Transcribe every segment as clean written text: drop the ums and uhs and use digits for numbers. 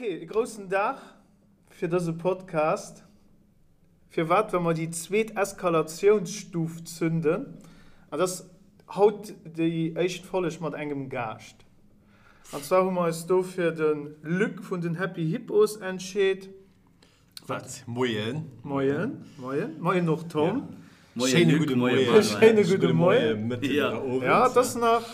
Ok, e groussen Dag fir dëse Podcast. Firwat? Well mer déi zweet Eskalatiounsstuf zünden. An dat ass haut déi éischt Folleg mat engem Gaascht. An zwar hu mer eis do fir de Luc vun den Happy Hippos entscheet. Wat? Moien. Moien, moien. Moien och Tom. Schéine gudde Moien. Schéine gudde Moien. Mëtten oder Owend. Ja, et ass nach,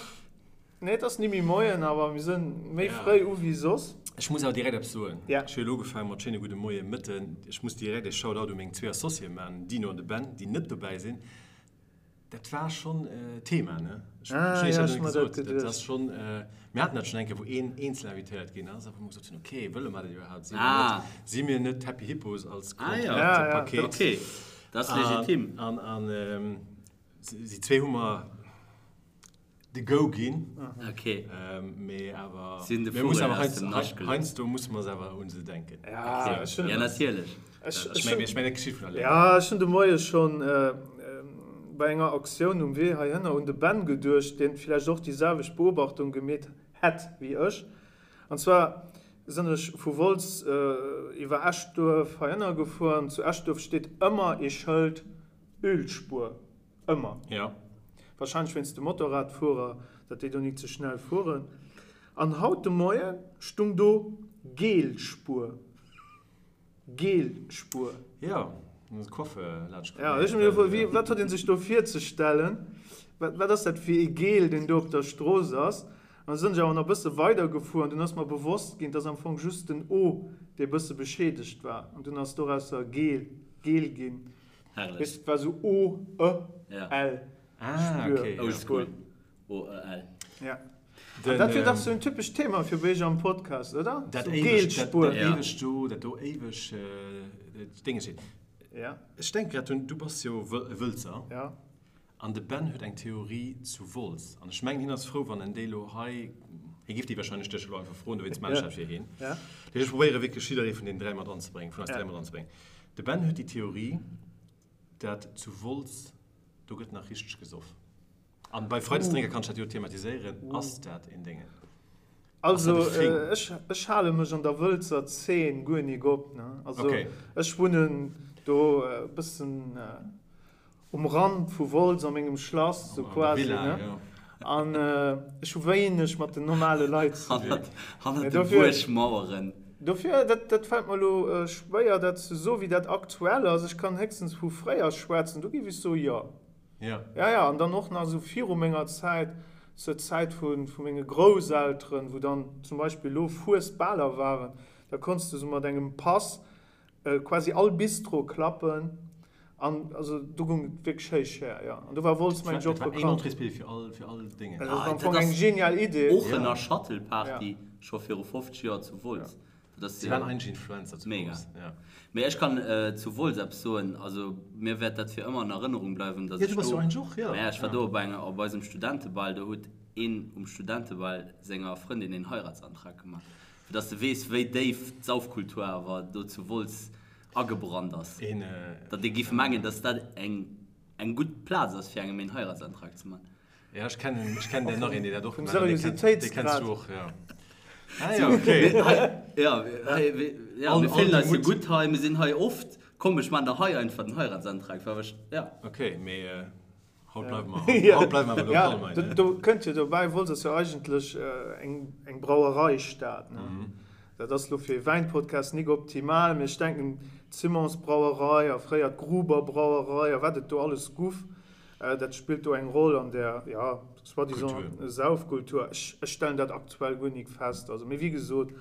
nee, et ass ni méi Moien, awer mir sinn méi fréi u wéi soss. Ech muss awer direkt eppes soen. Ech hu elo ugefaange mat schéine gudde Moien, Mëtten. Ech muss direkt e Shoutout u meng zwee Associéë maachen, den Dino an de Ben, déi net dobäi sinn. Dat war schonn Thema, ne? Ech ah, ja, ech mir dat geduecht. Dat ass schonn, mir haten dat schonn eng Kéier, wou een eenzel invitéiert ginn ass, a wou mer gesot hunn, okay, wëlle mer dat iwwerhaapt? Si mir ah. net, si mir net d'Happy Hippos als ah, ja. ja, ja. Paket? Okay, dat ass legitim. An, an, an si zwee hu mer de Go ginn. Okay. Mee awer, Sinn de mir mussen Vugel awer aus dem Nascht gelutscht. heiansdo musse mer awer un se denken. Ja, ech hunn. Ja, natierlech. Ech meng, ech meng, dat geschitt vun alleng. Ja, ech hunn de Moie schonn bei enger Aktioun um Wee heihinner un de Ben geduecht, deen villäicht och déi selwecht Beobachtung gemeet hätt wéi ech. An zwar sinn ech vu Wolz iwwer Eschduerf heihinner gefuer an zu Eschduerf steet ëmmer ee Schëld Ölspuer. Ëmmer. Ja. Wahrscheinlech wéinst de Motorradfuerer, datt déi do nik ze schnell fueren. An haut de Moie stung do Gel-Spuer. Gel-Spuer. Jo, dann ass d'Coiffeur laanscht komm. Ja, ech hu mir gefrot, wéi, wat huet ee sech do virzestellen? Wat, wat ass dat fir ee Gel, deen do op der Strooss ass? An da sinn ech awer nach e bësse weidergefuer an dunn ass mer bewosst ginn, et ass am Fong just den O, dee e bësse beschädegt war. An dunn ass dorausser Gel, Gel ginn. Herrlech. Weess, et war sou O, E, Ja. L. Ah, Spür. okay, ja. Oldschool. O, E, L. Ja. Den, An dat wier dach ähm, sou en typescht Thema fir bei iech am Podcast, oder? Dat Sou éiweg, dat, Gelspuer. dat Ja. éiweg do, dat do éiweg äh, Dénge steet. Ja, Ech denke grad drun, du bass jo Wël, e Wëlzer. ja. An de Ben huet eng Theorie zu Wolz. An ech mengen, hien ass frou, wann en déi elo hei, hie giff déi wahrscheinlech dech elo einfach froen, dowéinst maan ech dat fir hien. Ja. Dat heescht, ech probéiere wierklech jidderee vun deenen 3 mat anzebréngen, vun eis Ja. 3 mat anzebréngen. De Ben huet déi Theorie, dat zu Wolz, do gëtt nach richteg gesoff. An bei Freidesdrénker kann ech dat jo thematiséieren, ass dat een Déngen? Ass Also dat e Thing? ech, ech hale mech an der Wëlzer Zeen guer nik op, ne. Also Okay. ech wunnen do e bëssen um Rand vu Wolz a mengem Schlass, sou An der quasi, Villa, ne. jo. An ech hu wéineg mat den normale Leit ze dinn. Hannert, hannert Mee de dofir. Buergmaueren. Dofir, dat, dat fält mer elo schwéier, dat ze soen, wéi dat aktuell ass. Ech kann héchstens vu fréier schwätzen, do géif ech soen, jo. Ja. Ja, ja, an dann och nach esou viru menger Zäit, zur Zäit vu, vu menge Grousselteren, wou dann zum Beispill elo Fuesbaler waren, da konns de sou mat engem Pass quasi all Bistro klappen an also do goung et wierklech héich her, jo. An do war Wolz, mengen ech, och Dat war een bekannt. Entréesbillet fir all, fir all Déngen. Dat ass am Dat Fong eng ass genial Idee. Oochener Shuttle-Party scho viru 50 Joer zu Wolz. Dat ass Si waren eigentlech Influencer zu mega. Wolz, ja. Mee ech kann zu Wolz eppes soen, also mir wäert dat fir ëmmer an Erënnerung bleiwen, dass Ja, ech du bass do, jo eigentlech och, ja. Maja, ech war do op enger, op eisem Studentebal, do huet een um Studentebal senger Frëndin een Heiratsantrag gemaach. Fir dass de weess, wéi déif d'Saufkultur awer do zu Wolz agebrannt ass. Datt ee giff mengen, dass dat eng eng gutt Plaz ass, fir engem een Heiratsantrag ze man. Ja, ech kennen, ech kennen der nach een, deen dat och Vum gemaach huet. Dee kenns, dee kenns Seriositéitsgrad. du och, ja. Ah ja, okay. Ja, hei, ja, All, mir all fillen de eis jo Mut. gutt hei, mir sinn hei oft. Komm, ech man der hei einfach den Heiratsantrag, war ech, ja. Okay, mee Haut bleiwe mer, haut bleiwe mer awer Ja, lokal, do, meine. do kënnt jo dobäi, Wolz ass jo eigentlech eng, eng Brauereistad, ne? Dat ass lo fir ee Wäinpodcast nik optimal, mee ech denken, d'Simons-Brauerei a fréier d'Gruber-Brauerei a wat et do alles guff, dat spillt do eng Roll an där, ja, soi-disant Kultur. Saufkultur. Ech, ech stellen dat aktuell guer nik fest. Also, mee wéi gesot,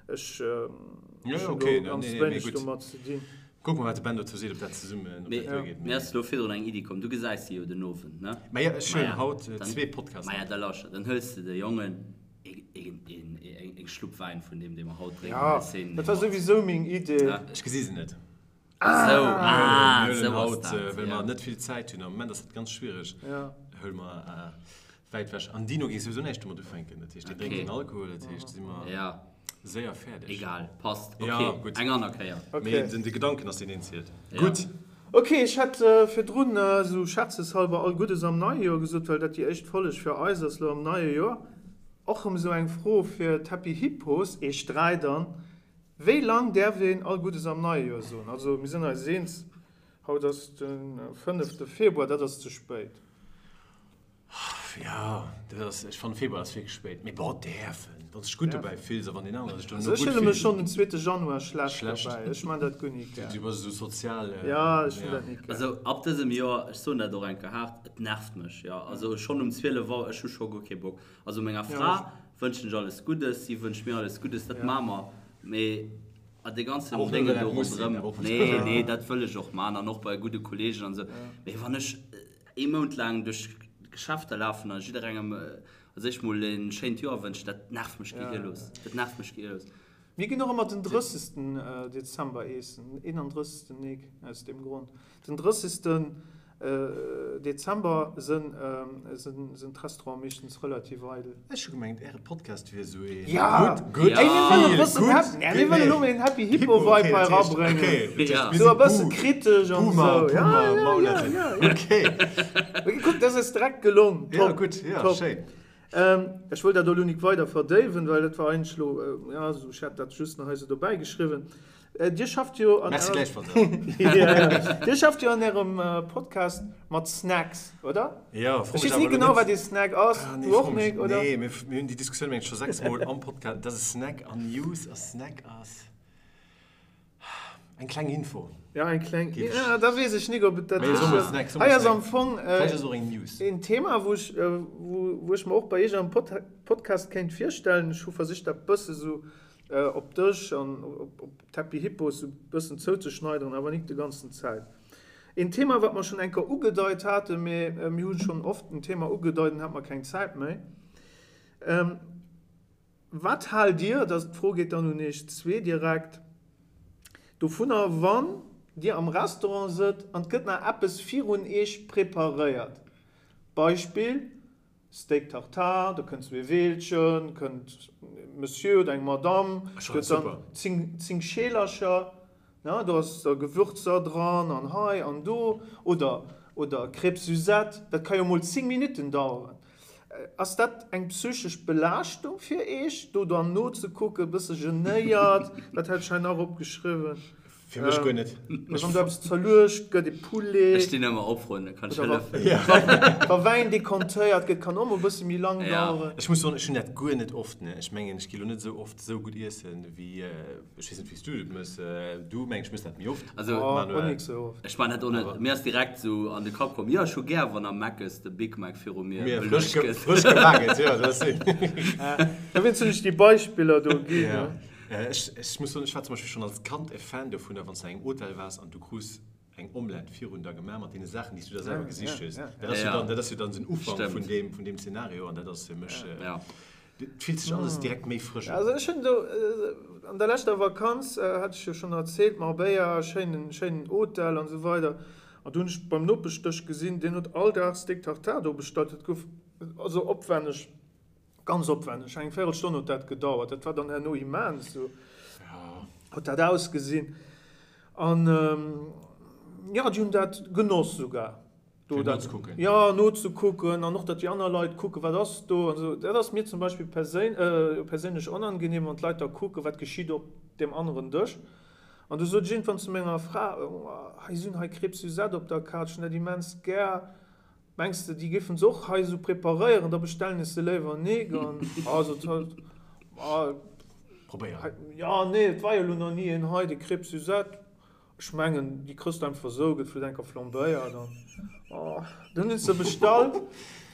Ech hunn do ganz wéineg domat ze dinn. Kucke mer, wat de Ben dozou seet, ob dat zesummen, ob dat duergeet. Mir ass elo virdrun eng Iddi komm. Du gesäis si jo den Owend, ne? Maja, ech huelen haut zwee Podcasts mat. Maja, da lauschter, dann hëls de de Jongen eng Schlupp Wäin vun deem, dee mer haut drénken. Jo, dat war souwisou meng Idee. Ech gesi se net. Esou, ah, Mir huelen esou ass haut, dat, well ja. mer net vill Zäit hunn, am Moment ass dat ganz schwiereg, Ja. huele mer wäit ewech. An Dino géif souwisou näischt domat ufänken, dat heescht, dee drénkt Okay. keen Alkohol, dat heescht, si mer Ja, séier fäerdeg. egal, passt. Ja, Okay, gutt. eng aner Kéier. Okay. Mee den, de Gedanken ass deen, deen zielt. Ja. Gutt. Ok, ech hat virdrun esou scherzeshalber all Guddes am neie Joer gesot, well dat déi éischt Folleg fir eis ass lo am neie Joer. Och erëm esou eng Fro fir d'Happy Hippos, eech 3 dann. Wéi lang däerf een all Guddes am neie Joer soen? Also mir sinn eis eens, haut ass de fënnefte Februar, dat ass ze spéit. Jo, dat ass, ech fannen Februar ass wierklech spéit, mee bon, däerfen, wann s de dech gutt dobäi fills a wann deen anere sech dono gutt fillt. Also ech fille mech schonn den zweete Januar schlecht dobäi, ech man dat guer nik gär. Du bass esou sozial. Jo, ech hunn dat nik gär. Also ab dësem Joer, ech soen dat och eng Kéier haart, et nervt mech, jo. Also schonn um 12 Auer, ech hu scho guer kee Bock. Also menger Fra wënschen ech alles Guddes, si wënscht mir alles Guddes, dat maache mer, mee a dee ganzen Déngen do ronderëm, nee, nee, dat wëll ech och maachen an och bei gudde Kolleegen an esou, mee wann ech ee Mount laang duerch d'Geschäfter lafen a jidderengem als éischt mol e schéint Joer wënschen, dat nervt mech gehirlos, dat nervt mech gehirlos. Mir ginn och ëmmer den 30. Dezember eessen, den 31. Nik, aus deem Grond. Den 30. Dezember sënn d'Restaurante meeschtens relativ eidel. Ech hu gemengt äre Podcast wier esou ee good, good, feel good. Mir wëllen elo een Happy Hippo Vibe hei erabréngen. Esou e bësse kritesch an esou. Kuck, dat ass direkt gelong. Top, top. Ech wëll dat elo nik weider verdéiwen, well dat war eigentlech elo, jo, ech hat dat just nach hei esou dobäi geschriwwen. Dir schafft jo an Merci gläichfalls. Dir schafft jo an Ärem Podcast mat Snacks, oder? Jo, fro mech awer elo net. Ech weess ni genau, wat ee Snack ass. Ah, nee, Du och nik, oder? Nee, mir hunn déi Diskussioun mengen ech scho 6 Mol am Podcast, dass e Snack an News a Snack ass. Eng kleng Info. Ja, eng kleng. Ja, da weess ech nik, ob et dat ass. Hei ass am Fong een Thema, wou ech, wou ech mer och bei Iech am Podcast kéint virstellen. Ech hu versicht, dat bësse sou op dech an op d'Happy Hippos sou bëssen zouzeschneideren, awer nik de ganzen Zäit. Een Thema, wat mer schonn eng Kéier ugedeit haten, mee mir hu schonn oft en Thema ugedeit an hat mer keng Zäit méi. Wat haalt Dir, dat d'Fro geet dann un Iech zwee direkt, dovunner, wann Dir am Restaurant sëtzt an et gëtt nach eppes virun Iech preparéiert? Beispill, Steak tartare, da kënnt zwee Weelchen, kënnt e Monsieur oder eng Madame, gëtt dann 10 Scheelercher, ne, do ass da Gewürzer dran an hei an do, oder oder Crêpes Suzette, dat ka jo mol 10 Minutten daueren. Ass dat eng psychesch Belaaschtung fir Eech, do dann nozekucken, e bësse genéiert, dat hat ech hei nach opgeschriwwen? Fir mech guer net. Wann do eppes zerluecht gëtt, e Poulet. Ech stinn ëmmer op, Frënn, da kann ech hëllefen. Wa Wäin dekantéiert gëtt, kann och mol e bësse méi lang daueren. Ech muss soen, ech hunn dat guer net oft. Ech mengen, ech gi lo net esou oft esou gutt iessen, wéi, ech weess net, wéi s du et mëss. Du, meng ech, mëss dat méi oft, Manuel. Och nik esou oft. Ech man dat och net. Mir ass direkt esou an de Kapp komm, jo, ech hu gär, wann am Mc's de Big Mac viru mir beluecht gëtt. Frësch gebak gëtt, jo, dat ass. Dowéinst hunn ech déi Beispiller do ginn. Ech ech muss soen, ech war zum Beispill schonn als Kand e Fan dovunner, wann s du an engem Hotel waars an du krus eng Omelette virun der gemaach mat deene Saachen, déi s du der selwer gesicht hues. Dat ass jo dann, dat ass jo dann den Ufank vun deem, vun deem Szenario an dat ass fir mech, et fillt sech alles direkt méi frësch un. Also ech hunn do an der leschter Vakanz, hat ech jo schonn erzielt, Marbella, schéinen, schéinen Hotel an esou weider, an do hunn ech beim Nopeschdësch gesinn, deen huet all Dag Steak Tartare do bestallt, dat gouf also opwänneg Ganz opwänneg, eng Véirelstonn huet dat gedauert. Dat war dann herno immens, sou huet dat ausgesinn. An jo, déi hunn dat genoss sougar. Fir nozekucken? Jo, nozekucken an och, datt déi aner Leit kucken, wat ass do an esou. Dat ass mir zum Beispill perséinlech onangenehm, wann d'Leit da kucken, wat geschitt op deem aneren Dësch. An du sot ech iergendwann zu menger Fra, Hei si hunn hei Crêpes Suzette op der Kaart, ech hunn dat immens gär. Mengs de déi géifen se och hei esou preparéieren, da bestellen ech se léiwer nik an also ah Probéieren. Jo nee et war jo elo nach ni een hei, déi Crêpes Suzette, ech mengen déi krëss de einfach esou, gëtt vläit enker flambéiert an oh dunn hunn se bestallt.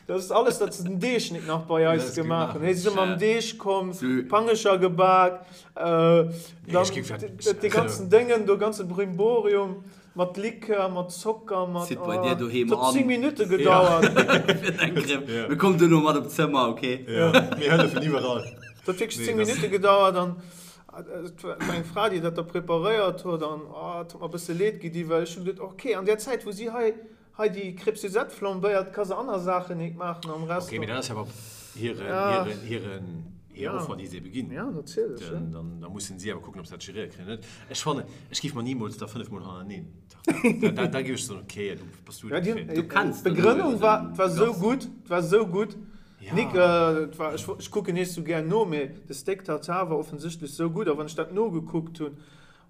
Dat ass alles dat se den Deeg nik nach bei eis gemaach hunn. Hei si se mam Deeg komm, Pangescher gebak, dann dee ganzen Déngen do, ganze Brimborium. Mat Likör, mat Zocker, mat. Zitt bei dir doheem an. Et huet 10 Minutte gedauert. Fir deng Crème. Mir kommen duerno mat op d'Zëmmer, ok? Ja, mir hëllefen iwwerall. Et huet wierklech 10 Minutte gedauert an et war eng Fra, déi dat da preparéiert huet an et huet mer e bësse leed gedi, well ech hu geduet, ok, an där Zäit, wou si hei hei déi Crêpe Suzette flambéiert, ka se aner Saachen nik maachen am Restaurant. Ok, mee dat ass jo awer hiren, hiren, hiren, hir Offer, déi se ebe ginn. Ja, natierlech, ja. Dann, da mussen si awer kucken, ob se dat geréiert kréien oder net. Ech fannen, ech géif mer nimools da 5 mol hannerteneen Tartare. Da, da géif ech soen, ok, du bass du dofir. Du kenns d'Begrënnung war, war sou gutt, war sou gutt. Nick, et war, ech, ech kucken nees sou gär no, mee de Steak Tartare war offensichtlech sou gutt, a wann ech dat nogekuckt hunn,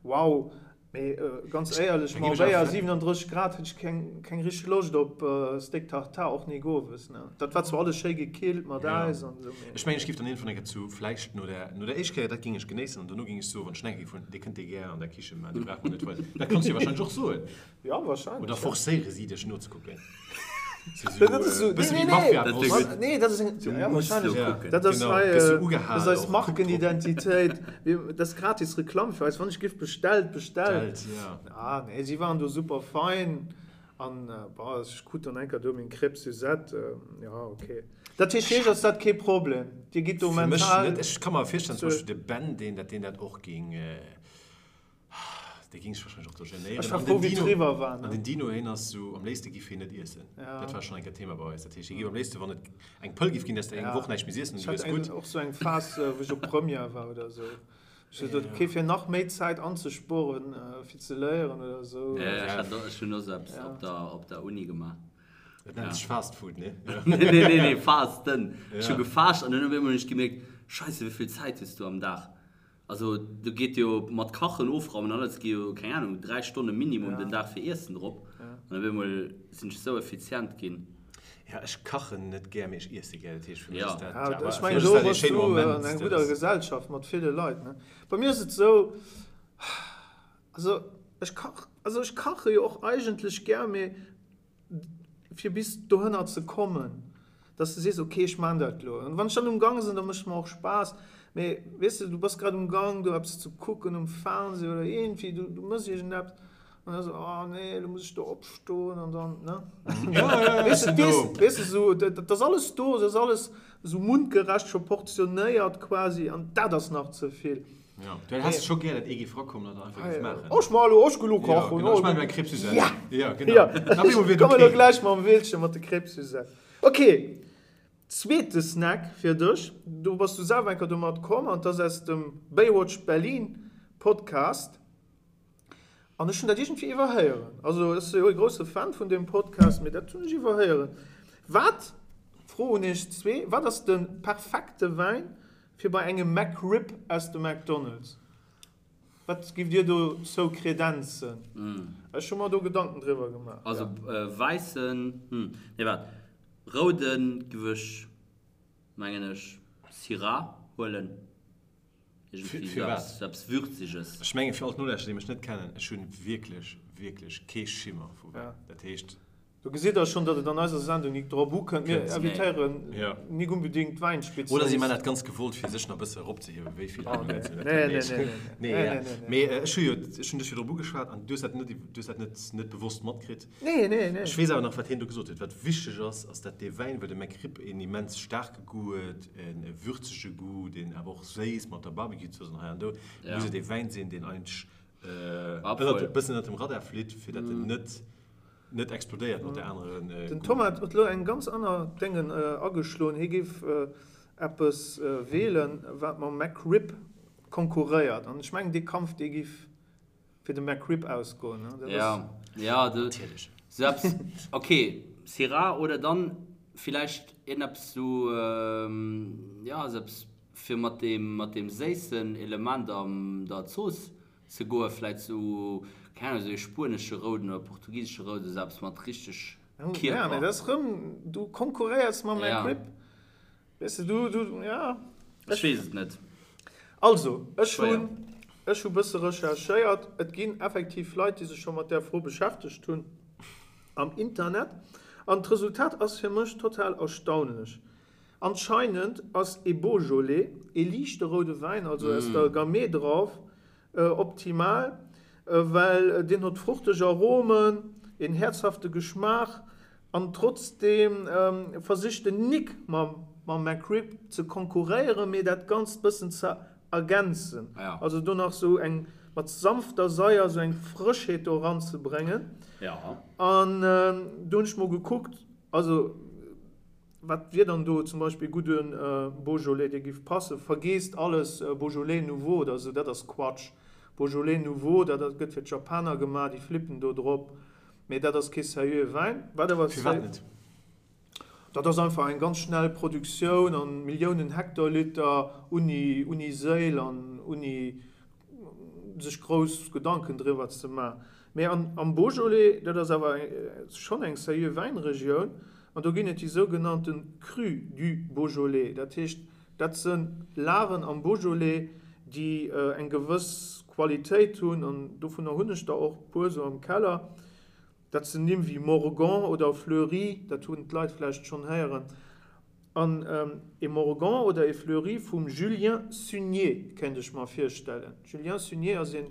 wow, mee ganz éierlech, Marbella, 37 Grad, hätt ech keng, keng richteg Loscht op Steak Tartare, och nik owes, ne. Dat war zwar alles schéi gekillt mat Äis an esou, mee. Ech mengen, ech giff dann iergendwann eng Kéier zu, vläicht no der, no der éischt Kéier, dat géing ech genéissen, an dono géing ech soen, wann ech nach eng Kéier giff hunn, Dir kënnt dee gär an der Kiche maachen, dee brauch mer net weisen. Dat kanns du jo wahrscheinlech och soen. Ja, wahrscheinlech. Oder forcéiere si dech nozekucken? Dat ass esou, nee, nee, nee, nee, dat ass eng, ja, wahrscheinlech. Dat ass hei, dat ass eis Markenidentitéit. Dat ass gratis Reklamm fir eis. Wann ech giff bestellt, bestellt. Ah, nee, si waren do super fein. An, bon, ech krut dann eng Kéier do meng Crêpe Suzette. Ja, okay. Dat heescht, fir iech ass dat kee Problem? Dir gitt do mental. Fir mech net. Ech ka mer virstellen, zum Beispill de Ben, deen dat, deen dat och géing. Dee ging sech wahrscheinlech och do genéieren. Ech war frou wéi et eriwwer war. An den Dino heen ass sou, am léifste giff heen net iessen. Dat war schonn eng Kéier Thema bei eis. Dat heescht hie giff am léifste wann et eng Pëll giff ginn, dass de eng Woch näischt méi iessen an du wiers gutt. Ech hat och sou eng Phas wou ech op Première war oder sou. Ech sot ok fir nach méi Zäit anzespueren fir ze léieren oder sou. Jo ech hat och, ech hunn och sou eppes op der op der Uni gemaach. Dat nennt sech Fast Food, nee? Nee nee nee Fasten. Ech hu gefaascht an dunn op eemol hunn ech gemierkt, Scheisse wéi vill Zäit hues du am Dag. Also do geet jo mat Kachen, Ofraumen an alles gi jo, keng Ahnung, 3 Stonne Minimum den Dag fir Iessen drop. An op eemol sinn ech esou effizient ginn. Ja, ech kachen net gär, mee ech iesse gär. Dat heescht, fir mech ass dat, ja, awer fir mech ass dat ee schéine Moment. Ech mengen, do bass du an enger gudder Gesellschaft mat ville Leit, ne? Bei mir ass et esou, also ech kach, also ech kache jo och eigentlech gär, mee fir bis dohënner ze kommen, dass de sees, ok, ech maan dat elo. An wann ech dann um Gang sinn, da mécht mer och Spaass. Mee weess de, du bass grad um Gang do eppes ze kucken um Fernseh oder iergendwéi, du du mëss iergendeppes an da sou, oh nee, elo muss ech do opstoen an dann, ne? Weess de, weess, weess de sou, dat ass alles do, dat ass alles sou mundgerecht scho portionéiert quasi an dat ass nach ze vill. Ja, du häss scho gär, dat ee géif rakommen an dat einfach géif maachen. Ech maachen elo, ech ginn elo kachen. Ja, genau, ech maachen elo eng Crêpe Suzette. Ja! Ja, genau. Ja. Op eemol wier et ok. Komme elo gläich mam Willchen mat de Crêpe Suzette. Ok, zweete Snack fir dech. Do bass du selwer eng Kéier domat komm an 't ass aus dem Baywatch Berlin Podcast. An ech hunn dat iergendwéi iwwerhéieren. Also ech si jo e grousse Fan vun deem Podcast, mee dat hunn ech iwwerhéieren. Wat, Fro un iech zwee, wat ass de perfekte Wäin fir bei engem McRib aus dem McDonald's? Wat giff dir dozou kredenzen? Ech hu mer do Gedanken driwwer gemaach. Also wäissen, hm, nee waart, rouden giff ech mengen ech Syrah huelen. Fir wat? Sou eppes Würziges. Ech mengen fir all d'Nolauschterer déi mech net kennen, ech hunn wierklech, wierklech kee Schimmer vu Wäin. Dat heescht. Do gesitt der schonn, datt et an eiser Sendung nik drop ukënnt. Mir invitéieren nik unbedingt Wäinspezialisten. Oder si man dat ganz gewollt, fir sech nach e bësse eropzehiewen, wéi vill aner Leit sinn. Nee, nee, nee, nee, nee, nee. Mee ech hu jo, ech hunn dech jo drop ugeschwat an du hues dat net, du hues dat net, net bewosst matkritt. Nee, nee, nee. Ech weess awer nach, wat hien do gesot huet. Wat wichteg ass, ass dat dee Wäin, well de McRib een immens staarke Goût huet, e würzege Goût, deen awer och séiss mat der Barbecue-Zooss an hei an do, muss et ee Wäin sinn, deen eigentlech e bëssen ënnert dem Radar flitt, fir datt en net, net explodéiert mat der aneren Den Goût. Thomas huet elo eng ganz aner Déngen ageschloen. Hie géif eppes weelen, wat mam McRib konkurréiert. An ech mengen, dee Kampf, dee géif fir de McRib ausgoen. Ne? Dat Ja, ass, ja, du, Natierlech. sou eppes, okay, Syrah oder dann villäicht iergendeppes sou, ja, sou eppes fir mat deem, mat deem séissen Element an der Zooss ze goen, vläit sou, keng Ahnung, sou ee spuenesche Rouden oder portugisesche Rouden, sou eppes mat richteg ja, mee Kierper. dat ass rëm, du konkurréiers mam Ja. McRib. Weess de, du, du, ja. Ech weess et net. Also, ech hunn, ech hu bësse recherchéiert. Et ginn effektiv Leit, déi sech scho mat där Fro beschäftegt hunn am Internet. An d'Resultat ass fir mech total erstaunlech. Anscheinend ass ee Beaujolais, ee liichte roude Wäin, also aus der Gamay Drauf, optimal, well deen huet fruchteg Aromen, een häerzhafte Geschmaach an trotzdeem versicht en nik mam McRib ze konkurréieren, mee dat Ganzt bëssen ze ergänzen, also do nach sou eng mat sanfter Saier sou eng Frëschheet do eranzebréngen. An do hunn ech mol gekuckt, also. Wat wier dann do zum Beispill e gudde Beaujolais, dee giff passen? Vergeesst alles Beaujolais Nouveau oder esou, dat ass Quatsch. Beaujolais Nouveau, dat gëtt fir d'Japaner gemaach, déi flippen do drop, mee dat ass kee seriöe Wäin. Wat awer Firwat net? Dat ass einfach eng ganz schnell Produktioun an Milliounen Hektoliter unni unni Séil an unni sech grouss Gedanken driwwer ze man. Mee an am Beaujolais, dat ass awer schonn eng seriö Wäinregioun, an do ginn et déi sougenannte Crus du Beaujolais. Dat heescht, dat se Lagen am Beaujolais, déi eng gewëss Qualitéit hunn, an dovunner hunn ech der och e puer esou am Keller. Dat sinn Nimm wéi Morgon oder Fleurie, dat hunn d'Leit vläicht schonn héieren. An e Morgon oder e Fleurie vum Julien Sunier kéint ech mer virstellen. Julien Sunier ass e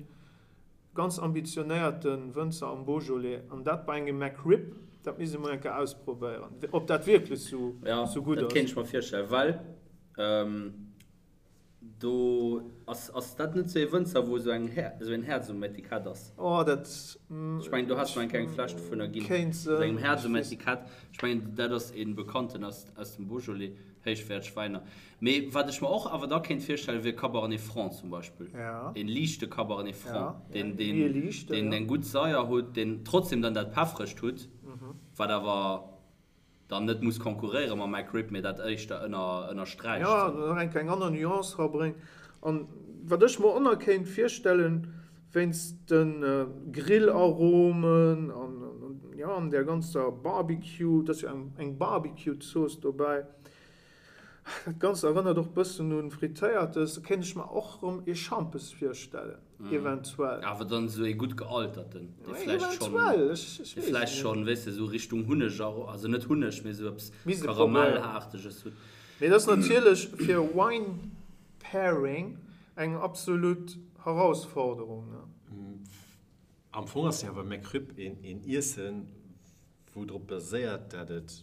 ganz ambitionéierte Wënzer am Beaujolais. An dat bei engem McRib, dat misst ee mol eng Kéier ausprobéieren, ob dat wierklech sou gutt ass. Jo, dat kéint ech mer virstellen, well Do ass, ass dat net sou ee Wënzer wou sou eng Här, sou een Häerz um Etikett ass? Oh dat. Ech mengen do has mer eng kleng Fläsch dovunner ginn. Kéint sinn. Mat engem Häerz um Etikett. Ech mengen dat ass ee bekannten aus, aus dem Beaujolais, héichwäerteg Wäiner. Mee wat ech mer och awer da kéint virstellen wier Cabernet Franc zum Beispill. Ja. Een liichte Cabernet Franc, Ja, deen, ja, deen, méi ee liichten, deen ja. eng gutt Saier hutt, deen trotzdem dann dat Peffregt hutt, wat awer. dann net muss konkurréiere mam McRib, mee dat éischter ënnersträicht. Jo, nach eng kleng aner Nuance rabréngt. An wat ech mer och nach kéint virstellen, wéinst de Grillaromen an, jo, an där ganzer Barbecue, et ass jo eng Barbecue-Zooss dobäi, Dat Ganzt erënnert och bëssen un Frittéiertes. Do kéint ech mer och rëm ee Schampes virstellen, eventuell. Awer dann esou ee gutt gealterten, dee vläicht schonn, Eventuell, ech weess dee vläicht et net. schonn, weess de, esou Richtung Hunneg, also net Hunneg, mee esou eppes Misst ee probéieren. Karamellaarteges hutt. Mee dat ass natierlech fir Wine Pairing eng absolut Herausforderung, ne? Am Fong ass jo awer McRib een Iessen, wou drop baséiert, dat et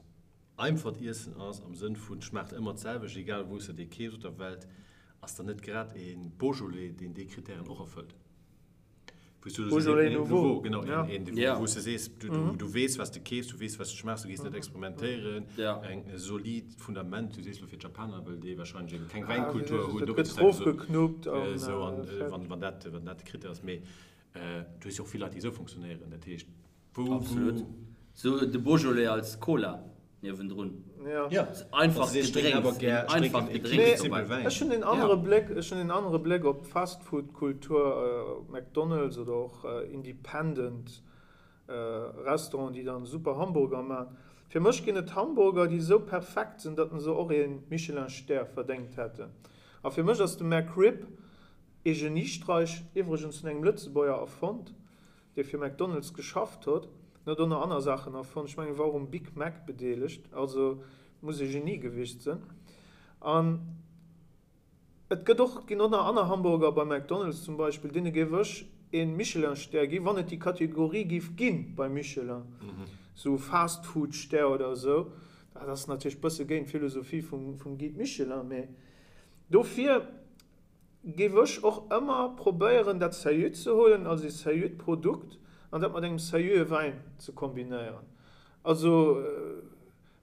Einfacht Iessen ass, am Sënn vun schmaacht ëmmer d'selwecht, egal wou s de dee keefs op der Welt, ass dann net grad e Beaujolais, deen déi Krittären och erfëllt. Wou s du Beaujolais Nouveau, genau, een, wou s de sees, du weess, wat s de keefs, du weess, wat s de schmaachs, du gees net experimentéieren, eng solid Fundament. Du sees elo fir d'Japaner, well déi warscheinlech ebe keng Wäinkultur hunn, do gëtt erofgeknuppt an wann dat de Krittär ass. Mee du hues jo och vill Leit, déi esou funktionéieren, dat heescht, Wou, Absolut. Sou de Beaujolais als Cola niewendrun. Ja. Einfach Gedrénks, een einfacht Gedrénks dobäi. Ech hunn een anere Bléck, ech hunn een anere Bléck op d'Fastfood-Kultur, op McDonald's oder och independent Restauranten, déi dann super Hamburger man. Fir mech ginn et Hamburger, déi esou perfekt sinn, datt se och ee Michelin-Stär verdéngt hätten. A fir mech ass de McRib ee Geniestreich, iwwregens vun engem Lëtzebuerger erfonnt. dee fir McDonald's geschafft hott, en huet och nach anner Saachen erfonnt, ech mengen e war och um Big Mac bedeelegt, also muss e Genie gewiescht sënn. An et gëtt och, ginn och nach anner Hamburger bei McDonald's zum Beispill, deene géif ech ee Michelin-Stär ginn, wann et déi Kategorie géif ginn bei Michelin, sou Fast-Food-Stär oder esou. Dat ass natierlech bësse géint d'Philosophie vum Guide Michelin, mee dofir Géif ech och ëmmer probéieren dat seriö ze huelen als ee seriöt Produkt an dat mat engem seriöe Wäin ze kombinéieren. Also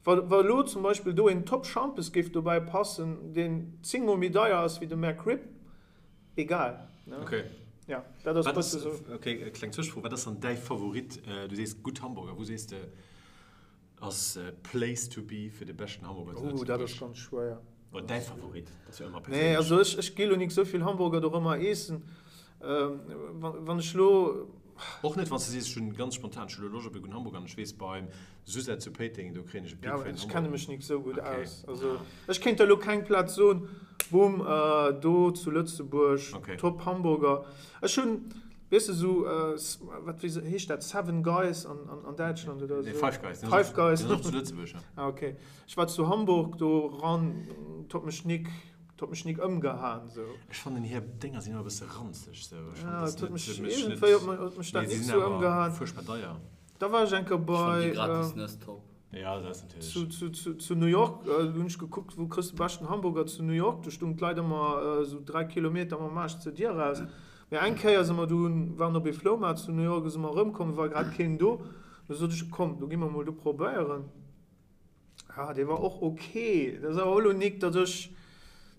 wa wa elo zum Beispill do een Top Schampes géif dobäi passen, deen 10 mol méi deier ass wéi de McRib, egal. Ok. Ja, dat ass e bësse sou. Ok, kleng Zwëschefro, wat ass dann däi Favorit? Du sees gutt Hamburger, wou sees de Ass Place to be fir de beschten Hamburger zu Lëtzebuerg? Ooh, dat ass ganz schwéier. Oder däi Favorit, dat ass jo ëmmer perséinlech. Nee, also ech, ech gi lo nik souvill Hamburger dorëmmer eessen. Wann ech lo. Och net wann s de sees, ech hunn ganz spontan, ech hu lo Loscht op e gudden Hamburger an ech weess beim Suzette zu Péiteng, do kréien ech e pickfäin Hamburger. Ja, ech kenne mech nik sou gutt aus. Also ech kéint der lo keng Plaz soen, boom, do zu Lëtzebuerg, top Hamburger. Ech hunn. Weess de sou, wat wéi heescht dat, Seven Guys an an Däitschland oder esou? Nee, Five Guys. Five Guys. Déi sinn och zu Lëtzebuerg, ja. Ah, okay. Ech war zu Hamburg do ran, 't huet mech nik, 't huet mech nik ëmgehaen sou. Ech fannen hir Dénger sinn ëmmer e bësse ranzeg sou. Ech fannen, dat huet mech iergendwéi huet mech dat nik sou ëmgehaen. Fuerchtbar deier. Da war ech eng Kéier bei. Ech fannen déi gratis Nëss top. Ja, dat ass natierlech. Zu, zu, zu New York hunn ech gekuckt, wou kriss de beschten Hamburger zu New York. Do stoungen d'Leit ëmmer esou 3 Kilometer mam Aarsch zur Dier eraus. Mee eng Kéier si mer du, waren op ee Floumaart zu New York, si mer erëmkomm, war grad keen do. Du sot ech, komm, do gi mer mol do probéieren. Ja, dee war och ok. Dat ass awer och elo nik, datt ech,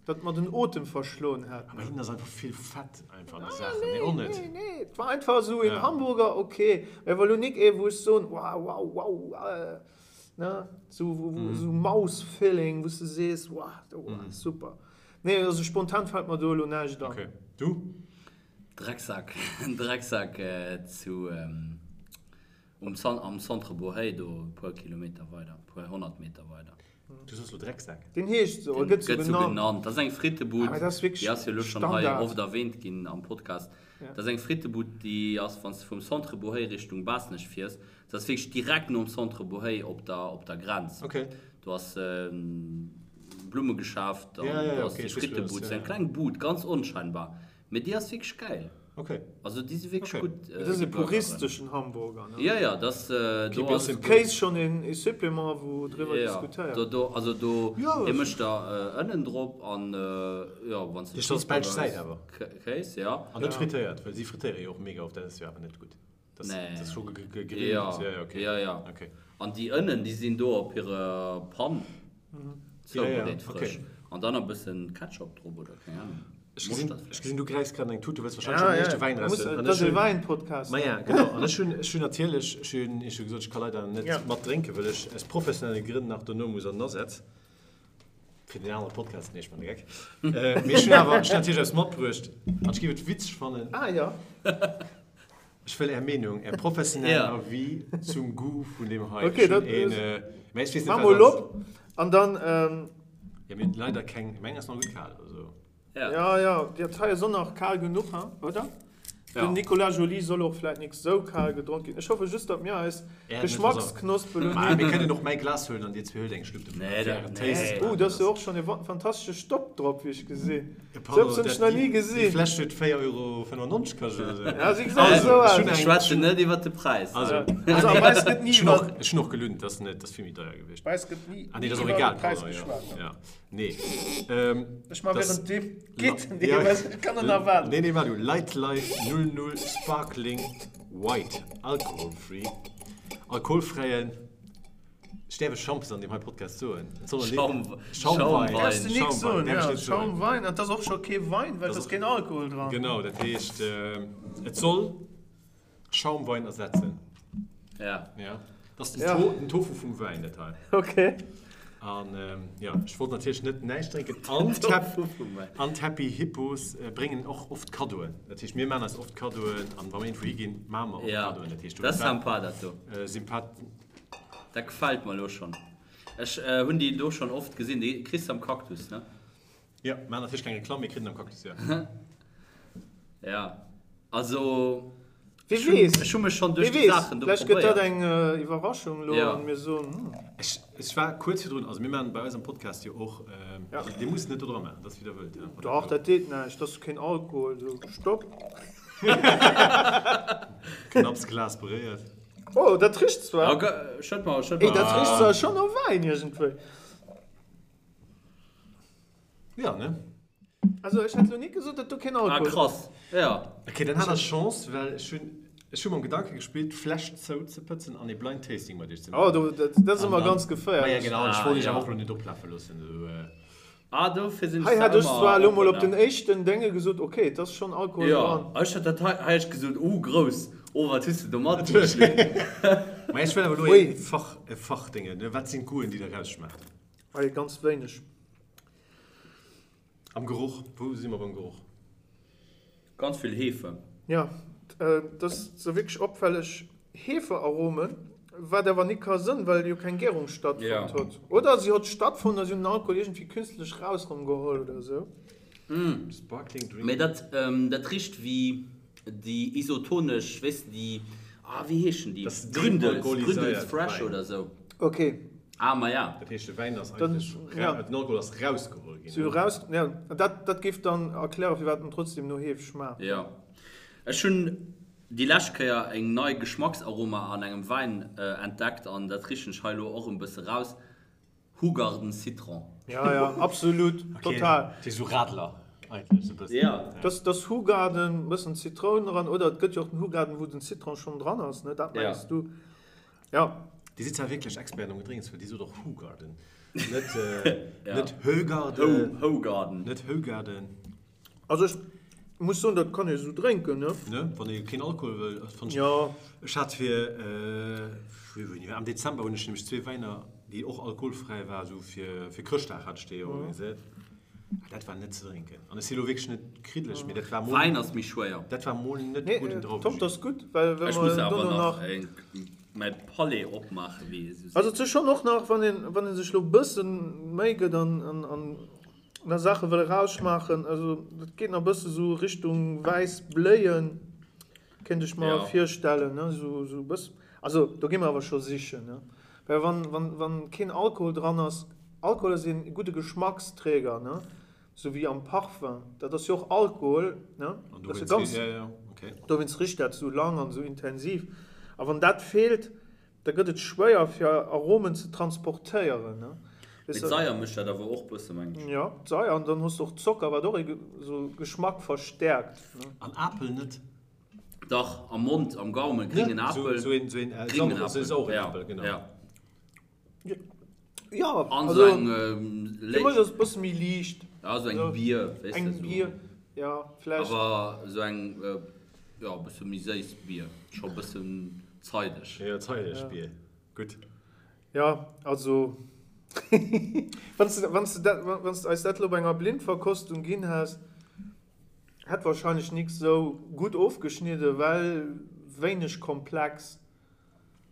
datt mer den Otem verschloen hätt. Awer hinnen ass einfach vill Fett einfach an de Saachen. Nee, och net. Nee, nee, et war einfach esou een Hamburger, ok. Mee war elo nik ee, wou ech soen, wow, wow, wow. Ne, sou, sou Mouth-Feeling, wou s de sees, wow, super. Nee, also spontan fällt mer do elo näischt an. Okay. Du? Drecksack, Drecksack zu um am Centre Bohey do e puer Kilometer weider, e puer 100 Meter weider. Du soss lo Drecksack? Deen heescht sou, gëtt sou genannt. Dat ass eng Frittebud, déi ass jo elo schonn hei oft erwähnt ginn am Podcast. Dat ass eng Frittebud, déi ass, wann s de vum Centre Bohey Richtung Baasnech fiers, dat ass wierklech direkt nom Centre Bohey op der op der Grenz. Do ass Blummegeschäft an do ass déi Frittebud, sou eng kleng Bud, ganz onscheinbar. Mee déi ass wierklech gäil. Okay. Also déi si wierklech gutt. Dat ass e puristeschen Hamburger, ne? Jo, jo, dat ass, do ass. Kéis schonn e Supplément, wou driwwer diskutéiert. Jo, do, also do, dee mécht der Ënnen drop an, jo, wann s de. Dee ass belsch Säit awer. Kéis, jo. An net frittéiert, well si frittéiere jo och mega oft, dat ass jo awer net gutt. Dat ass scho gegrillt. Jo, jo, jo. An déi Ënnen, déi sinn do op hirer Pan zoubereet, frësch. An dann e bëssen Ketchup drop oder keng Ahnung. Ech gesinn, ech gesinn, du gräifs grad an eng Tut, du wëlls warscheinlech schon den éischte Wäin eraushuelen. Dat ass e Wäin-Podcast. Ma ja, genau. An ech hunn, ech hunn natierlech, ech hunn Iech jo gesot, ech ka leider net mat drénken, well ech aus professionelle Grënn nach dono muss an den Asaz. Fir den anere Podcast, nee, ech man de Geck. Mee ech hunn awer, ech hunn natierlech eppes matbruecht an ech géif et witzeg fannen. Ah jo. Ech wëll Är Meenung, Är professionell Avis zum Goût vun deem hei. Ok, dat Mä ech weess net, Maach mol op an dann. Jo, mir hunn leider keng, meng ass nach gutt kal, also. Ja, ja, dat hei ass och nach kal genuch, hein, oder? Den Nicolas Joly soll och vläit nik sou kal gedronk ginn. Ech hoffe just, datt mir eis Geschmacksknospen elo net. Mir kënnen och mäi Glas huelen an dir zwee huelt eng Schlupp dovun fir ären Taste. Oh, do ass jo och schonn e fantastesche Stopp drop, wéi ech gesinn. Sou eppes hunn ech nach ni gesinn. Déi Fläsch huet 4,95 Euro kascht oder sou. Ja, si gesäit esou aus. Ech schwätzen net iwwer de Präis. Also, also a bei eis gëtt ni iwwer. Ech hunn och gelunnt, dat ass vill méi deier gewiescht. Bei eis gëtt ni ah, nee, dat ass och egal, iwwer de Präis geschwat. Ja, nee. Ech ma während deem geet den Dee, ech kann net erwaarden. Nee, nee, waart du. Light Life 00 Sparkling White Alcohol Free. Alkoholfräien. Ech däerf ech Schampes an deem hei Podcast soen? Et soll Schaum, Schaumwein. Däerfs de nik soen, Däerf ech ja. net soen. Schaumwein, an 't ass och scho kee Wein, well 't ass keen Alkohol dran. Genau, dat heescht, et soll Schaumwein ersetzen. Ja. Ja. Dat ass den, ja. To den Tofu vum Wäin, dat hei. Okay. An jo, ech wollt natierlech net näischt drénken. An d'Hap an d'Happy Hippos bréngen och oft Kaddoen. Dat heescht, mir maachen eis oft Kaddoen an wa mir iergendwou higinn, maache mer och Kaddoen. Dat heescht, dat ass sympa, dat do. Sympath. Dat gefällt mer elo schon. Ech hun déi do schon oft gesin. Déi kriss de am Cactus, ne? Jo, maan natierlech keng Reklamm, mee kritt en am Cactus, jo. Ja, also Wie weess, ech hu mech schon duerch wie déi weess, Saachen do vläicht gëtt dat probéiert. eng Iwwerraschung elo Ja. an mir soen, hm. Ech, ech war kuerz virdrun, also mir maachen bei eis am Podcast jo och, Ja. also dir musst net do dra maachen, dat ass wéi der wëllt, ja. Dach, dat deet näischt, dat ass keen Alkohol, sou, stopp. Knapps Glas beréiert. Oh, dat richt zwar. Ja, schëtt mer, schëtt mer. Ey, dat richt zwar schon no Wäin iergendwéi. Ja, ne? Also ech hätt lo nik gesot, dat do keen Alkohol. Ah, krass, ja. Ok, dann hat der Chance, well ech hunn, ech hu mam Gedanke gespillt, d'Fläsch zouzepëtzen an ee Blind Tasting mat iech ze maachen. Oh, do, dat, dat ass ëmmer ganz geféierlech. Ma ja, genau, ech wollt iech awer och lo net oplafe loossen, esou. Ah, dofir sinn Hei ech hätt da ech ëmmer zwar elo mol oppen, op den ja. éischten Dénge gesot, ok, et ass schonn Alkohol Jo, dran. ech hat dat hei, hei ech gesot, uh, grouss, oh, wat hues de do matbruecht, Luc? Mä ech wëll awer elo Ui. ee Fach, e Fachdénge, ne, wat sinn d'Goûten, déi der rausschmaacht? Hei ganz wéineg. Am Geroch, wou si mer beim Geroch? Ganz vill Hefe. Jo, et ass sou wierklech opfälleg Hefearomen, wat awer nik ka sënn, well jo keng Gärung stattfonnt hott. Oder si hott stattfonnt a si hunn den Alkohol iergendwéi künstlech raus rëm geholl oder sou. Sparkling Drink. Mee dat, dat richt wéi déi isotonesch, weess de, déi, ah wéi heeschen déi? Das ist Gründels, dealkoholiséiert Gründels Fresh Wäin. oder sou. Ok. Ah, ma ja. Dat heescht, de Wäin ass Dann, eigentlech, ja. den Alkohol ass rausgeholl ginn. Si hu raus, ja, dat, dat géif dann erklären, firwat en trotzdem no Heef schmaacht. Jo. Ech hunn déi lescht Kéier eng nei Geschmacksaroma an engem Wäin entdeckt an dat richen ech hei elo och en bësse raus, Hoegaarden Citron. Ja, ja, absolut, total. Okay, sou Radler eigentlech sou bëssen. Ja. Dass, dass Hoegaarden, bëssen Zitroun dran, oder et gëtt jo och den Hoegaarden, wou den Citron schonn dran ass, ne, dat mengs du? Ja. Dir sidd zwar wierklech Experten am Gedrénks, well Dir sot och Hoegaarden, net, net Högarden. Hoegaarden. Net Hoegaarden. Also ech. Muss soen, dat kann ee sou drénken, ne? Ne, wann ee keen Alkohol wëll, fannen ech. Jo. Ech hat fir, wéini war, am Dezember hunn ech nämlech zwee Wäiner, déi och alkoholfräi war, sou fir, fir Chrëschtdag hat ech déi organiséiert. Ah, dat war net ze drénken. An ech si lo wierklech net kriddeleg, mee dat war mol. Wäin ass méi schwéier. Dat war mol net gudden Drauwejuice. Top, dat ass gutt, well wa mer dono nach. Ech muss awer nach mäi Palais opmaachen, wéi ee sou seet. Also et ass schonn och nach, wann een, wann ee sech lo e bësse Méi gëtt an, an, an. Nach Saache wëll erausschmaachen, also dat geet nach bësse sou Richtung wäiss Bléien, kéint ech mer virstellen, ne, sou sou bëss, also do gi mer awer scho sichen, ne, well wann wann wann keen Alkohol dran ass, Alkohol ass een gudde Geschmacksträger, ne, sou wéi am Parfum, dat ass jo och Alkohol, ne, dat ass jo ganz, dowéinst richt dat sou lang an sou intensiv, a wann dat feelt, Da gëtt et schwéier fir Aromen ze transportéieren. Mee d'Saier mécht dat awer och bësse mengen ech. Jo, d'Saier an dann hues de och Zocker, wat och ee sou Geschmack verstäerkt. An Apel net? Dach, am Mond, am Gaumen, gréngen Apel. Sou een, sou een Gréngen sauren Apel, genau. Ja. Jo, also fir mech ass et bësse méi liicht. Ja, sou eng Bier, weess de. Eng Bier, ja, vläicht. Awer sou eng, jo, e bësse méi séiss Bier, scho e bëssen zeideg. Jo, zeideg Bier, gutt. Jo, also wann s de, wann s de dat, wann s de eis dat elo bei enger Blindverkostung ginn häss, hätt wahrscheinlech nix sou gutt ofgeschnidden, well wéineg komplex.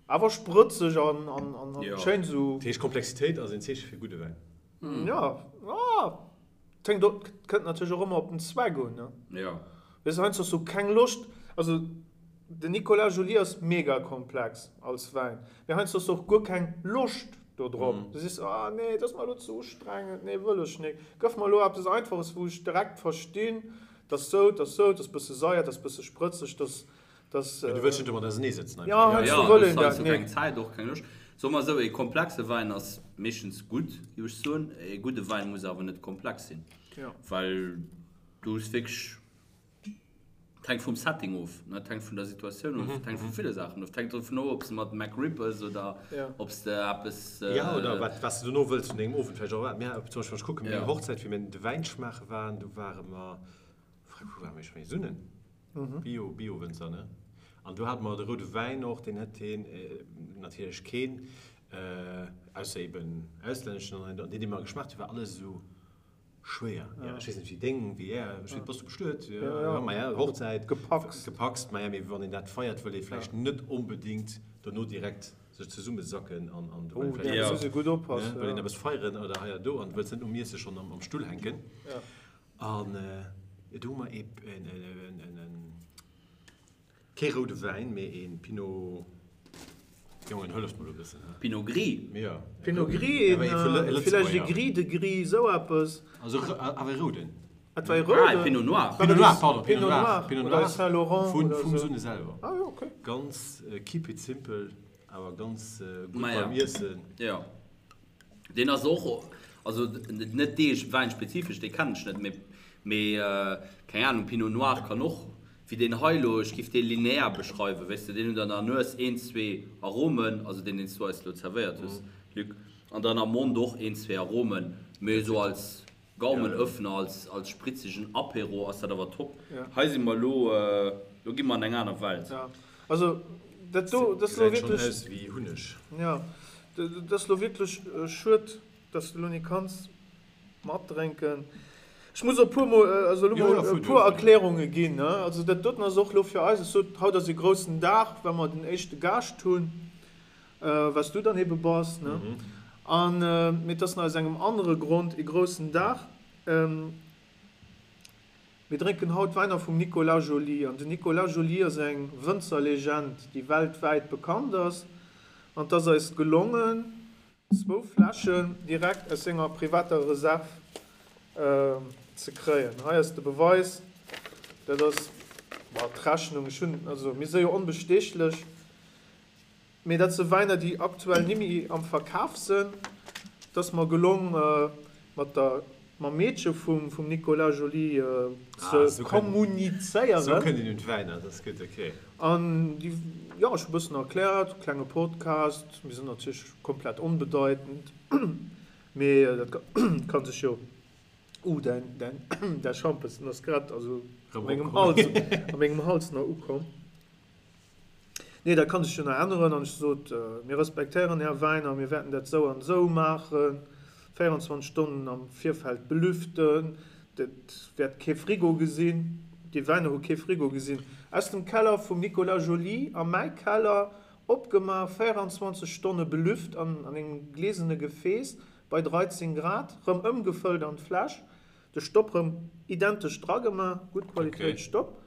Awer sprëtzeg an schéin esou. Dat heescht Komplexitéit ass een Zeeche fir gudde Wäin? Jo, et hänkt och, kënnt natierlech och ëmmer op den Zweck un, ne? Jo. Weess de, heiansdo hues du keng Loscht, also den Nicolas Joly ass mega komplex als Wäin, mee heiansdo hues du och guer keng Loscht do drop. Du sees, ah nee, dat ass mer elo ze ustrengend, nee wëll ech nik, gëff mer elo eppes Einfaches, wou ech direkt verstinn, dat ass sou, dat ass sou, dat ass bësse saier, dat ass bësse sprëtzeg, dat ass Dass, du wëlls net domat ausernee sëtzen einfach. Ja, heiansdo wëll een dat net. Keng Zäit, och keng Loscht. Soe mer esou, ee komplexe Wäin ass meeschtens gutt, géif ech soen. Ee gudde Wäin muss awer net komplex sinn. Ja. Well du hues wierklech, et hänkt vum Setting of, ne, et hänkt vun der Situatioun of, et hänkt vu ville Saachen of. Et hänkt dovun of, ob s de mat McRib ëss oder ob s de eppes. Ja, oder wat, wat s de dono wëlls vun dengem Owend vläicht och erwaarden. Mir, zum Beispill, wann ech kucken, meng Hochzäit, wéi mir de Wäin schmaache waren, do ware mer, wou ware mir? Ech mengen Sunnen. Bio, Bio-Wënzer, ne? An do hate mer de roude Wäin och, deen hätt heen natierlech keen, ausser eben auslänneschen, an deen, dee mer geschmaacht huet, war alles esou schwéier. Jo, ech weess net, wéi deng, wéi är, ech weess, bass du bestuet? Jo, jo, maja, Hochzäit. Gepackst. Gepackst, maja, mee wann een dat feiert, wëll ee vläicht net onbedéngt dono direkt sech zesummesacken an, an do wëll een vläicht eppes, ne, wëll een eppes feieren oder hei a do an wëlls net nom Iesse schonn am Stull hänken. An do hu mer ee, kee roude Wäin, mee ee Pinot, Jongen, hëlleft mer do e bëssen, he? Pinot Gris? Jo. Pinot Gris, een, villäicht ee Gris de Gris, esou eppes. Also awer ee rouden. Et war ee rouden. Ah, ee Pinot Noir. Pinot Noir, pardon, Pinot Noir. Pinot Noir oder Saint Laurent oder esou. Vum Sunne selwer. Ah jo, okay. Ganz keep it simple, awer ganz gutt beim Iessen. Jo. Deen ass och, also net dee Wäin spezifesch, dee kennen ech net, mee mee keng Ahnung, Pinot Noir kann och, wéi deen hei elo, ech giff dee linear beschreiwen, weess de, deen huet an der Nues een, zwee Aromen, also deen deen s du eis elo zerwéiert hues, Luc, an dann am Mond och een, zwee Aromen, mee esou als Gaumenöffner, als als spritzegen Apéro ass dat awer top. Hei si mer elo, elo gi mer an eng aner Welt. Ja, also dat do, dat ass elo Gesäit schonn aus wéi Hunneg. Ja, dat ass elo wierklech schued, dass de elo ni kanns matdrénken. Ech muss och e puer mol, also elo mol e puer Erklärunge ginn, ne. Also dat doten ass och elo fir eis, ech sot, haut ass e groussen Dag, well mer den éischte Gaascht hunn. Wat s du dann ebe bass, ne? An, mee et ass nach aus engem anere Grond ee groussen Dag. Mir drénken haut Wäiner vum Nicolas Joly. An den Nicolas Joly ass eng Wënzerlegend, déi weltwäit bekannt ass. An et ass eis gelongen, zwou Fläschen direkt aus senger privater Reserv ze kréien. Hei ass de Beweis, dat ass, bon, d'Rechnung, ech hunn, also mir si jo onbestechlech. Mee dat se Wäiner déi aktuell nimmi am Verkaf sen. Et ass mer gelong mat der mam Meedche vum vum Nicolas Joly ze kommunizéieren. Sou kënnt een un d'Wäiner, dat ass gutt, ok. An déi, jo, ech hu bëssen erkläert, klenge Podcast, mir sinn natierlech komplett onbedeitend, mee dat ka sech jo, uh, däin däin däi Schampes, den ass grad, also. A mengem Hals, a mengem Hals nach ukomm. Nee, dat kann sech jo nach änneren. An ech sot, Mir respektéieren Är Wäiner, mir wäerten dat esou an esou maachen, 24 Stonnen am Virfeld belüften, dat wäert kee Frigo gesinn. Déi Wäiner hu kee Frigo gesinn. Aus dem Keller vum Nicolas Joly a mäi Keller, opgemaach, 24 Stonne belüft an engem glesene Gefääss bei 13 Grad, rëm ëmgefëllt an d'Fläsch. De Stopp rem identesch dra gemaach, gutt Qualitéit Stopp.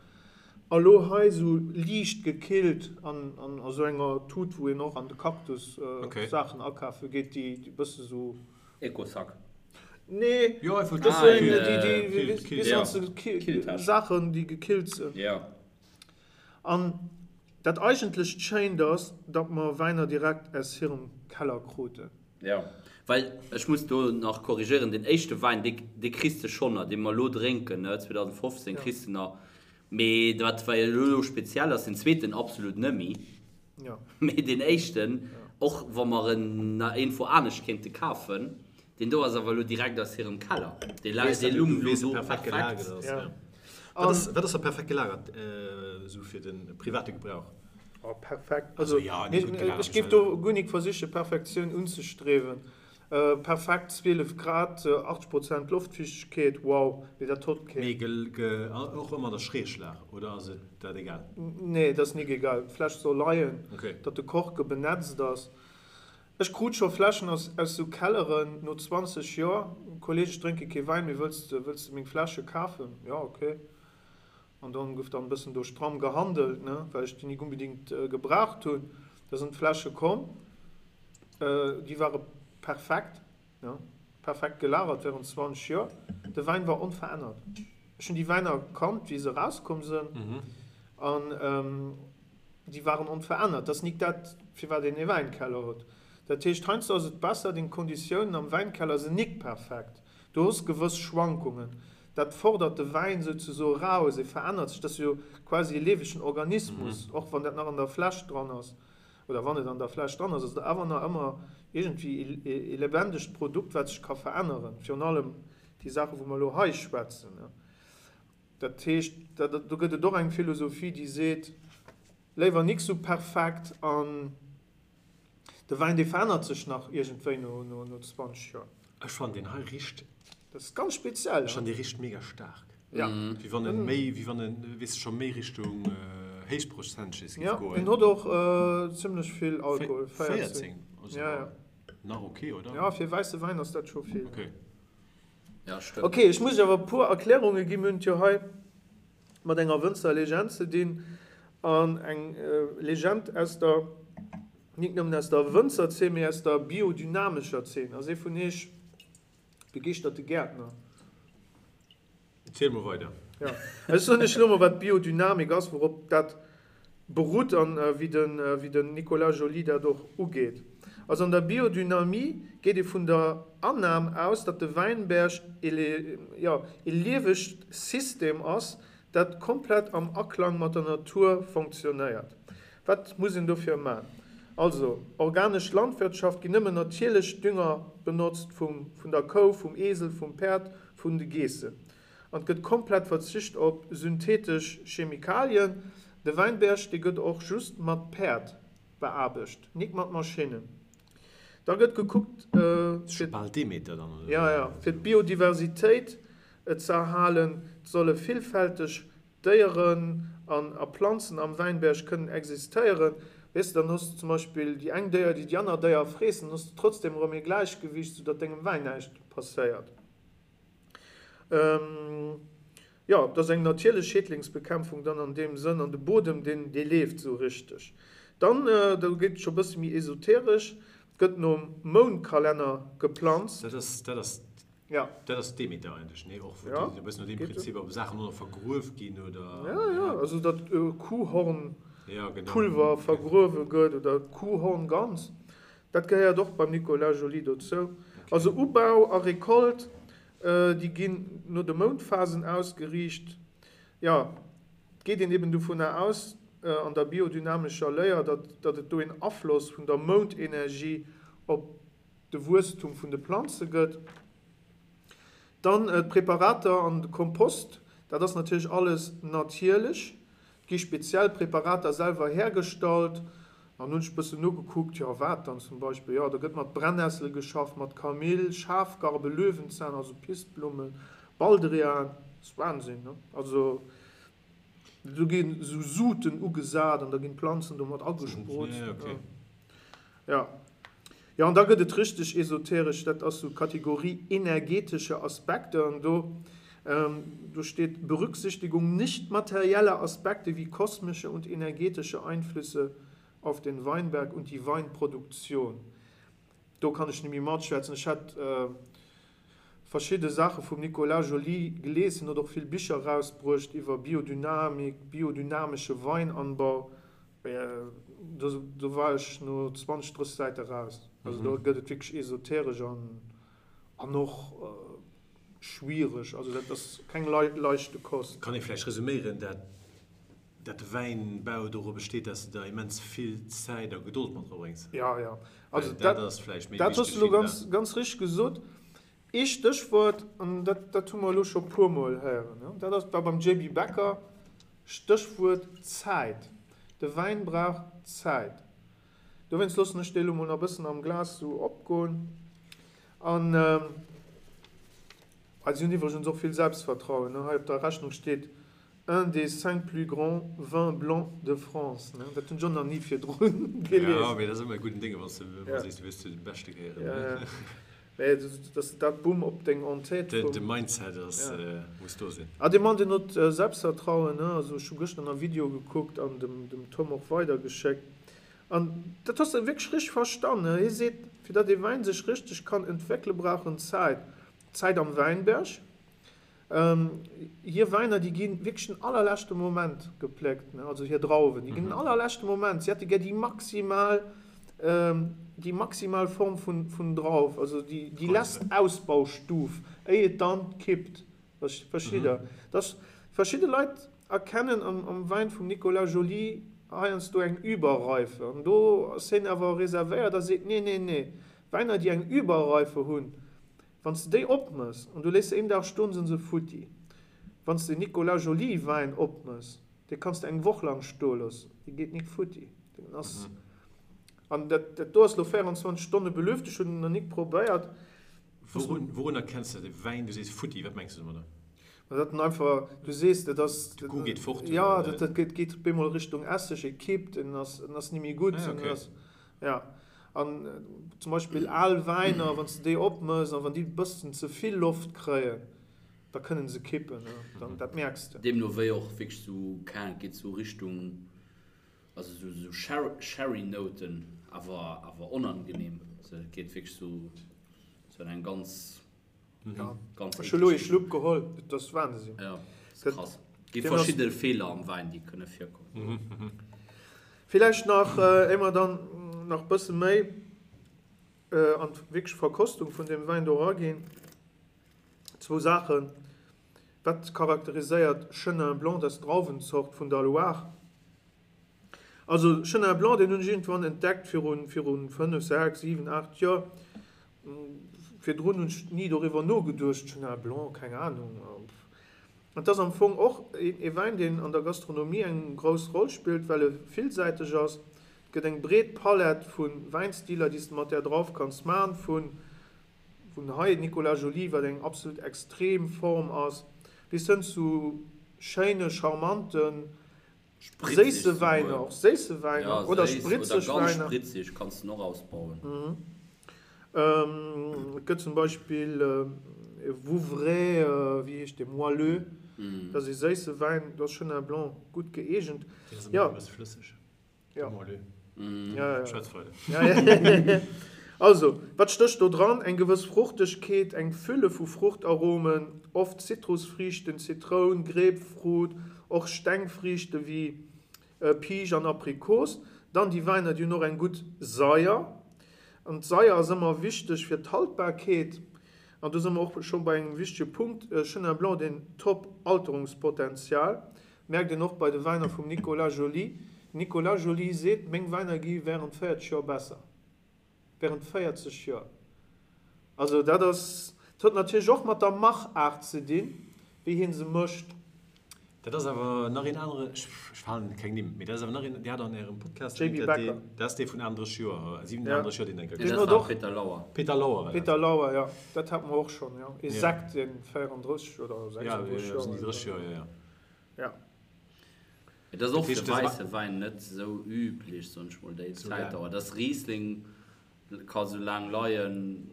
A lo hei sou liicht gekillt an a sou enger Tut wou een och an de Cactus Saachen akafe geet, déi bësse sou. Ecosac. Nee, dat ass sou eng déi déi Saachen déi gekillt sinn. An dat eigentlecht Schéint ass, datt mer Wäiner direkt aus hirem Keller kruten. Jo, well ech muss do nach korrigéieren, deen éischte Wäin, dee, dee kriss de schonn nach, dee mer elo drénken, ne, 2015 kriss de nach, mee wat war elo speziell ass, deen zweeten absolut nëmmi, mee deen éischten, och wa mer en nach iergendwou anescht kéinte kafen, deen do ass awer elo direkt aus hirem Keller, dee lung elo do perfekt. Wat ass da perfekt gelagert, esou fir de private Gebrauch? Oh, perfekt. Also, ech géif do guer nik versiche Perfektioun unzestriewen. Perfekt 12 Grad, 80 Prozent Loftfiichtegkeet, wow, mee dat hott keen. Mee och ëmmer an der Schräglag, oder ass et dat egal? Nee, dat ass nik egal. D'Fläsch soll leien, datt de Korke benetzt ass. Ech krut scho Fläschen aus sou Kelleren no 20 Joer. Kolleg, ech drénke kee Wäin, mee wëlls de meng Fläsche kafen? Jo, ok. An dann gouf dann e bëssen do stramm gehandelt, ne, well ech déi nik unbedingt gebraucht hunn. Da sinn d'Fläsche komm, déi ware perfekt, ne, perfekt gelagert während 20 Joer. De Wäin war onverännert. Ech hunn déi Wäiner kannt, wéi se erauskomm sinn, an déi waren onverännert. Dat ass nik dat, firwat een ee Wäinkeller huet. Dat heescht, heiansdo ass et besser, deng Konditiounen am Wäinkeller sinn nik perfekt. Du hues gewëss Schwankungen. Dat fordert de Wäin souzesoe raus, e verännert sech, dat ass jo quasi e liewegen Organismus, och wann dat nach an der Fläsch dran ass, oder wann et an der Fläsch dran ass, ass et awer nach ëmmer iergendwéi e lebendigt Produkt, wat sech ka veränneren, virun allem déi Saachen, wou mer elo hei schwätzen. Dat heescht, do gëtt et och eng Philosophie, déi seet, léiwer nik sou perfekt an. De Wäin dee verännert sech nach iergendwéi no 20 Joer. Ech fannen deen hei richt. Dat ass ganz speziell. Ech fannen dee richt mega staark. Ja. Wéi wann en méi, wéi wann en, weess de, scho méi Richtung héichprozenteg géif goen. Ja, deen huet och zimlech vill Alkohol, 14. 14? Also ja, ja. Nach ok, oder? Ja, fir wäisse Wäin ass dat scho vill. Ok. Ja, stëmmt. Ok, ech muss iech awer e puer Erklärunge ginn. Mir hunn et jo hei mat enger Wënzerlegend ze dinn an eng Legend aus der, nik nëmmen aus der Wënzerzeen, mee aus der biodynamescher Zeen. Ass ee vun iech begeeschterte Gäertner? Ziel mol weider. Jo, ech soen iech elo mol wat Biodynamik ass, wourop dat berutt an wéi den Nicolas Joly dat och ugeet. Also an der Biodynamie geet ee vun der Annam aus, datt de Wäinberg ee liewegt System ass, dat komplett am Aklang mat der Natur fonctionnéiert. Wat muss een dofir man? Also organesch Landwirtschaft, ginn nëmmen natierlech Dünger benotzt, vum der Kou, vum Esel, vum Päerd, vun de Geessen. An et gëtt komplett verzicht op synthetesch Chemikalien. De Wäinberg, dee gëtt och just mat Päerd beaarbecht, nik mat Maschinnen. Da gëtt gekuckt, fir Bal Demeter dann, oder? Ja, ja, fir d'Biodiversitéit ze erhalen. Et solle villfälteg Déieren an a Planzen am Wäinberg kënnen existéieren. Weess de, dann hues de zum Beispill déi eng Déier, déi déi aner Déier freessen, dann hues de trotzdem erëm ee Gläichgewiicht, soudatt dengem Wäin näischt passéiert. Jo, et ass eng natierlech Schädlingsbekämpfung dann an deem Sënn, an de Bodem, deen, dee leeft esou richteg. Dann, do geet et scho e bësse méi esoteresch, gëtt nom Moundkalenner geplanzt. Dat ass, dat ass, Ja. dat ass Demeter eigentlech, nee? Och wou déi e bëssen no deem Prinzip op Saachen och nach vergruef ginn, oder? Ja, ja, also datt Kuhhornpulver vergruewe gëtt oder Kuhhorn ganz. Dat gehéiert och beim Nicolas Joly dozou. Also Ubau a Recolte, déi ginn no de Moundphasen ausgeriicht. Jo, et geet een eben dovunner aus an der biodynamescher Léier, datt et do een Afloss vun der Moundenergie op de Wuesstum vun de Planze gëtt. Dann d'Präparater an de Kompost, Dat ass natierlech alles natierlech. Et gi speziell Präparater selwer hergestallt. An hunn ech e bëssen nogekuckt, jo wat dann zum Beispill? Jo, do gëtt mat Brennessel geschafft, mat Kamill, Schafgarbe, Löwenzahn, also Pissblummen, Baldrian. Ass Wahnsinn, ne? Also do ginn esou Suten ugesat an da ginn d'Planzen domat agesprutzt. Ja. Jo, an da gëtt et richteg esoteresch, dat ass sou Kategorie energetische Aspekte an do do steet Berücksichtigung nicht materieller Aspekte wie kosmische und energetische Einflüsse auf den Weinberg und die Weinproduktion. Do kann ech nemmi matschwätzen. Ech hat verschidde Saache vum Nicolas Joly gelies, hien huet och vill Bicher erausbruecht iwwer Biodynamik, biodynamesche Weinanbau. Do war ech no 20, 30 Säite raus. Also do gëtt et wierklech esoteresch an och schwiereg. Also dat ass keng leichte Kost. Kann ee vläicht resuméieren, dat dat de Wäinbau doru besteet, dass de der immens vill Zäit a Gedold mat drabréngs? Jo, jo. Also dat ass vläicht méi wichteg. Dat hues de elo ganz, ganz richteg gesot. Ee Stéchwuert, an dat, dat hu mer elo scho puermol héieren, dat ass, war beim JB Becker, Stéchwuert Zäit. De Wäin brauch Zäit. Dowéinst loossen ech dee elo mol nach e bëssen am Glas esou opgoen. An si hunn iwwregens och vill Selbstvertrauen. Hei op der Rechnung steet Un des cinq plus grands vins blancs de France. Dat hunn ech och nach ni virdru gelies. Jo, mee dat ass ëmmer e gudden Dénge, wann s de ëmmer sees, du wéills zu de Beschte gehéieren. Jo, jo. Mee dass de dat Bumm op deng En-tête vum. De Mindset ass, muss do sinn. Ah, dee Mann, deen huet Selbstvertrauen, ne? Also ech hu gëschter nach e Video gekuckt an dem dem Tom och weidergeschéckt. An dat hues de wierklech richteg verstan, ne? Hie seet, fir datt ee Wäin sech richteg kann entwéckele brauch en Zäit. Zäit am Wäinberg. Hir Wäiner, déi gi wierklech den allerleschte Moment gepléckt, ne, also hir Drauwen, déi ginn den allerleschte Moment, si hätte gär déi maximal, déi maximal Form vun, vun Drauf, also déi, déi lesst Ausbaustuf, éi et dann kippt. Verstitt Der? Dass verschidde Leit erkennen am, am Wäin vum Nicolas Joly heiansdo eng Überreife, an do ass hien awer reservéiert a seet, Nee, nee, nee, Wäiner, déi eng Überreife hunn, Wann s de déi opmëss an du léiss se een Dag stoen, sinn se futti. Wann s de Nicolas Joly Wäin opmëss, dee kanns de eng Woch lang stoe loossen, dee geet nik futti. Deen ass, an dat dat do ass lo 24 Stonne belüft, ech hunn en nach nik probéiert. Wourun wourun erkenns de de Wäin, du sees futti, wat mengs de domadder? Ma dat en einfach, du sees, dat ass. De Goût geet fort, oder? Jo, dat dat geet geet op eemol Richtung Esseg, e kippt, en ass en ass ni méi gutt, en ass, ja. An zum Beispill al Wäiner, wann s de déi opmëss an wann déi e bëssen ze vill Loft kréien, da kënnen se kippen, dann, dat mierks de. Deemno wéi och wierklech sou, keng Ahnung, et geet sou Richtung, also sou sou Sherry Nouten, awer awer onangenehm, also et geet wierklech sou sou an eng ganz. Ja. Ganz Ech hu lo ee Schlupp geholl, et ass Wahnsinn. Ja, ass krass. Gi verschidde Feeler am Wäin, déi kënne virkommen. Villäicht nach, éier mer dann nach bësse méi an d'wierklech Verkostung vun deem Wäin do eraginn, zwou Saachen. Wat charakteriséiert Chenin Blanc, dat ass d'Drauwenzort vun der Loire? Also Chenin Blanc, deen hunn ech iergendwann entdeckt virun, virun 5, 6, 7, 8 Joer. Virdrun hunn ech ni doriwwer nogeduecht, Chenin Blanc, keng Anung. An et ass am Fong och ee Wäin, deen an der Gastronomie eng grouss Roll spillt, well e villsäiteg ass. Et gëtt eng breet Palett vu Wäinstiler, déi s de mat där Drauf kanns man, vun vun hei Nicolas Joly, wat eng absolut extrem Form ass, bis hënn zu schéine, charmanten, Séisse Wäiner, och séisse Wäiner oder spritzeg Wäiner. Oder ganz spritzeg kanns de och ausbauen. Et gëtt zum Beispill e Vouvray, wéi heescht dee, Moelleux, dat ass ee séisse Wäin, do ass Chenin Blanc gutt gëeegent. Deen ass ëmmer e bësse flësseg. Ja. Ja, ja. Also, wat stécht do dran? Eng gewëss Fruchtegkeet, eng Fülle vu Fruchtaromen, oft Zitrusfriichten, Zitroun, Grapefruit, och Stengfriichte wéi Piisch an Aprikos. Dann déi Wäiner, déi hunn och eng gutt Saier. An d'Saier ass ëmmer wichteg fir d'Haltbarkeet. An do si mer och scho bei engem wichtege Punkt, Chenin Blanc, deen top Alterungspotenzial. Merkt een och bei de Wäiner vum Nicolas Joly. Nicolas Joly seet, Meng Wäiner gi während 40 Joer besser. Während 40 Joer. Also dat ass, dat huet natierlech och mat der Machaart ze dinn, wéi hie se mécht. Dat ass awer nach een anere, ech falen keng Nimm, mee dat ass awer nach een, Dir hat an Ärem Podcast JB Becker. Dat ass dee vun 38 Joer, 37 Joer, deen enker Nee, dat war Peter Lauer. Peter Lauer war dat. Peter Lauer, jo, dat hate mer och schonn, jo. Ee Sekt, dee 34 oder 36 Joer al war. 36 Joer, jo, jo. Ja. Et ass och fir wäisse Wäin net esou üblech, soen ech mol, déi Zäitdauer. Dass Riesling ka sou laang leien.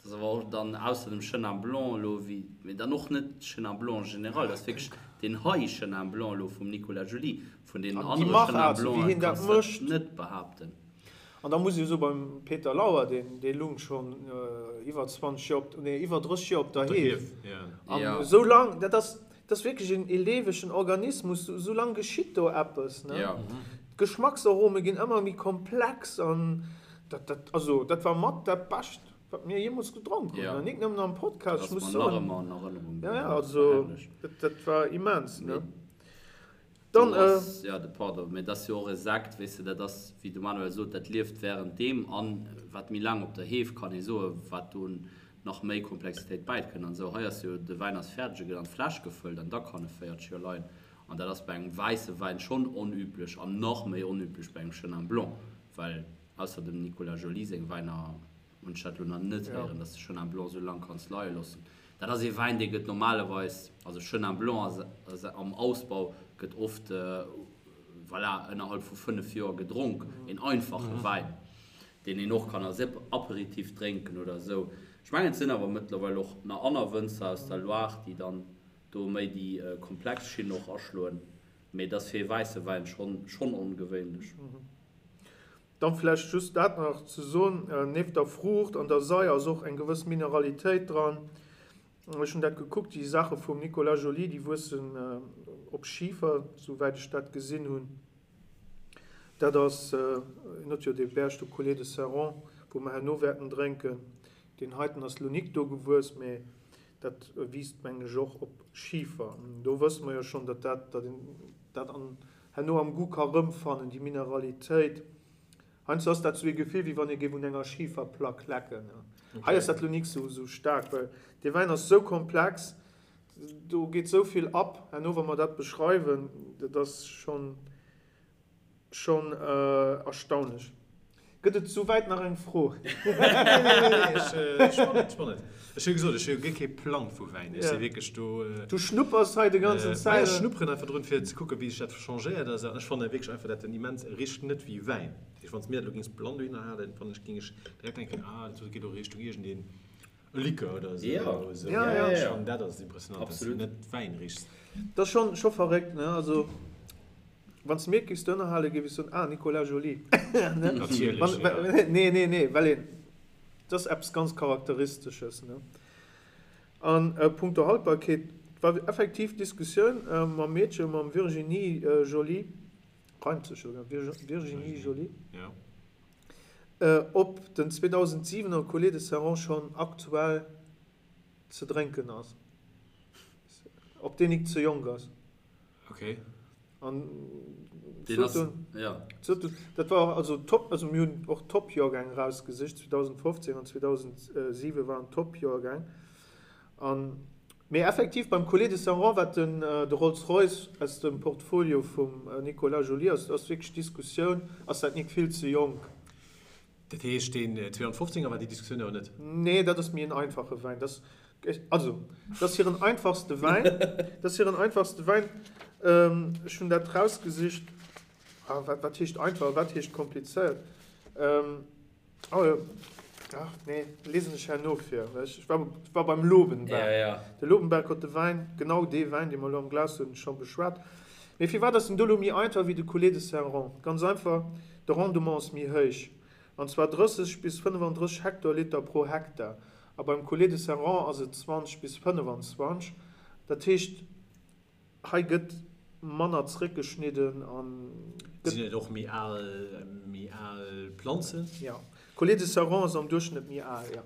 Dat ass awer och dann ausser dem Chenin Blanc elo wéi, mee dann och net Chenin Blanc en général, dat ass wierklech deen hei Chenin Blanc elo vum Nicolas Joly. Vun deenen anere Chenin Blancen kanns de dat net behaapten. An da muss ee soen, beim Peter Lauer, deen dee lung schonn iwwer 20 Joer op, nee iwwer 30 Joer op der Heef. An esou lang, dat ass, dat ass wierklech een ee liewegen Organismus, esou lang geschitt do eppes, ne? D'Geschmacksarome ginn ëmmer méi komplex an dat, dat, also dat war mat dat Bescht, wat mir jeemools gedronk hunn. An nik nëmmen am Podcast, ech muss soen. Ja, ja, also dat, dat war immens, ne? Dann, äh. Jo, de pardon, mee et ass jo och e Sekt, weess de, dat ass, wéi de Manuel sot, dat lieft während deem an wat méi laang op der Heef, kann ee soen, wat do nach méi Komplexitéit bäikënnt an esou. Hei ass jo, de Wäin ass fäerdeg, e gëtt an d'Fläsch gefëllt an da kann e 40 Joer leien an dat ass bei engem wäisse Wäin schonn onüblech an nach méi onüblech bei engem Chenin Blanc, well ausser dem Nicolas Joly seng Wäiner, Hunn ech dat lo nach net héieren, dass de Chenin Blanc sou lang kanns leie loossen. Dat ass ee Wäin, dee gëtt normalerweis, also Chenin Blanc ass am Ausbau, gëtt oft, voilà, ënnerhalb vu 5 Joer gedronk. Een einfache Wäin, deen een och kann als Aperitif drénken oder esou. Ech mengen, et sinn awer mëttlerweil och nach aner Wënzer aus der Loire, déi dann do méi déi komplex Schinn och aschloen. Mee et ass fir ee wäisse Wäin schonn ongewéinlech. Dann vläicht just dat nach ze soen, nieft der Fruucht an der Saier ass och eng gewëss Mineralitéit dran. Ech hunn dat gekuckt, déi Saache vum Nicolas Joly, déi wuessen op Schifer, souwäit ech dat gesinn hunn. Dat ass, en huet jo dee Berg do, Coulée de Serrant, wou mer herno wäerten drénken. Deen heiten ass lo nik do gewuess, mee dat wiisst, mengen ech, och op Schifer. Do wësse mer jo schonn, datt dat, datt een dat an herno am Goût ka rëmfannen, déi Mineralitéit. Heiansdo ass dat sou ee Gefill, wéi wann ee géif un enger Schiferplack lecken. Hei ass dat lo nik sou sou staark, well dee Wäin ass sou komplex, do geet sou vill ab herno, wa mer dat beschreiwen, dat ass schonn schonn erstaunlech. Gëtt et souwäit nach eng Fro? Nee, ech spannend. Ech hu gesot, ech hu guer kee Plang vu Wäin. Ech si wierklech do. Du schnuppers hei de ganzen Zäit. Ech schnupperen einfach drun, fir ze kucken, wéi sech dat changéiert. An ech fannen wierklech einfach, dat en immens richt net wéi Wäin. Dat heescht, wann s de mir dat elo géings blann dohinner halen, fannen ech, géing ech direkt denken, ah, dat geet elo Richtung iergendeen E Likör oder esou. Ja. Esou. Ja, ja. Ech fannen dat ass impressionant, dass du net Wäin richs. Dat ass schon, scho verréckt, ne? Also, wann s de mir et géifs dohinner halen, géif ech soen, ah, Nicolas Joly. Ne? Natierlech, ja. Nee, nee, nee, well een, dat ass eppes ganz Charakteristesches, ne? An punkto Haltbarkeet, et war effektiv d'Diskussioun mam Meedche, mam Virginie Joly, reimt sech jo, Virginie Joly. Ja. Ob den 2007 er Coulée de Serrant schonn aktuell ze drénken ass. Ob deen nik ze jonk ass. Ok. An dat war also top, also mir hunn och Top-Joergäng erausgesicht, 2015 an 2007 waren Top-Joergäng. An, mee effektiv beim Coulée de Serrant, wat den de Rolls Royce aus dem Portfolio vum Nicolas Joly ass, ass wierklech d'Diskussioun, ass dat nik vill ze jonk? Dat heescht deen 2015 er war déi Diskussioun awer net? Nee, dat ass méi en einfache Wäin. Dat ass, also, dat ass hiren einfachste Wäin. Dat ass hiren einfachste Wäin. Ech hunn dat rausgesicht. Ah, wat, wat heescht einfach a wat heescht komplizéiert? Oh jo, ach nee, lesen ech herno vir. Ech war, war beim Lobenberg. Ja, ja. De Lobenberg huet de Wäin, genau dee Wäin, dee mer elo am Glas hunn, scho beschwat. Mee firwat ass den do elo méi einfach wéi de Coulée de Serrant? Ganz einfach, de Rendement ass méi héich, an zwar 30 bis 35 Hektoliter pro Hektar. A beim Coulée de Serrant ass et 20 bis 25. Dat heescht, Hei gëtt manner zréckgeschnidden an gëtt. Sinn et och méi al, méi al Planzen? Jo. Coulée de Serrant ass am Duerchschnëtt méi al, jo.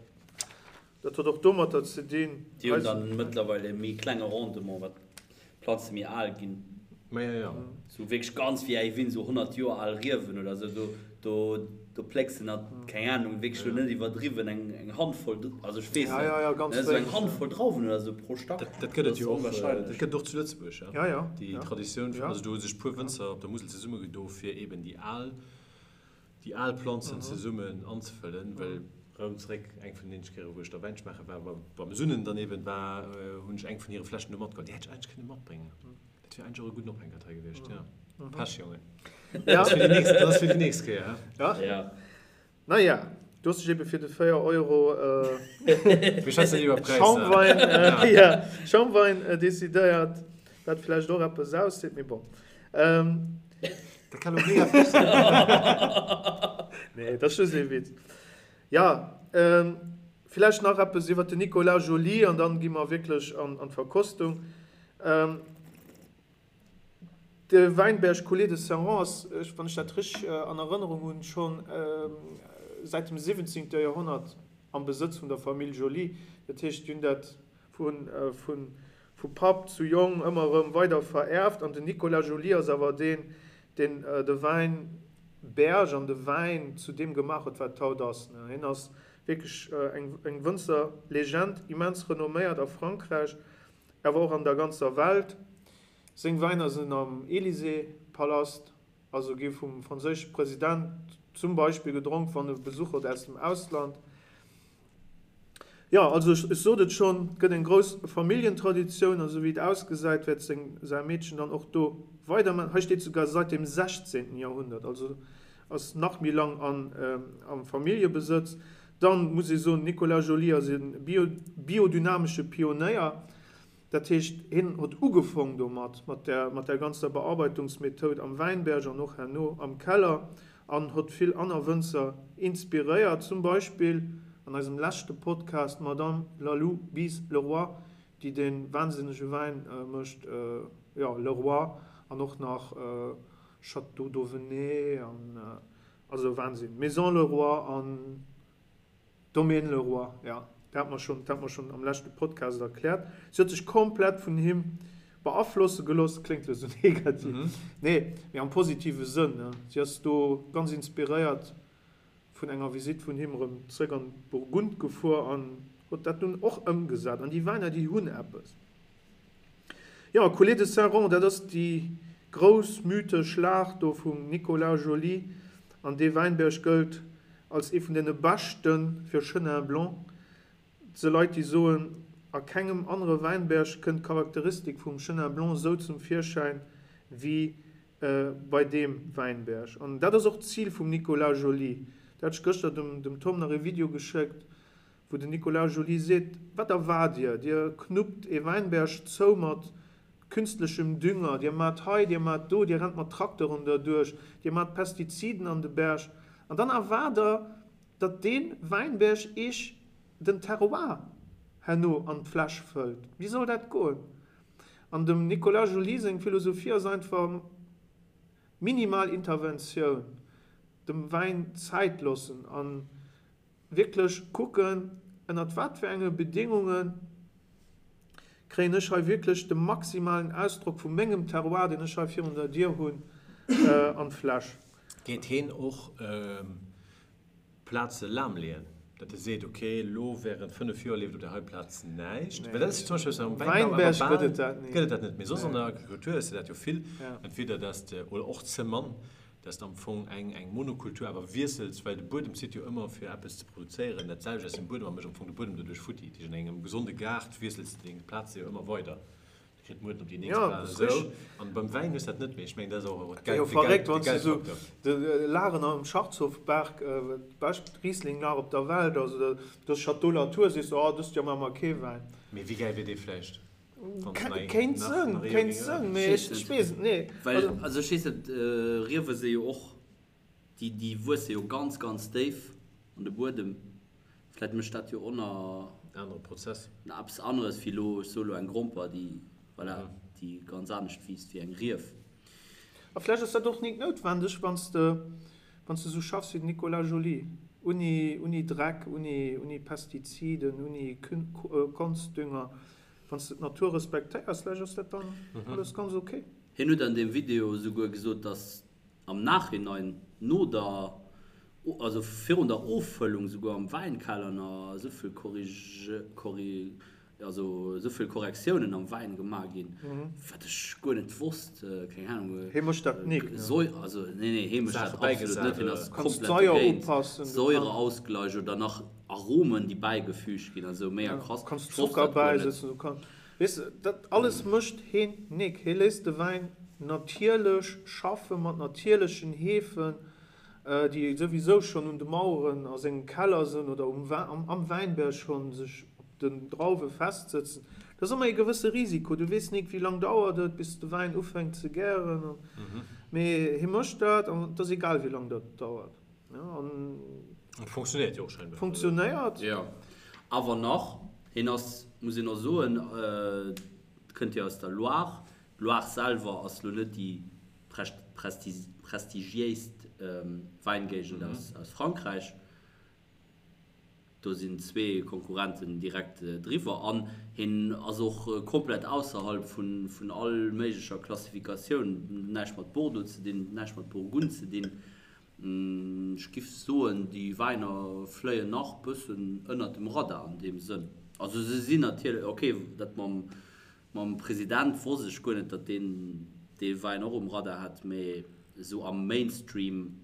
Dat huet och domatter ze dinn. Déi hunn dann mëttlerweil e méi klenge Rendement, wat d'Planze méi al ginn. Ma jo, jo. Sou wierklech ganz vieille Vignes, sou 100 Joer al Riewen oder sou, do, do, do plécks de nach, keng Ahnung, wierklech elo net iwwerdriwwen, eng, eng Handvoll, also ech weess net, ja, ja, ganz ne, sou eng wéineg, Handvoll Drauwen oder sou pro Stack. Dat, dat gëtt et jo och, dat gëtt et och zu Lëtzebuerg, ja. Ja, ja, Déi ja. Traditioun vun, Ja. also do hu sech puer Wënzer op der Musel zesummegedo fir eben déi al, déi al Planzen zesummen anzefëllen, well rëm zeréck, eng vun den eenzege Kéiere wou ech da Wäin schmaache war, war beim Sunnen dann eben war, hunn ech eng vun hire Fläschen do matgeholl, déi hätt ech eigentlech kënne matbréngen. Dat wier eigentlech och e gudden Ophänker hei gewiescht, ja. Pech, Jongen. Ja. Dat ass fir déi nächst, dat ass fir déi nächst Kéier, hä? Ja. Ja. Naja, du hues dech ebe fir de 4 Euro Mir schwätzen net iwwer Präisser. Schaumwein, ja, Schaumwein decidéiert, wat vläicht och eppes ausseet, mee bon. Dat kann elo mega frech sinn. Nee, dat ass just ee Witz. Ja, villäicht nach eppes iwwer den Nicolas Joly an dann gi mer wierklech an d'Verkostung. De Wäinberg Coulée de Serrant ass, wann ech dat richteg an Erënnerung hunn, scho säit dem 17. Joerhonnert am Besëtz vun der Famill Joly. Dat heescht, déi hunn dat vu Papp zu Jong ëmmer erëm weider verierft. An den Nicolas Joly ass awer deen, deen de Wäinberg an de Wäin zu deem gemaach huet, wat et haut ass. Hien ass wierklech eng Wënzerlegend, immens renomméiert a Frankräich, awer och an der ganzer Welt. Seng Wäiner sinn am Élysée-Palast, also gi vum franséische President zum Beispill gedronk, wann e Besuch huet aus dem Ausland. Jo, also ech sot et schonn, et gëtt eng grouss Familljentraditioun a sou wéi et ausgesäit, wäert seng säi Meedchen dann och do weiderman. Hei steet souguer seit dem 16. Jahrhundert, also ass nach méi lang an am Familljebesëtz. Dann muss ee soen, Nicolas Joly ass e biodynamesche Pionéier. Dat heescht, hien hott ugefong domat, mat der, mat der ganzer Bearbeitungsmethoud am Wäinberg an och herno am Keller an hott vill anner Wënzer inspiréiert, zum Beispill an eisem leschte Podcast d'Madame Lalou Bize-Leroy, déi dee wahnsinnege Wäin mécht, jo, Leroy an och nach Château d'Auvenay an, also Wahnsinn, Maison Leroy an. Domaine Leroy, jo, dat hat mer schonn, dat hat mer schonn am leschte Podcast erkläert. Si huet sech komplett vun him beaflosse gelooss, kléngt elo sou negativ, nee, mee am positive Sënn, ne. Si ass do ganz inspiréiert vun enger Visitt vun him erëm zréck an d'Burgund gefuer an huet dat dunn och ëmgesat. An déi Wäiner, déi hunn eppes. Jo, Coulée de Saint-Rond, dat ass déi grouss mythesch Lag do vum Nicolas Joly an dee Wäinberg gëllt als ee vun deene beschte fir Chenin Blanc. Et si Leit, déi soen, a kengem anere Wäinberg kënnt d'Charakteristik vum Chenin Blanc esou zum Virschäin wéi bei deem Wäinberg. An dat ass och d'Zil vum Nicolas Joly. Do hat ech gëschter dem Tom nach ee Video geschéckt, wou den Nicolas Joly seet, Wat erwaart Dir? Dir knuppt ee Wäinberg zou mat künstlechem Dünger, Dir maacht hei, Dir maacht do, Dir rennt mat Trakteren derduerch, Dir maacht Pestiziden an de Berg, an dann erwaart Der, datt dee Wäinberg Iech den Terroir herno an d'Fläsch fëllt. Wéi soll dat goen? An dem Nicolas Joly seng Philosophie ass einfach, minimal Interventioun, dem Wäin Zäit loossen an Wierklech kucken, ënnert wat fir enge Bedéngunge kréien ech hei wierklech de maximalen Ausdrock vu mengem Terroir, deen ech hei virun der Dier hunn, an d'Fläsch. Geet heen och Plaze lahmleeën, datt e seet, ok, elo während 5 Joer leeft op där hei Plaz näischt? Well dat ass jo zum Beispill am Wäinbau awer bal gëtt et dat net méi. Soss an der Agrikultur hues de dat jo vill, entweder datt de, oder och ze mann, dass de am Fong eng eng Monokultur awer wiessels, well de Buedem zitt jo ëmmer fir eppes ze produzéieren dat selwecht aus dem Buedem a mécht am Fong de Buedem doduerch futti. Dat heescht an engem gesonde Gaart wiessels de deng Plaze jo ëmmer weider, da kritt d'Mueden op déi nächst Plaz esou. An beim Wäin hues de dat net méi. Ech mengen dat ass och de Jo verréckt, wann s de esou Geldfaktor. de Lagen am Scharzhofberg, d'bescht Riesling-Lag op der Welt ass, oder de Château Latour, sees de, oh dëst Joer maache mer kee Wäin. Mee wéi gäil wier dee vläicht? Kéint sënn, kéint sënn, mee ech weess et net. Well, also ech weess net, Riewe si jo och, déi, déi wuesse jo ganz, ganz déif an de Buedem. Vläit mécht dat jo och nach. Anere Prozess. Nach eppes aneres wéi elo, ech soe elo eng Gromper, déi, voilà, déi ganz anescht wiisst wéi eng Rief. A vläicht ass dat och nik noutwendeg, wann s de, wann s de esou schaffs wéi den Nicolas Joly, unni, unni Dreck, unni, unni Pestiziden, unni Konstdünger. Wann s de d'Natur respektéiers, vläicht ass dat dann alles ganz ok. Hien huet an deem Video esouguer gesot, dass am Nachhinein, no der, also virun der Offëllung esouguer am Wäinkeller nach esou vill Korrige, also esou vill Korrektiounen am Wäin gemaach ginn, wat ech guer net wosst, keng Ahnung. Hie mécht dat nik, ne? Säu, also nee, nee, hie mécht dat Saache absolut net, hien ass Kanns komplett d'Saier dogéint. upassen, du Säureausgleich oder nach Aromen, déi bäigefüügt ginn, also mega krass. kanns Ech wosst Zocker dat guer net. bäisetzen, du kanns, weess de, dat alles mécht hien nik. Hie léisst de Wäin natierlech schaffe mat natierlechen Hefen. déi souwisou schonn un de Maueren a sengem Keller sënn oder um am Wäinberg schonn sech op den Drauwe festsëtzen. Dat ass ëmmer ee gewësse Risiko. Du weess nik, wéi lang dauert et, bis de Wäin ufänkt ze gären. Mee hie mécht dat an et ass egal, wéi lang dat dauert. An et funktionéiert jo och scheinbar. Funktionéiert. Jo, awer nach, hien ass, muss een och soen, kënnt jo aus der Loire. D'Loire selwer ass lo net déi prestigiéist Wäingéigend aus Frankräich. Do sinn zwee Konkurrenten direkt driwwer an hien ass och komplett ausserhalb vun all méiglecher Klassifikatioun. Näischt mat Bordeaux ze dinn, näischt mat Burgund ze dinn. Ech giff soen, déi Wäiner fléien nach bëssen ënnert dem Radar an deem Sënn. Also se sinn natierlech, ok, dat mam Mam President wosst ech guer net, datt deen dee Wäin och um Radar hat, mee esou am Mainstream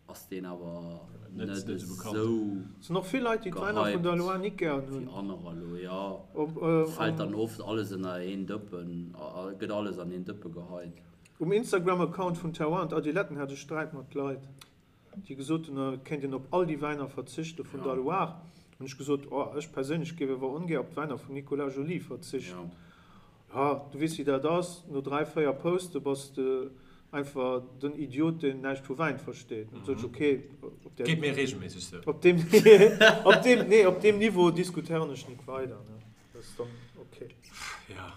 ass deen awer net esou Sinn och vill Leit déi d'Wäiner vun der gehypt Loire nik gären wéi hunn. anerer elo. Jo, fält dann oft alles ënner een Dëppen, gëtt alles an een Dëppe geheit. Um Instagram Account vun Terroir und Adiletten hat ech Sträit mat Leit. déi gesot hunn, et kéint een op all déi Wäiner verzichte vun der Loire, hunn ech gesot, oh, ech perséinlech géif awer ongär op d'Wäiner vum Nicolas Joly verzichten. Jo, du weess wéi dat ass, no 3, 4 Poste bass de einfach den Idiot, deen näischt vu Wäin versteet. Dann sot ech, okay, op där, Geet mir regelméisseg sou. op deem, op deem, nee, op deem Niveau diskutéieren ech nik weider, ne, dat ass dann okay. Jo.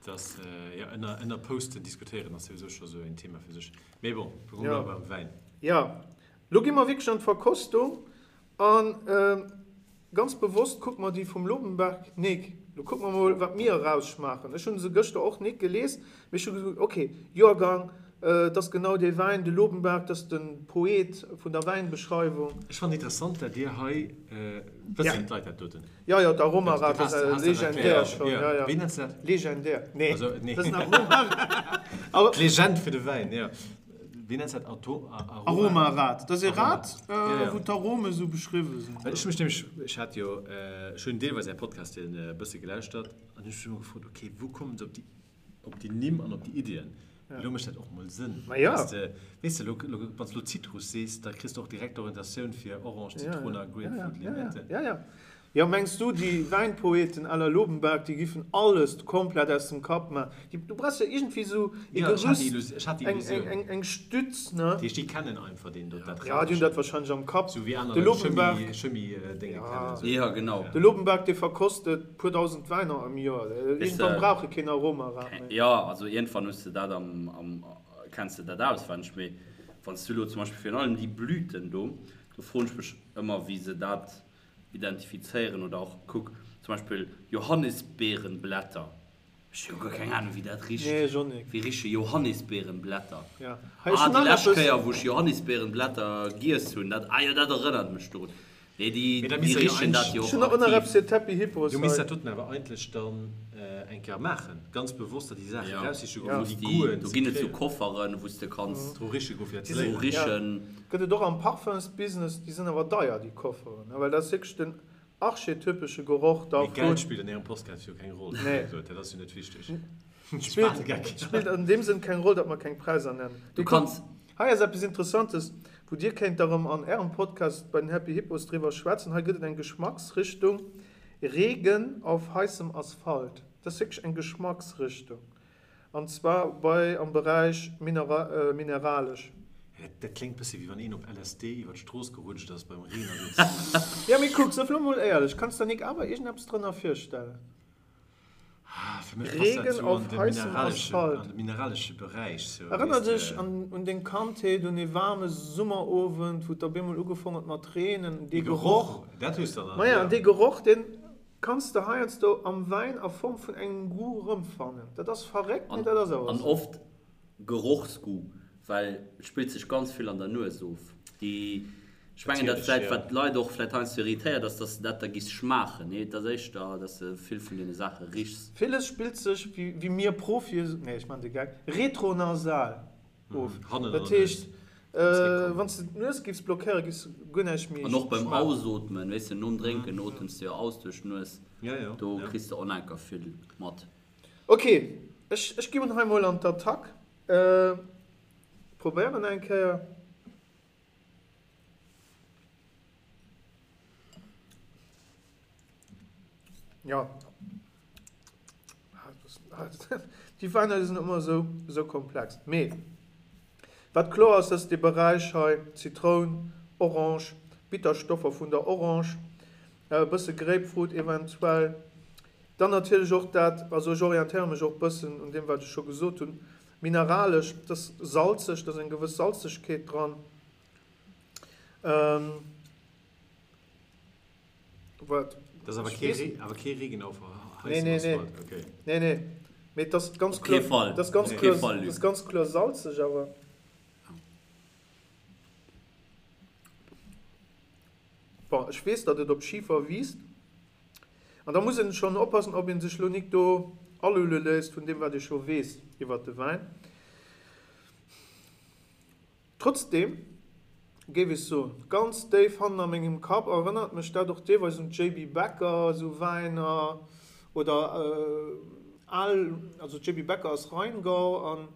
Dass, jo, ënner, ënner Posten diskutéieren ass souwisou scho sou een Thema fir sech. Mee bon, mir Ja. bleiwe beim Wäin. Jo, lo gi mer wierklech an d'Verkostung an ganz bewosst kucke mer déi vum Lobenberg nik. Lo kucke mer mol, wat mir erausschmaachen. Ech hu se gëschter och nik gelies, mee ech hu gesot, ok, Joergang, et ass genau dee Wäin, de Lobenberg, dat ass de Poet vun der Wäinbeschreiwung. Ech fannen interessant, dat Dir hei, wëssen d'Leit dat doten? Jo, jo, d'Aromarad ass legendär schon. Jo, jo. Wéi nenns de dat? Legendär. Nee, Also, nee. dat ass en Aromarad. D'Legend fir de Wäin, jo. Wéi nenns de dat? Ato-, Aroma? Aromarad. Dat ass e Rad, Ja, ja. wou d'Arome sou beschriwwe sinn. Well ech hu mech nämlech, ech hat jo, ech hunn deelweis Är Podcasten e bësse gelauschtert an hunn mech ëmmer gefrot, okay, wou kommen se op déi, op déi Nimm an op déi Iddien? Elo mécht dat och mol Sënn. Ma ja. Weess de, weess de, elo, elo, wann s de elo Zitrus sees, da kriss de och direkt d'Orientatioun fir Orange, Zitroun a Grapefruit, Limette. Ja, ja. Jo, mengs du, déi Wäinpoeten à la Lobenberg, déi giffen alles komplett aus dem Kapp maachen? Déi, du brauchs jo iergendwéi esou e Ja, ech hat déi Gerüst, Illusi-, ech hat déi eng, Illusioun. eng, eng Stütz, ne? Dat heescht, déi kennen einfach deen do, dat Ja, déi hunn dat wahrscheinlech am Kapp. Sou wéi aner De Leit Lobenberg. Chemie, Chemie-Dénge Ja. kennen. Sou. Ja, genau. De Lobenberg, dee verkostet puer dausend Wäiner am Joer. Weess Iergendwann de, brauch e keen Aromarad méi. Jo, also iergendwann hues de dat am, am, kenns de dat auswenneg. Mee wann s du elo zum Beispill virun allem déi Blüten do, do froen ech mech ëmmer, wéi se dat identifizéieren oder och, kuck, zum Beispill Johannisbeerenblätter. Ech hu jo guer keng Ahnung, wéi dat richt. Nee, ech och nik. Wéi riche Johannisbeerenblätter? Ja. Hei, ech Ah, hunn déi nach lescht eppes. Kéier, wou ech Johannisbeerenblätter giess hunn, dat, ah jo, dat erënnert mech dorun. Nee, déi, Mee da déi misst der jo richen dat jo Ech och hunn och nach aktiv. eppes fir d'Happy Hippos Du misst hei. dat doten awer eigentlech dann eng Kéier maachen, ganz bewosst der déi Saachen Ja. eraussiche goen, Ja. wou déi Déi, Goûten do ze ginn et sou kréien. Kofferen, wou s de kanns Dru riche goen, fir dat ze dru léieren. richen. Gëtt et och am Parfumsbusiness, déi sinn awer deier, déi Kofferen, ne, well dat ass wierklech den archetypesche Geroch da Mee vun. Geld spillt an ärem Postcard jo keng Roll, Nee. dat ass jo net wichteg. Spillt, spillt an deem Sënn keng Roll, datt mer keng Präisser nennen. Du kanns. Hei ass eppes Interessantes, wou Dir kéint da rëm an Ärem Podcast bei den Happy Hippos driwwer schwätzen. Hei gëtt et eng Geschmacksrichtung, Regen auf heißem Asphalt. Dat ass wierklech eng Geschmacksrichtung. An zwar bei am Beräich mineralesch. Dat kléngt bëssi wéi wann een op LSD iwwer d'Strooss gerutscht ass beim Reen a sou. Jo, mee kuck, sëff lo mol éierlech, kanns der nik awer iergendeppes drënner virstellen? Fir mech passt dat Regen sou auf an de heißem mineralesche, Asphalt. an de mineralesche Beräich sou, Erënner weess dech de. an un deng Kandheet, un ee waarme Summerowend, wou et op eemol ugefong huet mat reenen, dee Dee Geroch. Geroch, dat hues de dann, Maja, jo. an dee Geroch, deen. Kanns de heiansdo am Wäin a Form vun engem Goût rëmfannen. Dat ass verréckt, mee dat ass awer An esou. oft Gerochsgoût, well et spillt sech ganz vill an der Nues of. Déi, ech mengen, dat vläit, wat d'Leit och vläit heiansdo irritéiert, ass, dass de dat da giss schmaachen. Nee, et ass éischter, dass de vill vun deene Saache richs. Villes spillt sech, wéi mir Profie, nee, ech maachen de Geck, retronasal. Of. Dat heescht, wann s de d'Nues giffs blockéieren, giffs de guer näischt méi An och beim Ausootmen, weess de, nom Drénken otems de jo aus duerch d'Nues, do kriss de onenker vill mat. Ok, ech ech ginn hei mol an d'Attack. Probéieren eng Kéier. Ja. Déi Wäiner déi sinn ëmmer esou, esou komplex. Mee wat kloer ass, dass dee Beräich hei, Zitroun, Orange, Bitterstoffer vun der Orange, e bësse Grapefruit eventuell, dann natierlech och dat, also ech orientéiere mech och e bëssen un deem wat ech scho gesot hunn, mineralesch, et ass salzeg, et ass eng gewëss Salzegkeet dran. Wat? Dat ass awer kee Ree, awer kee Regen auf Nee, nee, nee. Okay. Nee, nee. Mee et ass ganz kloer, Fall. Et ass ganz kloer, Fall, ass ganz kloer salzeg awer. Bon, ech weess, datt et op Schifer wiisst. An da muss een schonn oppassen, ob een sech lo nik do alulle léisst vun deem, wat ee scho weess iwwert de Wäin. Trotzdem géif ech soen, ganz déif hannen a mengem Kapp erënnert mech dat och deelweis un d'JB Becker, esou Wäiner oder al, also JB Becker ass Rheingau an,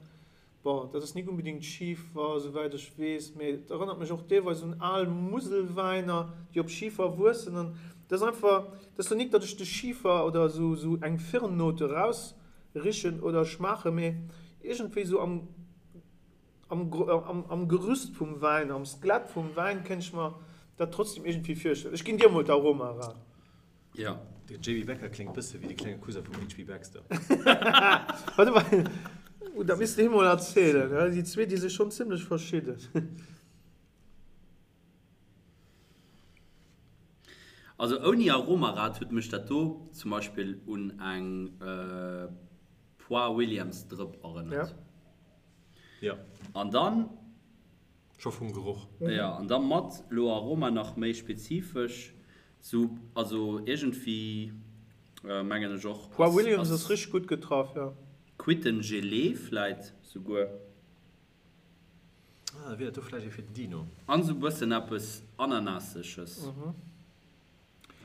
bon, dat ass nik unbedingt Schifer, esouwäit ech weess, mee et erënnert mech och deelweis un al Muselwäiner, déi op Schifer wuessen an dat ass einfach, dat ass lo nik, datt ech de Schifer oder esou eng Firnnote erausrichen oder schmaachen, mee iergendwéi esou am. Am Gerüst vum Wäin, am Skelett vum Wäin kéint ech mer dat trotzdem iergendwéi virstellen. Ech ginn dir emol d'Aroma era. Jo. De JB Becker kléngt bësse wéi de klenge Cousin vum HP Baxter. Warte mol, dat misst de him mol erzielen. Déi zwee, déi si schonn zimlech verschidden. Also ouni Aromarad huet mech dat do zum Beispill un eng Poire Williams Drëpp erënnert. Ja. An dann. Scho vum Geroch. Ja, an da mat lo Aroma nach méi spezifesch, sou, also iergendwéi mengen ech och. Poire Williams ass richteg gutt getraff, jo. Quittengelee vläit souguer. Ah, da wier dat do vläicht ee fir den Dino. An sou bëssen eppes Ananasseges.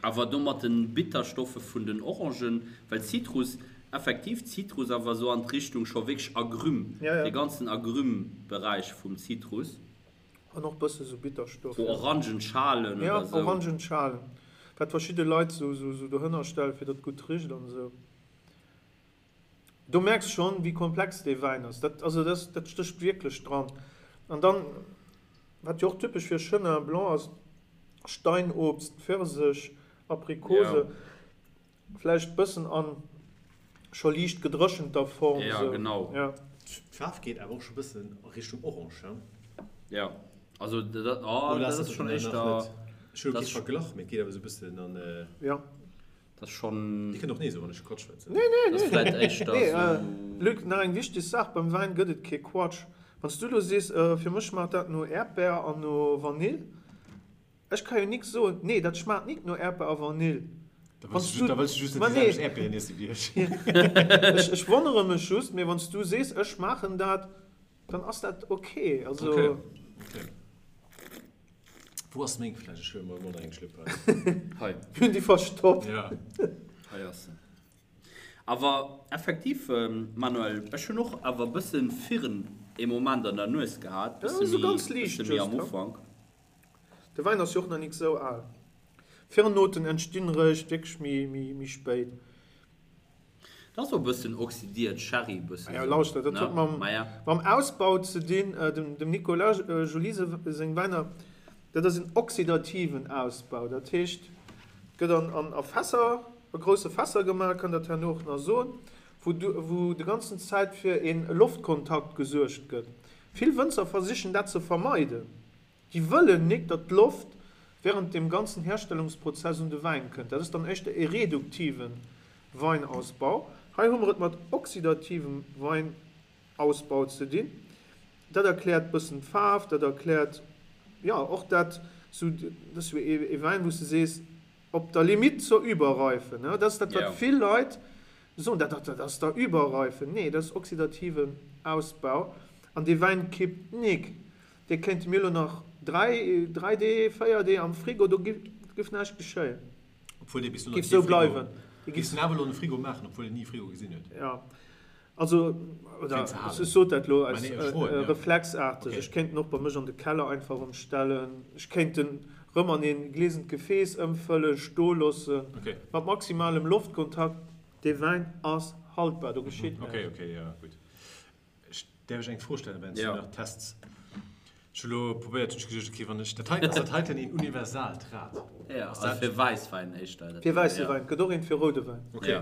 Awer do mat den Bitterstoffe vun den Orangen, well Zitrus, effektiv Zitrus, awer sou an d'Richtung scho wierklech Agrumes, dee ganzen Agrumes-Beräich vum Zitrus. An och bësse sou Bitterstoff. Sou Orangenschalen oder sou. Ja, Orangenschalen, wat verschidde Leit sou dohënner stellen, fir datt et gutt richt an esou. Do merks schon wéi komplex dee Wäin ass. Dat, also dat, dat stécht wierklech dran. An dann, wat jo och typesch fir Chenin Blanc ass, Steinobst, Pfirsech, Aprikose, vläicht bëssen an scho liicht gedréchenter Form. Ja, genau. Ja. D'Faarf geet awer och scho bëssen a Richtung Orange, he? Ja, also dat, oh, dat ass schon éischter. Ech hu kee Verglach, mee et geet awer esou bëssen an. Ja. Dat ass schonn. Dir kënnt och nee soen, wann ech Quatsch schwätzen. Nee, nee, nee. Vläit éischter Nee, esou. Luc, nach eng wichteg Saach, beim Wäin gëtt et kee Quatsch. Wann s du elo sees, fir mech schmaacht dat no Äerdbär an no Vanill, ech ka jo nik soen, nee, dat schmaacht nik no Äerdbär a Vanill. Da wëlls du, da wëlls du just net déi selwecht Äerdbieren iesse wéi ech. Ech, ech wonnere mech just, mee wann s du sees, ech schmaachen dat, dann ass dat ok. Also. Okay, okay. Wou ass meng Fläsch? Ech huele mer emol nach eng Schlëpp hei. Hei. Mir hunn déi verstoppt. Ja. Hei ass se. Awer effektiv, Manuel, ech hunn och awer e bësse Firn ee Moment an der Nues gehat, bësse Ja, méi, bësse méi am Ufank. De Wäin ass jo och nach nik sou al. Firnnoten entstinn réischt wierklech méi, méi spéit. Dat ass och e bëssen oxidiert Sherry, e bëssen esou, lauschter, dat huet mam, mam Ausbau ze dinn. Dem Nicolas Joly seng Wäiner, dat ass en oxidativen Ausbau. Dat heescht, et gëtt an a Fässer, a grousse Fässer gemaach, kann dat herno och nach soen, wou wou de ganzen Zäit fir e Loftkontakt gesuergt gëtt. Vill Wënzer versichen dat ze vermeiden. Déi wëllen nik, datt d'Loft. während dem ganzen Herstellungsprozess un de Wäin kënnt. Dat ass dann éischter e reduktive Weinausbau. Hei hu mer et mat oxidativem Weinausbau ze dinn. Dat erkläert bëssen d'Faarf, dat erkläert, jo, och dat, sou, dat ass jo ee Wäin, wou s de sees, op der Limite zur Überreife, ne? Dat ass dat, wat vill Leit soen, dat, dat ass der Überreife. Nee, dat ass oxidativen Ausbau an dee Wäin kippt nik. Dee kéinte mir elo nach 3, 3 Dee, 4 Dee am Frigo, do giff näischt geschéien. Obwuel dee bis elo nach kee Frigo, giffs den awer elo an de Frigo maachen, obwuel en ni e Frigo gesinn huet? Jo, also, oder ech sot dat elo aus reflexaarteg. Ech kéint en och bei mech an de Keller einfach erëm stellen. Ech kéint en erëm an ee gliesent Gefees ëmfëllen, stoe loossen, mat maximalem Loftkontakt. Dee Wäin ass haltbar, do geschitt näischt. Okay, okay, jo, gutt. Ech däerf ech eng Fro stellen, wärend s du nach tests? Ech hu lo probéiert, hunn ech geduecht, okay, wann ech dat heiten, ass dat heiten een universaalt Rad? Ja, also fir Wäisswäin éischter. Fir wäisse Wäin, et gëtt och eent fir roude Wäin. Okay.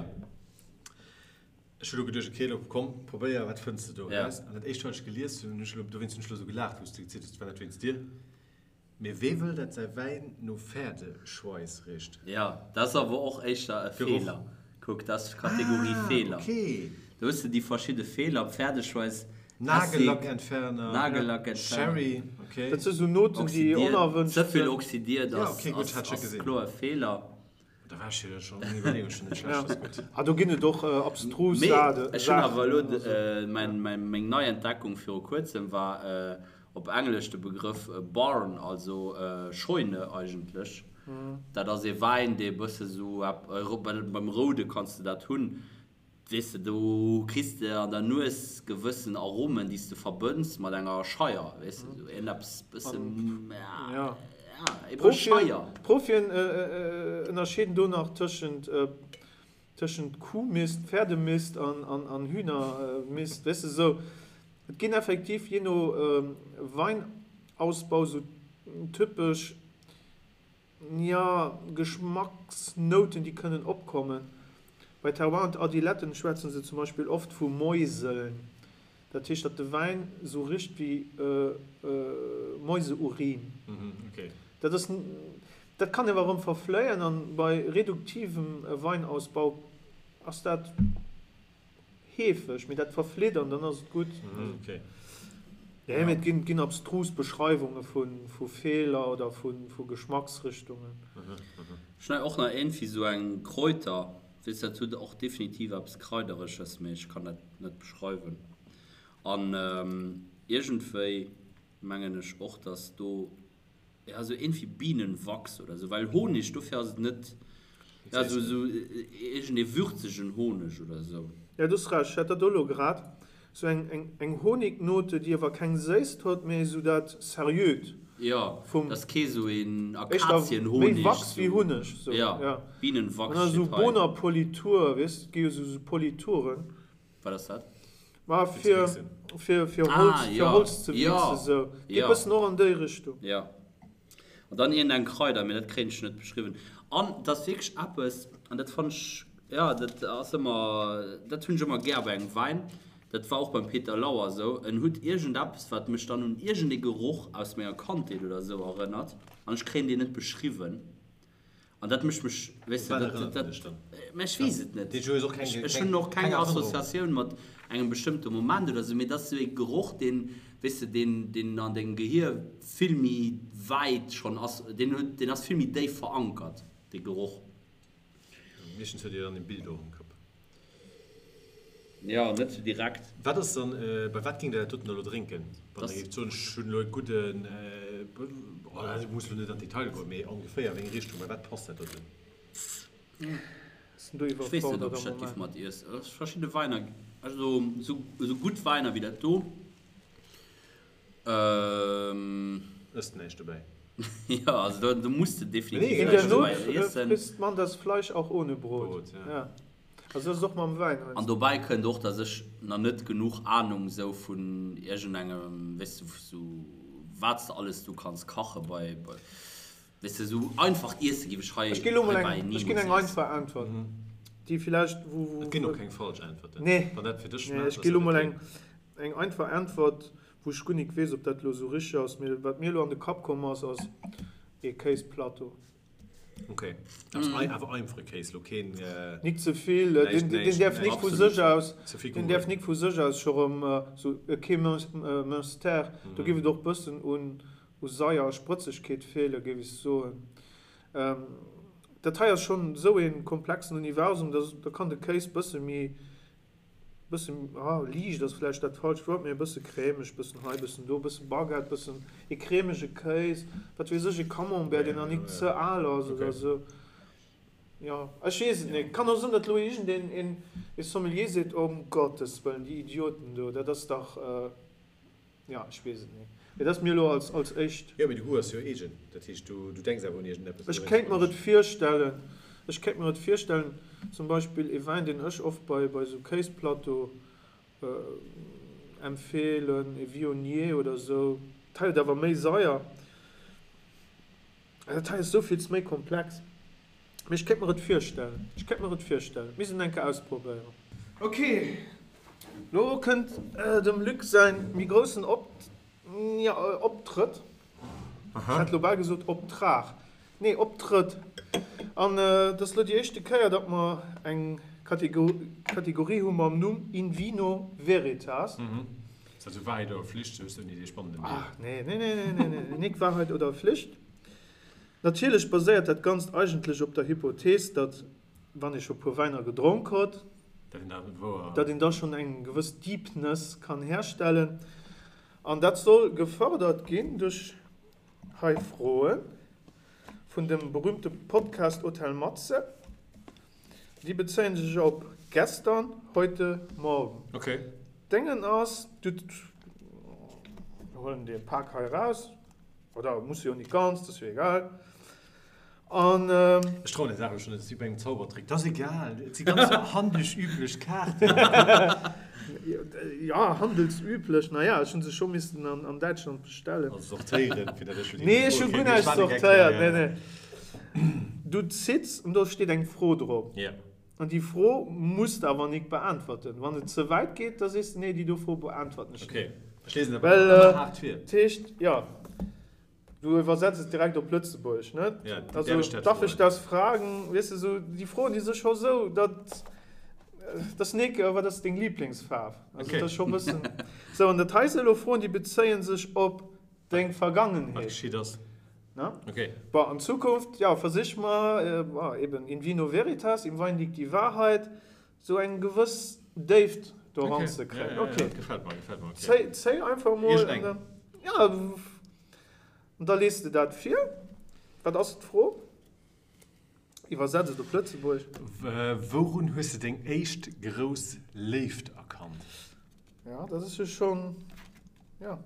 Ech hu lo geduecht, okay, lo komm, probéier, wat fënns de do eraus? An dat éischt, wat ech gelies hunn, hunn ech lo, dowéinst hunn ech lo esou gelaacht, wou s de gezielt hues, et war net wéinst dir. Mee wee wëll dat säi Wäin no Pferdeschweiss richt? Jo, dat ass awer och éischter e Feeler. Kuck, dat ass Kategorie Feeler. Ah, okay. Do hues de déi verschidde Feeler, Pferdeschweiss, Essig, Nagellackentferner, Nagellackentferner, Sherry, okay. Dat si sou Noten, déi onerwënscht sinn. Ze vill oxidiert ass kloer e Feeler. Da war ech jo schon, meng Iwwerleeung schon net schlecht, ass gutt. Ah, do ginn et och abstrus Saachen. Mee ech hunn awer elo, meng nei Entdeckung viru kuerzem war op Englesch de Begrëff Barn, also Scheune eigentlech. Dat ass ee Wäin, dee e bësse sou, beim Roude kanns de dat hunn, Weess de, do kriss de an der Nues gewëssen Aromen, déi s de verbënns mat enger Scheier, weess de, sou iergendeppes bësse, ja, ebe Scheier. D'Profien ënnerscheeden do nach tëschent, tëschent Kuhmist, Pferdemist an Hühnermist, weess de, sou. Et ginn effektiv jee no Weinausbau sou typesch Jo, Geschmacksnouten, déi kënnen opkommen. Bei Terroir und Adiletten schwätzen se zum Beispill oft vu Mäuseln. Dat heescht, datt de Wäin esou richt wéi Mäuseurin. Dat ass, dat kann awer erëm verfléien an bei reduktivem Weinausbau ass dat. Heefeg, mee dat verflitt an dann ass et gutt. Nee, mee et ginn, ginn abstrus Beschreiwunge vu, vu Feeler oder vu, vu Geschmacksrichtungen. Ech hunn och nach iergendwéi sou eng Kräuter, weess dat huet och definitiv eppes Kraidereges, mee ech kann dat net beschreiwen. An iergendwéi mengen ech och, dass do Ja, sou iergendwéi Bienenwachs oder sou, well Honig, dofir ass et net, ja, sou, sou iergendee würzegen Honeg oder sou. Ja, du hues Recht, ech hat dat och elo grad, sou eng, eng, eng Honignote, déi awer keng Séisst huet, mee sou dat Seriöt Jo, vum, dat ass kee sou een éischter méi Akazienhonig, Wachs wéi sou, Hunneg, sou, ja, ja. Bienenwachs An da sou steet hei. Bohnerpolitur, weess, et gi jo sou, sou Polituren. Wat ass dat? Ma fir, fir, fir Holz, fir Holz ze wichsen, sou. Geet bëssen och an déi Richtung. Jo. An dann iergendeng Kraider, mee dat kréien ech net beschriwwen. An et ass wierklech eppes, an dat fannen ech, jo, dat ass ëmmer, dat hunn ech ëmmer gär bei engem Wäin, dat war och beim Peter Lauer esou, en hutt iergendeppes, wat mech dann un iergendee Geroch aus menger Kandheet oder esou erënnert, an ech kréien deen net beschriwwen. An dat mécht mech, weess de, dat, dat, mä ech weess et net. Ech hunn och keng Associatioun mat engem bestëmmte Moment oder esou, mee dat ass esou ee Geroch, deen, weess de, deen, deen an dengem Gehier vill méi wäit schonn ass, deen huet, deen ass vill méi déif verankert, dee Geroch. Meeschtens huet Dir dann e Bild och am Kapp. Jo, net sou direkt. Wat ass dann, bei wat géingt Der dat doten da lo drénken, wann Der géift soen, ech hunn elo e gudden, oh, dat muss elo net an d'Detailer goen, mee ongeféier, wéi eng Richtung, bei wat passt dat doten? Sinn do Ech weess net, iwwerfordert ob ech am dat giff Moment. mat iess. Verschidde Weiner, also sou gutt Weiner wéi dat do, Ësst näischt dobäi. Jo, also do, do muss de definitiv In der näischt Not dobäi iessen. frisst man das Fleisch auch ohne Brot. Brot, ja. Ja. Also dat ass och mam Wäin An heiansdo. dobäi kënnt och, dass ech nach net genuch Ahnung sou vun iergendengem, weess de, sou wat s de alles do kanns kache bei, bei, weess de, sou einfacht Iesse giff ech hei Ech ginn elo mol heibäi eng, ech ginn nimools eng iessen. einfach Äntwert, déi villäicht, wou, wou. Et ginn och keng falsch Äntwerten. Nee. Wann dat fir dech Nee, schmaacht, ech ass gi elo dat mol okay. eng, eng einfach Äntwert, wou ech guer nik weess, ob dat elo sou richteg ass, mee wat mir elo an de Kapp komm ass, ass. Ee Kéisplateau. Ok, awer einfache Kéis, lo keen. Nik ze vill, deen däerf nik vu sech aus, deen däerf nik vu sech aus scho rëm sou e kee Münster, do géif et och bëssen un Saier a Sprëtzegkeet feelen, géif ech soen. Dat hei ass schonn esou ee komplexen Universum, da kann de Kéis bësse méi Bëssen, ah, liicht ass vläicht dat falscht Wuert, mee e bësse crèmeg, bëssen hei, bëssen do, bësse Baguette, bëssen e crèmege Kéis, wat weess ech, e Camembert, deen nach nik ze al ass oder esou. Jo, ech weess et nik. Kann och sinn, datt elo iergendeen een e Sommelier seet, Ëm Gottes Wëllen, déi Idioten do, dat ass dach. Jo, ech weess et net. Mee dat ass mir elo als, als éischt. Jo, mee de Goût ass jo eegen. Dat heescht, du, du denks awer un iergendeppes. Ech kéint mer et virstellen, ech kéint mer et virstellen, zum Beispill ee Wäin, deen ech oft bei, bei esou Kéisplateau empfeelen, ee Viognier oder esou. Dat hei huet awer méi Saier. Dat hei ass esouvills méi komplex. Mee ech kéint mer et virstellen. Ech kéint mer et virstellen. Misst een eng Kéier ausprobéieren. Ok, lo kënnt dem Luc säin méi groussen Optrëtt. Ech hat lo bal gesot Optrag. Nee, Optrëtt. An et ass lo déi éischte Kéier, datt mer eng Kategorie hu mam Numm In Vino Veritas. Ass dat sou Wahrheit oder Pflicht? Sou hues du dee spannenden Deel. Ach nee, nee, nee, nee, nee, nee, nik Wahrheit oder Pflicht. Natierlech baséiert dat Ganzt eigentlech op der Hypothees, datt, wann ee scho puer Wäiner gedronk hott, datt een da schonn eng gewëss Deepness kann herstellen. An dat soll gefërdert ginn duerch hei Froe vun dem berühmte Podcast Hotel Matze. Déi bezéien sech op gestern, heute, morgen. Déngen ass, du huelen dee Pak hei eraus. Oder muss jo nik ganz, dat ass jo egal. An. Ech trauen der Saach elo schon net, et ass wéi bei engem Zaubertrick, dat ass egal, et si ganz handelsüblech Kaarten. Jo, handelsüblech, naja, ech hu se scho missen an Däitschland bestellen. Also sortéieren, fir dat ech jo déi Nee, ech hu guer näischt sortéiert, nee, nee. Du zitts an do steet eng Fro drop. Jo. An déi Fro muss de awer nik beäntwerten. Wann et ze wäit geet, da sees de, nee, déi do Fro beäntwerten ech net. Okay, ech lesen awer ëmmer haart vir. Dat heescht, jo, du iwwersetz et direkt op Lëtzebuergesch, net? Ja, also, darf ich das fragen? Weess de, sou déi Froen, déi si scho sou, datt, dat ass nik, wat ass deng Liblingsfaarf? Also, dat ass scho e bëssen. Sou, an dat hei si elo Froen, déi bezéie sech op Deng Vergangenheet. Wat geschitt ass. Ne? Okay. Bon, an Zukunft, ja, versich mer, bon, eben, in vino veritas, im Wein liegt die Wahrheit, sou eng gewëss Déift do Okay. eranzekréien. Ja, ja, ja, Okay. gefällt mer, gefällt mer, okay. Zéi, zéi einfach mol. Iergendeng. An dann, ja, an da liest de dat vir. Wat ass d'Fro? Iwwersetz et op Lëtzebuergesch. Wourun hues de deng éischt grouss Léift erkannt? Ja, dat ass jo schonn, ja,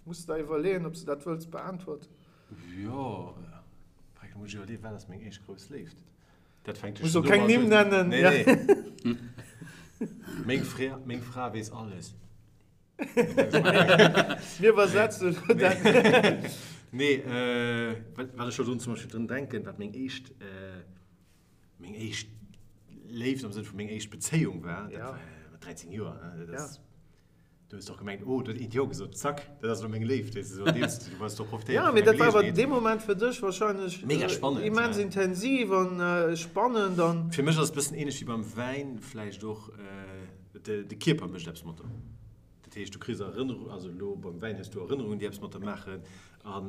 muss de der iwwerleeën, ob s de dat wëlls beäntwerten. Jo, da muss ech iwwerleeën, wat ass meng éischt grouss Léift? Dat fänkt jo schonn domat un. Muss och keng Nimm nennen. Nee, nee. Meng Fra, meng Fra weess alles. Mir iwwersetzen elo dat. Nee, wat ech elo drun zum Beispill drun denken, wat meng éischt, meng éischt Léift am Sënn vu meng éischt Bezéiung war, dat war mat 13 Joer, ne, dat ass, du hues doch gemengt, oh, do huet eent Jo gesot, zack, dat ass elo meng Léift, weess de, sou an deem Stil, du hues doch profitéiert Ja, vun mee der dat war awer Geleegenheet. dee Moment fir dech wahrscheinlech Mega spannend, immens ja. intensiv an spannend an. Fir mech ass et e bëssen ähnlech wéi beim Wäin vläicht och, De Kierper mécht eppes mat der. Dat heescht, du kriss Erënnerungen, also elo beim Wäin hues du Erënnerungen, déi eppes mat der maachen. A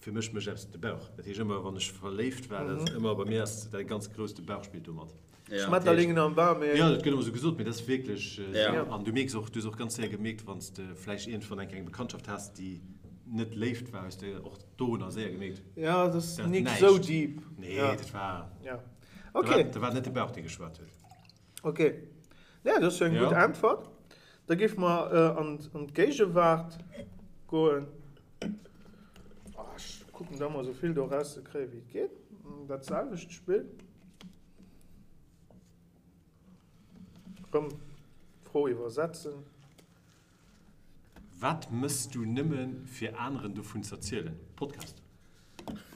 fir mech mécht eppes de Bauch. Dat heescht, ëmmer wann ech verléift war, dat ass ëmmer, bei mir ass dat ganz grouss, de Bauch spillt do mat. Schmetterlingen am Bauch, mee. Jo, dat gëtt ëmmer esou gesot, mee dat ass wierklech esou. An du mierks och, du hues och ganz séier gemierkt, wann s de vläicht iergendwann eng kleng Bekanntschaft has, déi net Léift war, hues de och dorunner séier gemierkt, Jo, dat ass nik esou deep. Nee, dat war, dat war net de Bauch, dee geschwat huet. Ok, ja, dat ass jo eng gutt Äntwert. Da géife mer an d'Géigewaart goen. Ech kucken da mol esou vill do erauszekréien, wéi et geet. Dat selwecht Spill. Erëm d'Fro iwwersetzen. Wat mëss du nëmmen fir aneren dovun z'erzielen? Podcast.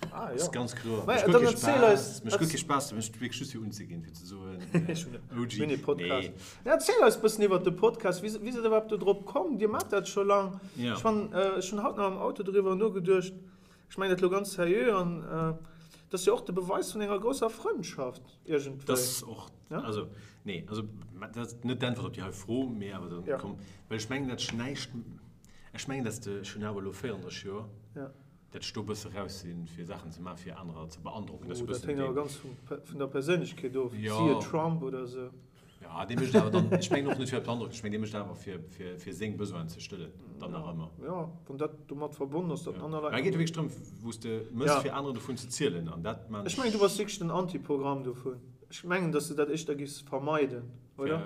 Ah, jo. Ass ganz kloer. Mä Mécht guer dann kee erziel eis. Spaass. Mécht guer kee Spaass, mécht wierklech just fir unzeginn, fir ze soen, Ech hunn e OG. Mini-Podcast. Nee. Ja, erziel eis bëssen iwwert de Podcast. Wéi wéi sidd der iwwerhaapt do drop komm? Dir maacht dat scho lang. Ja. Ech fannen, ech hunn haut nach am Auto doriwwer nogeduecht. Ech mengen dat elo ganz seriö an dat ass jo och de Beweis vun enger grousser Frëndschaft iergendwéi. Dat ass och, also nee, also dat ass net d'Äntwert op déi hei Fro, mee awer dann komm, well ech mengen dat ech näischt, ech mengen dat de, ech hunn awer elo 34 Joer, dat ech do e bësse raus sinn, fir Saachen ze maachen, fir anerer ze beandrocken. Dat ass e Oh, dat bëssen héngt awer deen. ganz vun der Perséinlechkeet of, siehe Trump oder esou. Ja, dee mécht awer dann, ech mengen och net fir beandrocken, ech mengen dee mécht awer fir, fir, fir seng Besoinen ze stëllen, dann nach ëmmer. Ja, wann dat domat verbonnen ass, datt aner Leit. Mä et geet jo wierklech drëm, wou s de mëss, fir anerer dovun ze zielen an dat maan ech. Ech mengen, du bass wierklech den Antiprogramm dovun. Ech mengen, datt s de dat éischter giffs vermeiden, oder?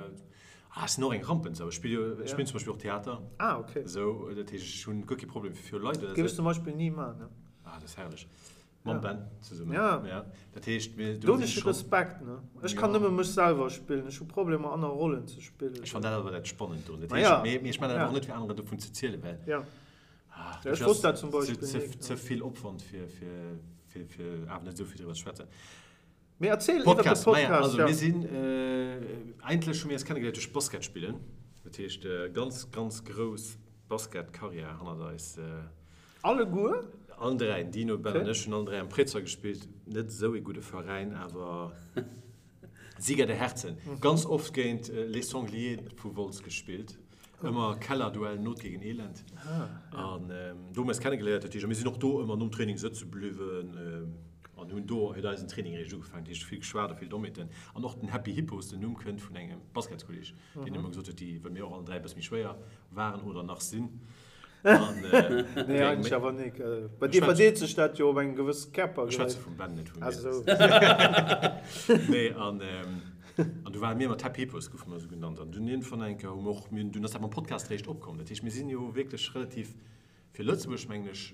Ah, ech sinn och eng Rampensau. Ech spille jo, ech spillen zum Beispill och Theater. Ah, okay. Esou, dat heescht, ech hunn guer kee Problem fir viru Leit oder esou. Géif ech zum Beispill ni maachen, ne? Ah, dat ass herrlech. Mam Ben zesummen. Ja. Ja. Dat heescht, mir do hunn ech Respekt, ne? Ech kann nëmme mech selwer spillen. Ech hu Problemer, aner Rollen ze spillen. Ech fannen dat awer dat Spannend dorun. Dat heescht, mee, mee ech maachen dat och net, fir aneren dovun ze zielen, well. Ja. Ah, ech wosst dat zum Beispill ze, ze, ze vill Opwand, fir, fir, fir, fir awer net esou vill driwwer ze schwätzen. Mee erziel iwwer de Podcast. Maja, also mir sinn, eigentlech hu mir eis kennegeléiert duerch Basket spillen. Dat heescht, ganz, ganz grouss Basket-Karriär hannert eis. Alleguer? Allen dräi, den Dino, Ben an ech hunn allen dräi am Préizerdaul gespillt. Net esou ee gudde Veräin, awer Sieger der Herzen. Ganz oft géint Les Sangliers vu Wolz gespillt. Ëmmer Kellerduell, Not gegen Elend. An do hu mir eis kennegeléiert. Dat heescht, a mir sinn och do ëmmer nom Training sëtze bliwwen an hunn do huet eisen Training eréischt ugefaangen. Dat heescht, vill geschwat a vill Dommheeten. An och den Happy Hippos, den Numm kënnt vun engem Basketskolleeg, deen ëmmer gesot huet, déi, well mir och allen dräi e bësse méi schwéier waren oder nach sinn, Nee, eigentlech awer nik. Bei dir verdeelt sech dat jo op eng gewëss Kierpergréisst. Ech schwätze vum Ben, net vu mir. Nee, an an du ware mir mat Happy Hippos, goufe mer esou genannt. An dunn iergendwann eng Kéier hu mer och, mir hunn, dunn ass dat mam Podcast eréischt opkomm. Dat heescht, mir sinn jo wierklech relativ, fir Lëtzebuerg mengen ech,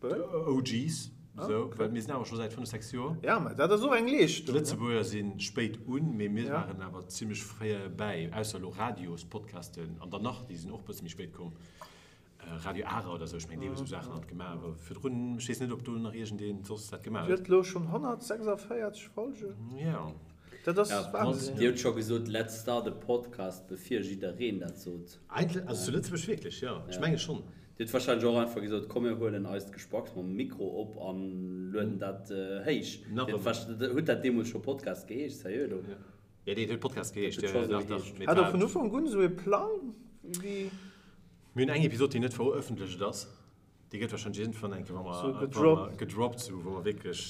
OGs, esou, well mir sinn awer scho säit 5, 6 Joer. Ja, mä dat ass och eng Leeschtung. D'Lëtzebuerger si spéit un, mee mir waren awer zimmlech fréi bäi, ausser elo Radiospodcasten an dann nach, déi sinn och e bësse méi spéit komm, Radio Ara oder esou, ech mengen, déi hu sou Saachen alt gemaach, awer virdrun, ech weess net, ob do nach iergendeen soss dat gemaach huet. Dir hutt elo schonn 146 Folgen? Jo. Dat ass Wahnsinn. Dir hutt scho gesot, Let's start a podcast, bevir jiddereen dat sot. Eigentlech, also zu Lëtzebuerg wierklech, jo, ech menge schonn. Dir hutt wahrscheinlech och einfach gesot, komm mir huelen eist Gespacks mam Mikro op an lueden dat héich. Nach ëmmer. Huet dat deemools scho Podcast geheescht? Seriö elo? Jo, dat huet Podcast geheescht, jo, jo, dach, dach. Hat der vun Ufank un esou ee Plang wéi? Mir hunn eng Episod, déi net verëffentlecht ass. Déi gëtt wahrscheinlech iergendwann eng Kéier, wa mer, wa mer gedroppt, sou wou mer wierklech,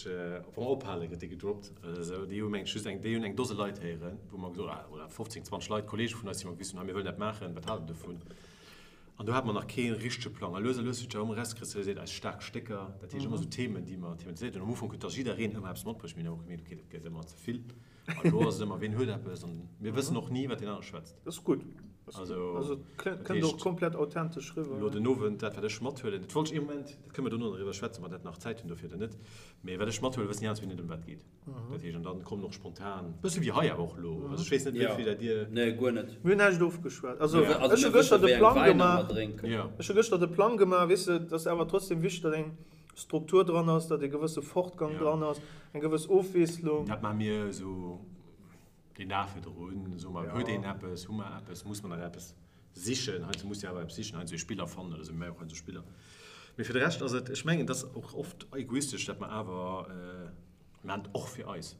wa mer ophalen, gëtt déi gedroppt oder esou. Déi hu meng ech just eng, déi hunn eng Dose Leit héieren, wou mer gesot, oder 15, 20 Leit, Kollege vun eis, déi mer gewisen hunn, hei mir wëllen dat maachen, wat haalt der dovun? An do hate mer nach kee richtege Plang. A lues a lues huet sech awer ëmmer erauskristalliséiert, eis staark Stécker, dat heescht ëmmer esou Themen, déi mer thematiséiert hunn. Am Ufank huet da jiddereen ëmmer eppes matbruecht. Mir hunn awer och gemierkt, okay, dat gëtt ëmmer ze vill. An elo ass et ëmmer, ween huet eppes? An mir wëssen och ni, wat deen anere schwätzt. Dat ass gutt. Also, Also et kënnt och komplett authentesch riwwer. Elo den Owend, dat wat ech mathuelen, dat wollt ech ee Moment, dat kënne mer dono nach driwwer schwätzen, ob mer dat nach Zäit hunn dofir oder net, mee wat ech mathuelen, wëssen déi aner zwee net, ëm wat et geet. Dat heescht, an dann kommen och spontan, bësse wéi hei awer och elo, also ech weess net, wéi vill dat Dir. Nee, guer net. Mir hunn näischt ofgeschwat. Also ech hu gëschter de Plang gemaach, ech hu gëschter de Plang gemaach, weess de, et ass awer trotzdem wichteg, datt eng Struktur dran ass, datt e gewësse Fortgang dran ass, eng gewëss Ofwiesslung. Dat maache mir esou deen Dag virdrun, soe mer, huet een eppes, hu mer eppes, muss mer nach eppes sichen, heiansdo muss de awer eppes sichen, heiansdo ee Spiller fannen oder esou, mir maache och heiansdo Spiller. Mee fir de Rescht ass et, ech mengen, et ass och oft egoistesch, dat mer awer, mir maachen et och fir eis,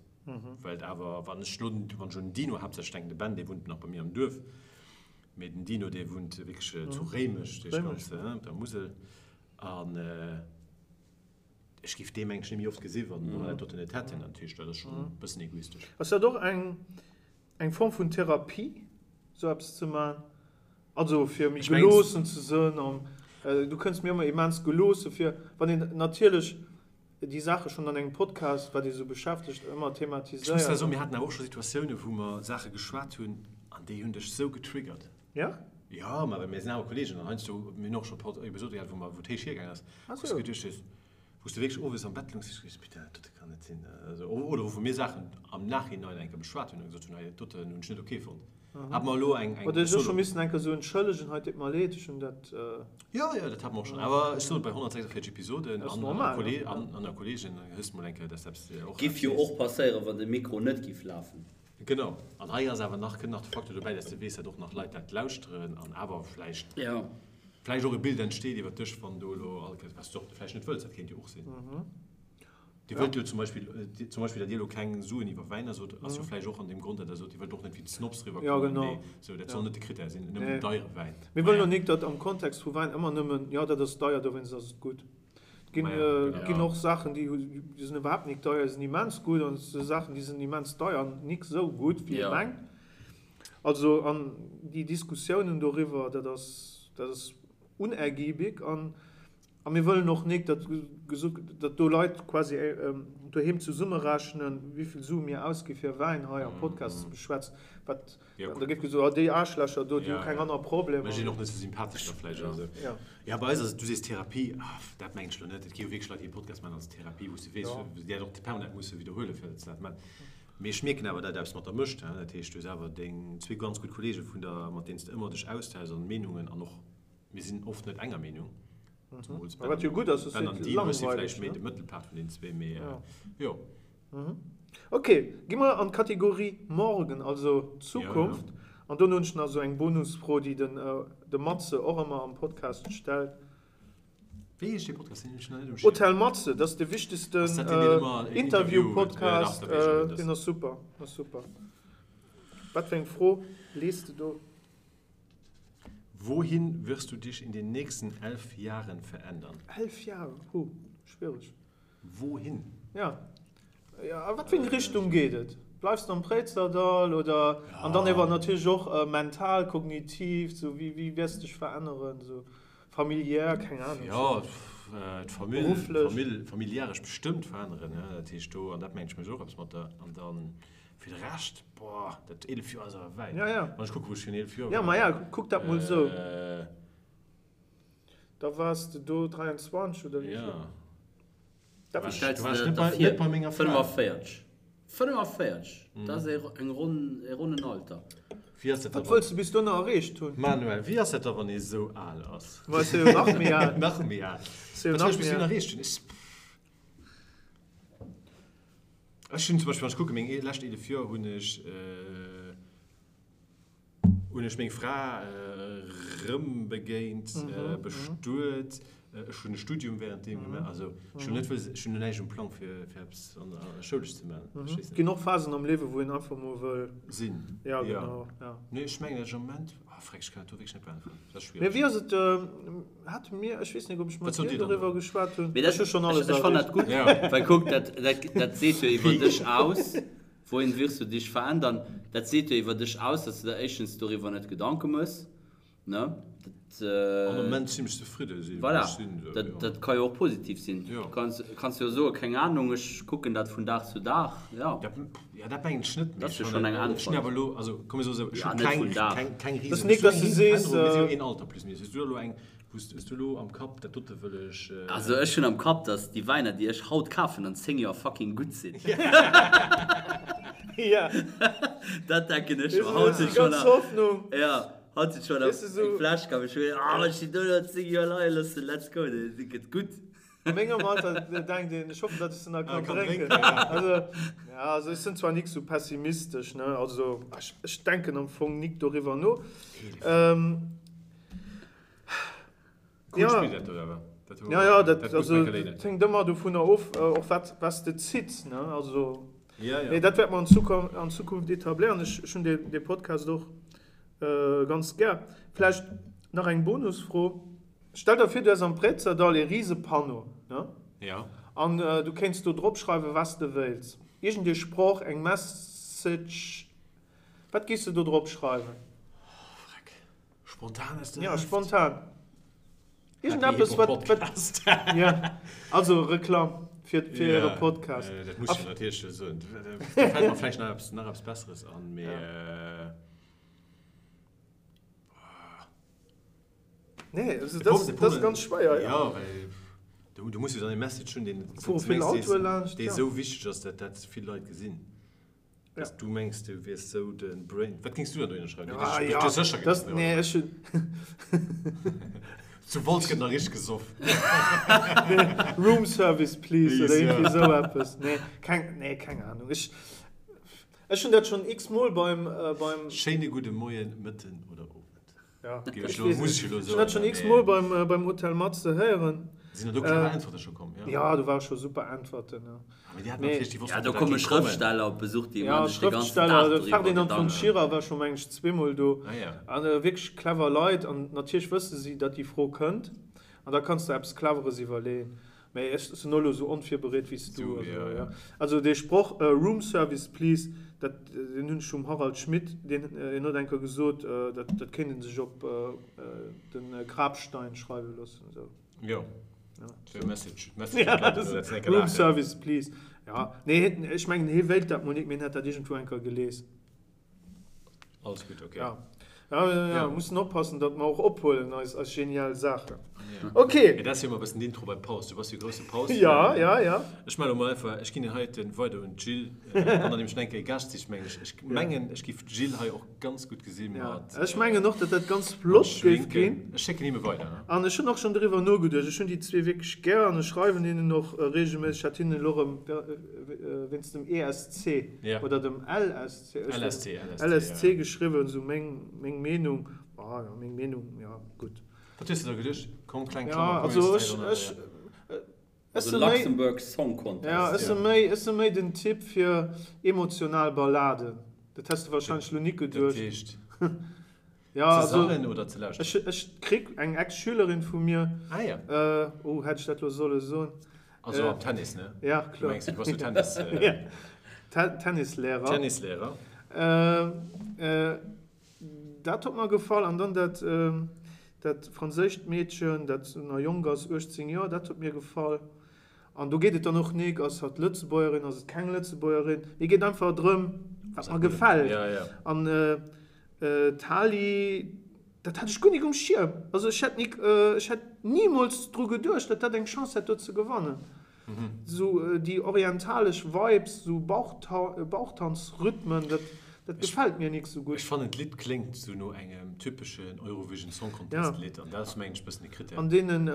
well et awer, wann ech elo, wann ech un den Dino haaptsächlech denken, de Ben, dee wunnt nach bei mir am Duerf, mee den Dino, dee wunnt wierklech zu Réimech, dee ganz op der Musel, an ech géif dee mengen ech net méi oft gesi wann mer dat doten net hätten. Dat heescht, dat ass schonn e bëssen egoistesch. Ass dat och eng Eng Form vun Therapie, sou eppes ze man? Also fir méi geloossen ze sënn an du kënns mir ëmmer immens geloosse vir, wann een natierlech déi Saache schonn an engem Podcast, wat ee sou beschäftegt, ëmmer Ech muss thematiséiert. zwar soen, mir haten awer och scho Situatioune wou mer Saache geschwat hunn an déi hunn dech sou getriggert. Ja? Jo, ma well mir sinn awer Kollegen an heiansdo, mir hunn och scho Pod Episode gehat, wou mer, wou et héich hiergaang ass, wou s du geduecht hues, Wou s de wierklech owes am Bett loungs, hues geduecht, Putain, dat dote kann net sinn. Also, oder wou mir Saachen am Nachhinein eng Kéier beschwat hunn a gesot hunn, hei, dat doten hunn ech net ok fonnt. Hat mer elo eng, eng Oder ech och scho missen eng Kéier sou entschëllegen, hei, deet mer leed, ech hunn dat. Jo, jo, dat hat mer och schonn. Awer ech soen, bei 146 Episoden an der, an der Kolleegen hues de mol eng Kéier, dass eppes och. Giff jo och passéieren, wann de Mikro net giff lafen. Genau. An hei ass awer nach, kënnt nach de Facteur dobäi, dass de weess, dat och nach Leit dat lauschteren an awer vläicht. Jo. Vläicht och e Bild entsteet iwwer dech, wann do elo all Kéiers, wat s du och vläicht net wëlls, dat kéint jo och sinn. Dir wëllt jo zum Beispill, zum Beispill, datt Dir elo keng Suen iwwer Wäiner sot, ass jo vläicht och an deem Grond, datt Der sot, Dir wëllt och net wéi d'Snobs eriwwerkommen, mee sou, dat soll net de Krittär sinn, nëmmen den deiere Wäin. Mir wëllen och nik, datt am Kontext vu Wäin ëmmer nëmmen, jo, dat ass deier, dowéinst ass et gutt. Et ginn, et ginn och Saachen, déi sinn iwwerhaapt nik deier, déi sinn immens gutt, an et si Saachen, déi sinn immens deier an nik sou gutt, wéi ee mengt. Also, an déi Diskussiounen doriwwer, dat ass, dat ass unergiebig. An, a mir wëllen och nik, datt gesot, datt do Leit quasi doheem zesummerechnen, wéivill Sue mir ausgi fir Wäin hei am Podcast ze beschwätzen. Wat, an da géif gesot, ah déi Aarschlächer do, déi hu keng aner Problemer. Mécht een och net sou sympathesch da vläicht oder sou. Jo, bei eis ass et, du sees Therapie, ah, dat mengen ech elo net. Et gi jo wierklech Leit, déi e Podcast maachen als Therapie, wou s de weess, déi dat och permanent musse widderhuelen, fir datt se dat maachen. Mee ech mierken awer, dat eppes mat der mécht. Dat heescht, du hues awer deng zwee ganz gutt Kollege vun der, mat deenen s de ëmmer dech austauschs an Meenungen an och, mir sinn oft net enger Meenung, zemools Ben Wat jo gutt ass, Ben an Dean, ech si vläicht méi de Mëttelpart vun deenen zwee, mee jo. Ok, gi mer an d'Kategorie Morgen, also Zukunft. An dono hunn ech nach esou eng Bonusfro, déi den de Matze och ëmmer am Podcast stellt. Wéi heescht dee Podcast? Deen hunn ech nach net um Schierm. Hotel Matze, dat ass de wichtegsten Ass dat deen, deen ëmmer en Interview huet? Interview-Podcast. Deen ass super, ass super. Wat fir eng Fro lees de do? Wohin wirst du dich in den nächsten 11 Jahren verändern? 11 Jahre, huh, schwiereg. Wohin? Ja. Ja, a wat fir eng Richtung geet et? Bleifs de am Préizerdall oder? An dann ewer natierlech och mental, kognitiv, sou wéi, wéi wäers de dech veränneren, sou familiär, keng Ahnung. Jo, d'Famill, Berufflech. Famill, familiäresch bestëmmt veränneren, ja, dat heescht do, an dat mengt ech mécht och eppes mat der, an dann fir de Rescht, boah, dat 11 Joer ass awer wäit. Ja, ja. Wann ech kucke wou ech virun 11 Joer war. Ja, ma ja, kuck dat mol sou. Da waars de do 23 oder wéi vill? Ja. Dat Wéi stells de der dat vir? 45. 45, dat ass eng ronn, e ronnen Alter. Wéi ass dat da Wat wëlls de bis dono erreecht hunn? Manuel, wéi ass dat da wann ee sou al ass? Ma ech si jo nach méi al. Nach méi al. Si jo Wat wëll nach ech bis méi dono al. erreecht hunn? Ech, ech hunn zum Beispill, wann ech kucken, meng lescht 11 Joer hunn ech, Hunn ech meng Fra rëm begéint, bestuet, ech hunn e Studium währenddeem gemaach. Also ech hunn net wëlles, ech hunn näischt um Plang fir fir eppes an der schoulesch ze maachen. Verstees de? Et ginn och Phasen am Liewe wou een einfach mol wëll. Sinn. Ja, genau, ja. Nee, ech mengen, dat ech am Moment, ah freck, ech kann dat do wierklech net beäntweren, dat ass Mee schwiereg. wéi ass et, hate mir, ech weess net, ob ech Wat mat sot dir Dir dann doriwwer do? geschwat hunn, Mee dat, ech hu schonn ech alles ech fannen erreecht. dat gutt, Ja. well kuck, dat dat dat seet jo iwwer dech aus. Wohin wirst du dich verändern? Dat seet jo iwwer dech aus, dass du der éischtens doriwwer net Gedanke mëss, ne? Dat, Am Moment zimmlech zefridde sinn, wou voilà, ech sinn, esou, dat, jo. dat ka jo och positiv sinn. Jo. Du kanns, kanns jo soen, keng Ahnung, ech kucken dat vun Dag zu Dag, jo. Dat, ja, dat mengen ech net, mee Dat ass ech jo schonn fannen, eng ech hunn Äntwert. awer elo, also komm mir soen esou, ech Ja, hu net keng, vun Dag. keng, keng Dat Riesen, ass nik, ech hunn dass eng du riesen sees, Verännerung, mee si jo een Alter plus minus. Hues du elo eng, wou s, hues du elo am Kapp, dat dote wëll ech. Also ech hunn am Kapp, dass déi Wäiner, déi ech haut kafen, an 10 Joer fucking gutt sinn. Ja. Dat denken ech Weess mer. du, Haut déi sinn schon ganz nach, Hoffnung. ja, haut sinn schon nach Weess du, eng sou. Fläsch kaf. Ech hunn, ah, wann ech déi do nach 10 Joer leie loossen, let's go, déi gëtt gutt. A mengem Alter denkt een, ech hoffen, datt ech se nach kann Kann drénken. drénken, ja. Also, ja, also ech sinn zwar nik sou pessimistesch, ne, also ech, ech denken am Fong nik doriwwer no. Ähm, Cool ja. Spill dat do awer. Dat hu Ja, ja, dat, dat muss also, Michael Lehnen. dat hänkt ëmmer dovunner of, äh, och wat, was de zitts, ne, also. Ja, ja. Mee dat wäert mer an Zukunft, an Zukunft etabléieren. Ech, ech hunn dee, dee Podcast och äh, ganz gär. Vläicht nach eng Bonusfro. Stell der vir, du häss am Préizerdall ee rise Panneau, ne? Ja. An du kéints do drop schreiwen, was de wéils. Iergend ee Sproch, eng Message. Wat géifs de do drop schreiwen? Oh, freck. Spontan aus der Ja, Hëft? spontan. Happy Iergendeppes, Hip wat, Hop wat, Podcast. ja. Also Reklamm fir, fir Ja, äre Podcast. äh, dat muss ech jo natierlech soen. Da fält mer vläicht nach eppes, nach eppes Besseres an, mee. Ja. Nee, also De das, Problem, de das ist ganz schweier. Ja, ja well du, du muss jo dann e Message hunn, deen, Fuere vill Autoe laanscht, dee ja. sou wichteg ass, dat dat vill Leit gesinn. Ja. Dass du mengs, du wiers sou de Brain. Wat géings du dann dohinner schreiwen? Ah, Du ja, hues sécher das, Gedanken nee, darüber. ech hunn. Zu Wolz gëtt nach richteg gesoff. Room Service, please, oder Please, irgendwie ja. sou eppes. Nee, keng, nee, keng Ahnung. Ech, ech hunn dat schonn x-mol beim, äh, beim. Schéine gudde Moien, Mëtten oder Owend. Ja. Ech weess net. Ech hunn dat schonn x-mol beim, beim Hotel Matze héieren. Sinn der do clever Äntwerte scho komm? Ja, ja do ware scho super Äntwerten. Ja. Mee déi haten natierlech, déi wossten, Ja, do komme Schrëftsteller op Besuch, déi maache sech de ganzen Dag doriwwer Gedanken. Ferdinand von Schirach war scho, meng ech, zweemol do. Ah, ja. An wierklech clever Leit. An natierlech wësse si, datt déi Fro kënnt. An da kanns de eppes Cleveres iwwerleeën. Mee ech sinn och elo esou onvirbereet wéi s du. Also, ja. Also dee Sproch Room service please, dat, deen hunn ech vum Harald Schmidt, deen, hien huet eng Kéier gesot, dat, dat kéint ee sech op de Grabstein schreiwe loossen. Esou. Jo. Ja. Message. Message. Ja, das, Room service please. Ja, nee, ech mengen, hie wéilt dat mol nik, mee hien hätt dat iergendwou eng Kéier gelies. Alles gutt, ok. Ja. Ja, ja, ja. Ja. Mussen oppassen, datt mer och ophuelen, eis, eis genial Saachen. Ja. Ok. Mee dat ass jo ëmmer e bëssen d'Intro bei Paus. Du bass jo grousse Paus-Fan. Ja, ja, ja. Ech melle mol einfach, ech ginn deen heiten weider un d'Jill. Wann der nämlech nach eng Kéier e Gaascht sicht, mengen ech, ech mengen, ech giff d'Jill hei och ganz gutt gesi mat. Ja. Ech mengen och, datt dat ganz flott géif ginn. Ech schécken him e weider. An ech hunn och schonn doriwwer nogeduecht. Ech hunn déi zwee wierklech gär an ech schreiwen hinnen och reegelméisseg. Ech hat hinnen elo erëm wéinst dem ESC oder dem LSC, LSC, LSC geschriwwen, sou meng, meng Meenung, ah jo, meng Meenung, ja, gutt. Wat hues de da geduecht? Komm, kleng Klammer, komm, also ech, ech, ech si méi, Luxembourg Song Contest. Ja, ech si méi, ech si méi den Typ fir emotional Balladen. Dat häss de wahrscheinlech lo nik geduecht. Dat heescht? Ja, ze sangen oder ze lauschteren? Ech, ech krick eng Ex-Schülerin vu mir. Ah ja. Oh, hätt ech dat lo solle soen? Also am Tennis, ne? Ja, kloer. Du mengs, du bass jo Tennis. Ja, Tennislehrer. Tennislehrer. Dat huet mer gefall. An dann dat, dat franséischt Meedchen, dat nach jonk ass, 18 Joer, dat huet mir gefall. An do geet et dann och nik, ass hatt Lëtzebuergerin, ass et keng Lëtzebuergerin. Mir geet einfach drëm, wat mer gefält. Ja, ja. An d'Tali, dat hat ech guer nik um Schierm. Also ech hätt nik, ech hätt nimools dru geduecht, datt dat eng Chance hätt do ze gewannen. Sou déi orientalesch Vibes, sou Bauchtanzrhythmen, dat dat gefält mir nik sou gutt. Ech fannen d'Lidd kléngt sou no engem typeschen Eurovision Song Contest Lidd an dat ass mengen ech bëssen de Critère. An deenen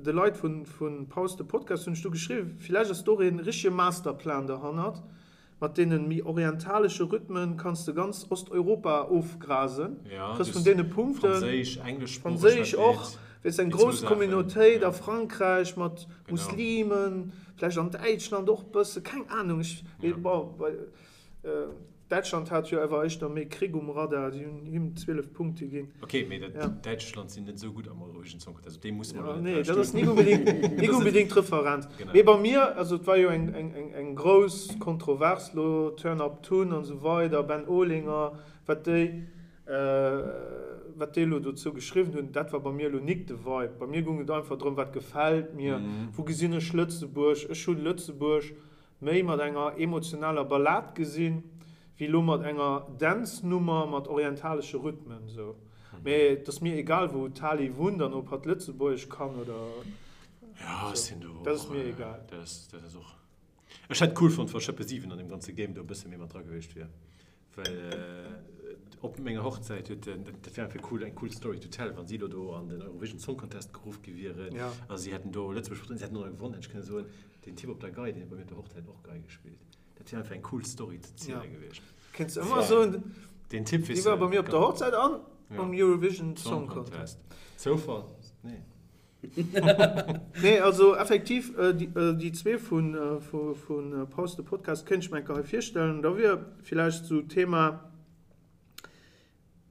de Leit vun Pause de Podcast hunn ech du geschriwwen, villäicht ass do och een richtege Masterplan derhannert, Mat deenen méi orientalesche Rhythmen kanns de ganz Osteuropa ofgrasen, kriss vun deene Punkten, Franséisch, engleschsproocheg, Franséisch och, weess eng grouss Communautéit a Frankräich mat Muslimen, vläicht an Däitschland och bësse, keng Ahnung, ech, bon, bei Däitschland hat jo awer éischter méi Krick um Radar, déi hunn him 12 Punkte ginn. Ok, mee dat Däitschland sinn net esou gutt am Eurovision Song Contest, op déi musse mer elo net Nee, dat ass nik unbedingt, nik unbedingt d'Referenz. Mee bei mir, also et war jo eng, eng, eng, eng grouss Kontrovers lo, Turn Up Tun an esou weider, Ben Olinger, wat déi, wat déi elo dozou geschriwwen hunn, dat war bei mir elo nik de Vibe. Bei mir goung et einfach drëm, wat gefält mir, wou gesinn ech Lëtzebuerg? Ech hunn Lëtzebuerg méi mat enger emotionaler Ballad gesinn, wéi lo mat enger Dance-Nummer mat orientalesche Rhythmen sou. Mee et ass mir egal wou d'Tali wunnt an ob hatt Lëtzebuergesch kann oder sou, dat ass mir egal. Dat ass och. Ech hätt cool fonnt wa Schëppe 7 an deem ganze Game do e bësse méi mat dra gewiescht wier. Well op menger Hochzäit huet den, dat wär einfach cool, eng cool Story to tell, wann si elo do an den Eurovision Song Contest geruff gi wieren a si hätten do Lëtzebuerg vertrueden, si hätten och nach gewonnen, hätt ech kënne soen, den Typ op der Gei, deen huet bei mir op der Hochzäit och Gei gespillt. Dat wär einfach eng cool Story ze ziele gewiescht. Kéints ëmmer soen, Den Typ, weess dee war bei mir op der Hochzäit an um Eurovision Song Contest. Zoufall? Nee. Nee, also effektiv, déi zwee vu Pause de Podcast kéint ech mer eng Kéier hei virstellen. Da wier villäicht esou d'Thema,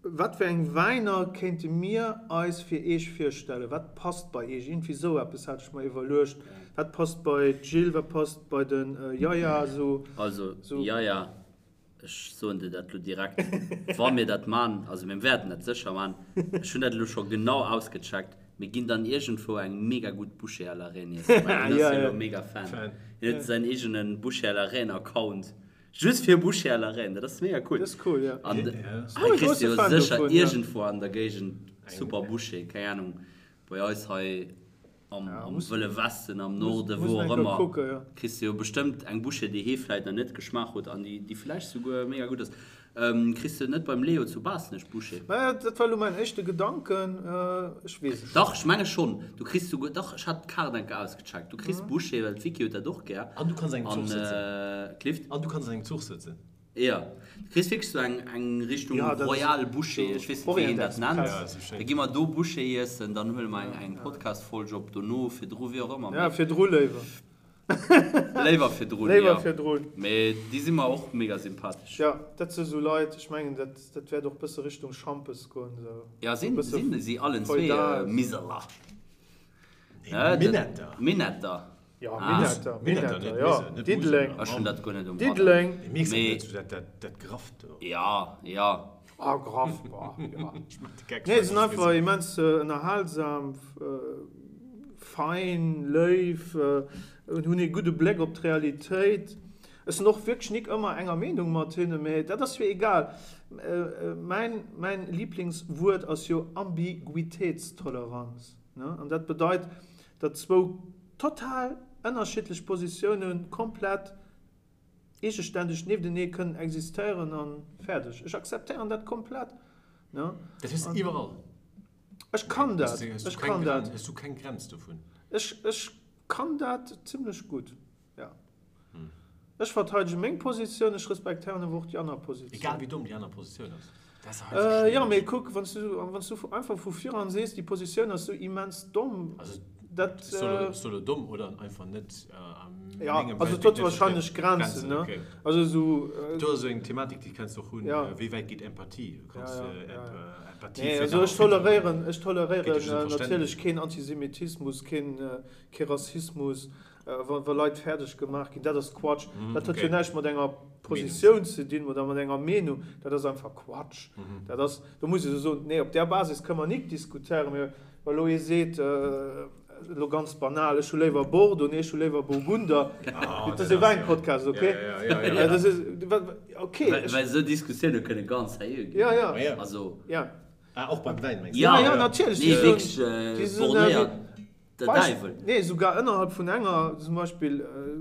Wat fir eng Wäiner kéinte mir eis fir Eech virstellen? Wat passt bei Eech? Iergendwéi esou eppes hat ech mer iwwerluecht. Wat passt bei d'Jill, wat passt bei de Yaya? Esou. Also Yaya, Ech soen dir dat elo direkt, wa mir dat man, also mir wäerten dat sécher man, ech hunn dat elo scho genau ausgecheckt, mir ginn dann iergendwou eng mega gutt Bouchée à la reine iessen, well hien ass jo elo mega Fan. Hien huet säin eegene Bouchée à la reine Account, just fir Bouchée à la reine, dat ass mega cool. Dat ass cool, jo. An hei kriss de jo sécher iergendwou an der Géigend super Bouchée, keng Ahnung, bei eis hei Am Wëlle Westen, am Norden, wou och ëmmer, kriss de jo bestëmmt eng Bouchée, déi hee vläit nach net geschmaach huet an déi vläicht souguer mega gutt ass. Kriss de net beim Leo zu Baaschtnech Bouchée? Maja, dat war elo mäin éischte Gedanken, ech weess et net. Dach, ech menge schonn. Du kriss souguer, dach, ech hat d'Kaart eng Kéier ausgecheckt. Du kriss Bouchée, well d'Vicky huet dat och gär. An du kanns an engem Zuch sëtzen. Clift? An du kanns an engem Zuch sëtzen. Jo, du kriss wierklech sou eng eng Richtung Ja, dat ass Royal Bouchée, sou ech weess net wéi een Orient dat nennt. Ja, sou Da schéin. gi mer do Bouchée iessen, dann huele mer eng eng Podcast-Folg op dono, virdru, wéi och ëmmer, Ja, mee virdru léiwer. léiwer virdrun, Léiwer jo. virdrun. Mee déi si mer och mega sympathesch. Ja, dat si sou Leit, ech mengen, dat dat wäert och bësse Richtung Schampes goen, sou. Ja, Sou sinn bësse sinn si allen zwee feudal, sou. Miseler? Nee, Ne, dat Minetter. Minetter. Ja, Ah. Minetter, Minetter, Minetter, net ja. Mise, net Diddeleng. Museler. Ech hunn dat guer net um Radar. Diddeleng. Mee mierks Mee- net, dat, dat, dat Grafft do. Ja, ja. Ah, graff, boah, ja. Ech mach de Geck. Nee, se sinn einfach immens ënnerhalsam, fein, léif, hunn ee gudde Bléck op d'Realitéit. Ech sinn och wierklech nik ëmmer enger Meenung mat hinne, mee dat ass jo egal. Mäin, mäin Liblingswuert ass jo Ambiguitéitstoleranz, ne? An dat bedeit, datt zwou total ënnerschiddlech Positiounen komplett eegeständeg nieftenee kënnen existéieren a fäerdeg. Ech akzeptéieren dat komplett, ne? Dat hues de iwwerall. Ech kann dat, ech kann dat. Hues du keng Grenz dovun? Ech, ech kann dat zimlech gutt, ja. Ech verteidege meng Positioun, ech respektéieren awer och déi aner Positioun. Egal wéi domm déi aner Positioun ass. Dat ass heiansdo schwiereg. Jo, mee kuck, wann s du, wann s du einfach vu viran sees, déi Positioun ass sou immens domm, Also, dat. ass do, ass do elo domm oder einfach net a Ja, mengem also et Weltbild huet net wahrscheinlech vertrieden? Grenzen, Grenzen, ne? okay. Also sou. Do ass esou eng Thematik, déi kenns de och hunn, Ja. wéi wäit geet Empathie? Du Ja, kanns ja, ja, ja. Empathie Nee, fir also en ech anere Filter hunn. toleréieren, ech Geet jo toleréieren just ëm natierlech Verständnis. keen Antisemitismus, keen, kee Rassismus, Wa Leit fäerdeg gemaach ginn, dat ass Quatsch. Dat huet jo näischt mat enger Positioun ze dinn oder mat enger Meenung. Dat ass einfach Quatsch. Dat ass, do muss ee soen, nee, op där Basis kënne mer nik diskutéieren. Mee wa elo ee seet, elo ganz banal, ech hu léiwer Bordeaux, nee, ech hu léiwer Burgunder, dat ass e Wäinpodcast, okay? Dat ass, okay. Well esou Diskussioune kënne ganz seriö ginn. Ja, ja. Also. Ja. Ah, och beim Wäin, mengs du? Ja, ja, natierlech. Nee, wierklech bornéiert. Der Däiwel. Nee, sougar ënnerhalb vun enger, zum Beispill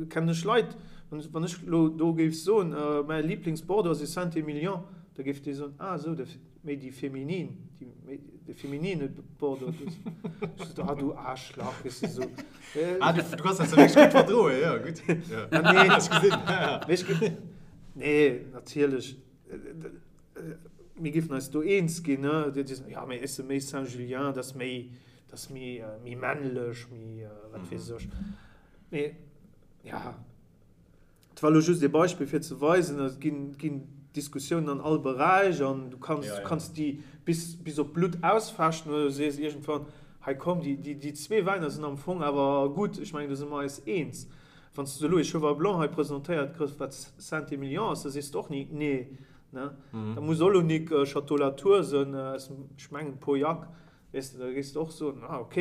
kennen ech Leit, wann ech elo do géif soen, mäi Liblingsbordeaux ass e Saint-Émilion, da géif dee soen, ah esou, de méi déi feminin, déi méi de feminine Bordeaux. Ech sot, ah du Aarschlach, weess de esou. Ah, du kanns dat wierklech gutt verdroen, jo, gutt. Ah nee, Ech gesinn. mee ech ge-, nee, natierlech, mir géifen eis do eens ginn, ne, déi soen, jo, mee ech si méi Saint-Julien, dat ass méi, Dat ass méi, méi männlech, méi wat weess ech. Mee ja, et war elo just ee Beispill fir ze weisen, et ginn, ginn Diskussiounen an all Beräich an du kanns, du kanns déi bis, bis op d'Blutt ausfechten oder du sees iergendwann, hei komm, déi, déi, déi zwee Wäiner sinn am Fong awer gutt, ech mengen do si mer eis eens. Wann s de elo ee Cheval Blanc hei presentéiert kriss, wat Saint-Émilion ass, da sees de och ni nee, ne? Da muss och elo nik Château Latour sënn aus dem, ech mengen Pauillac, Weess de, da géifs de och soen, ah ok,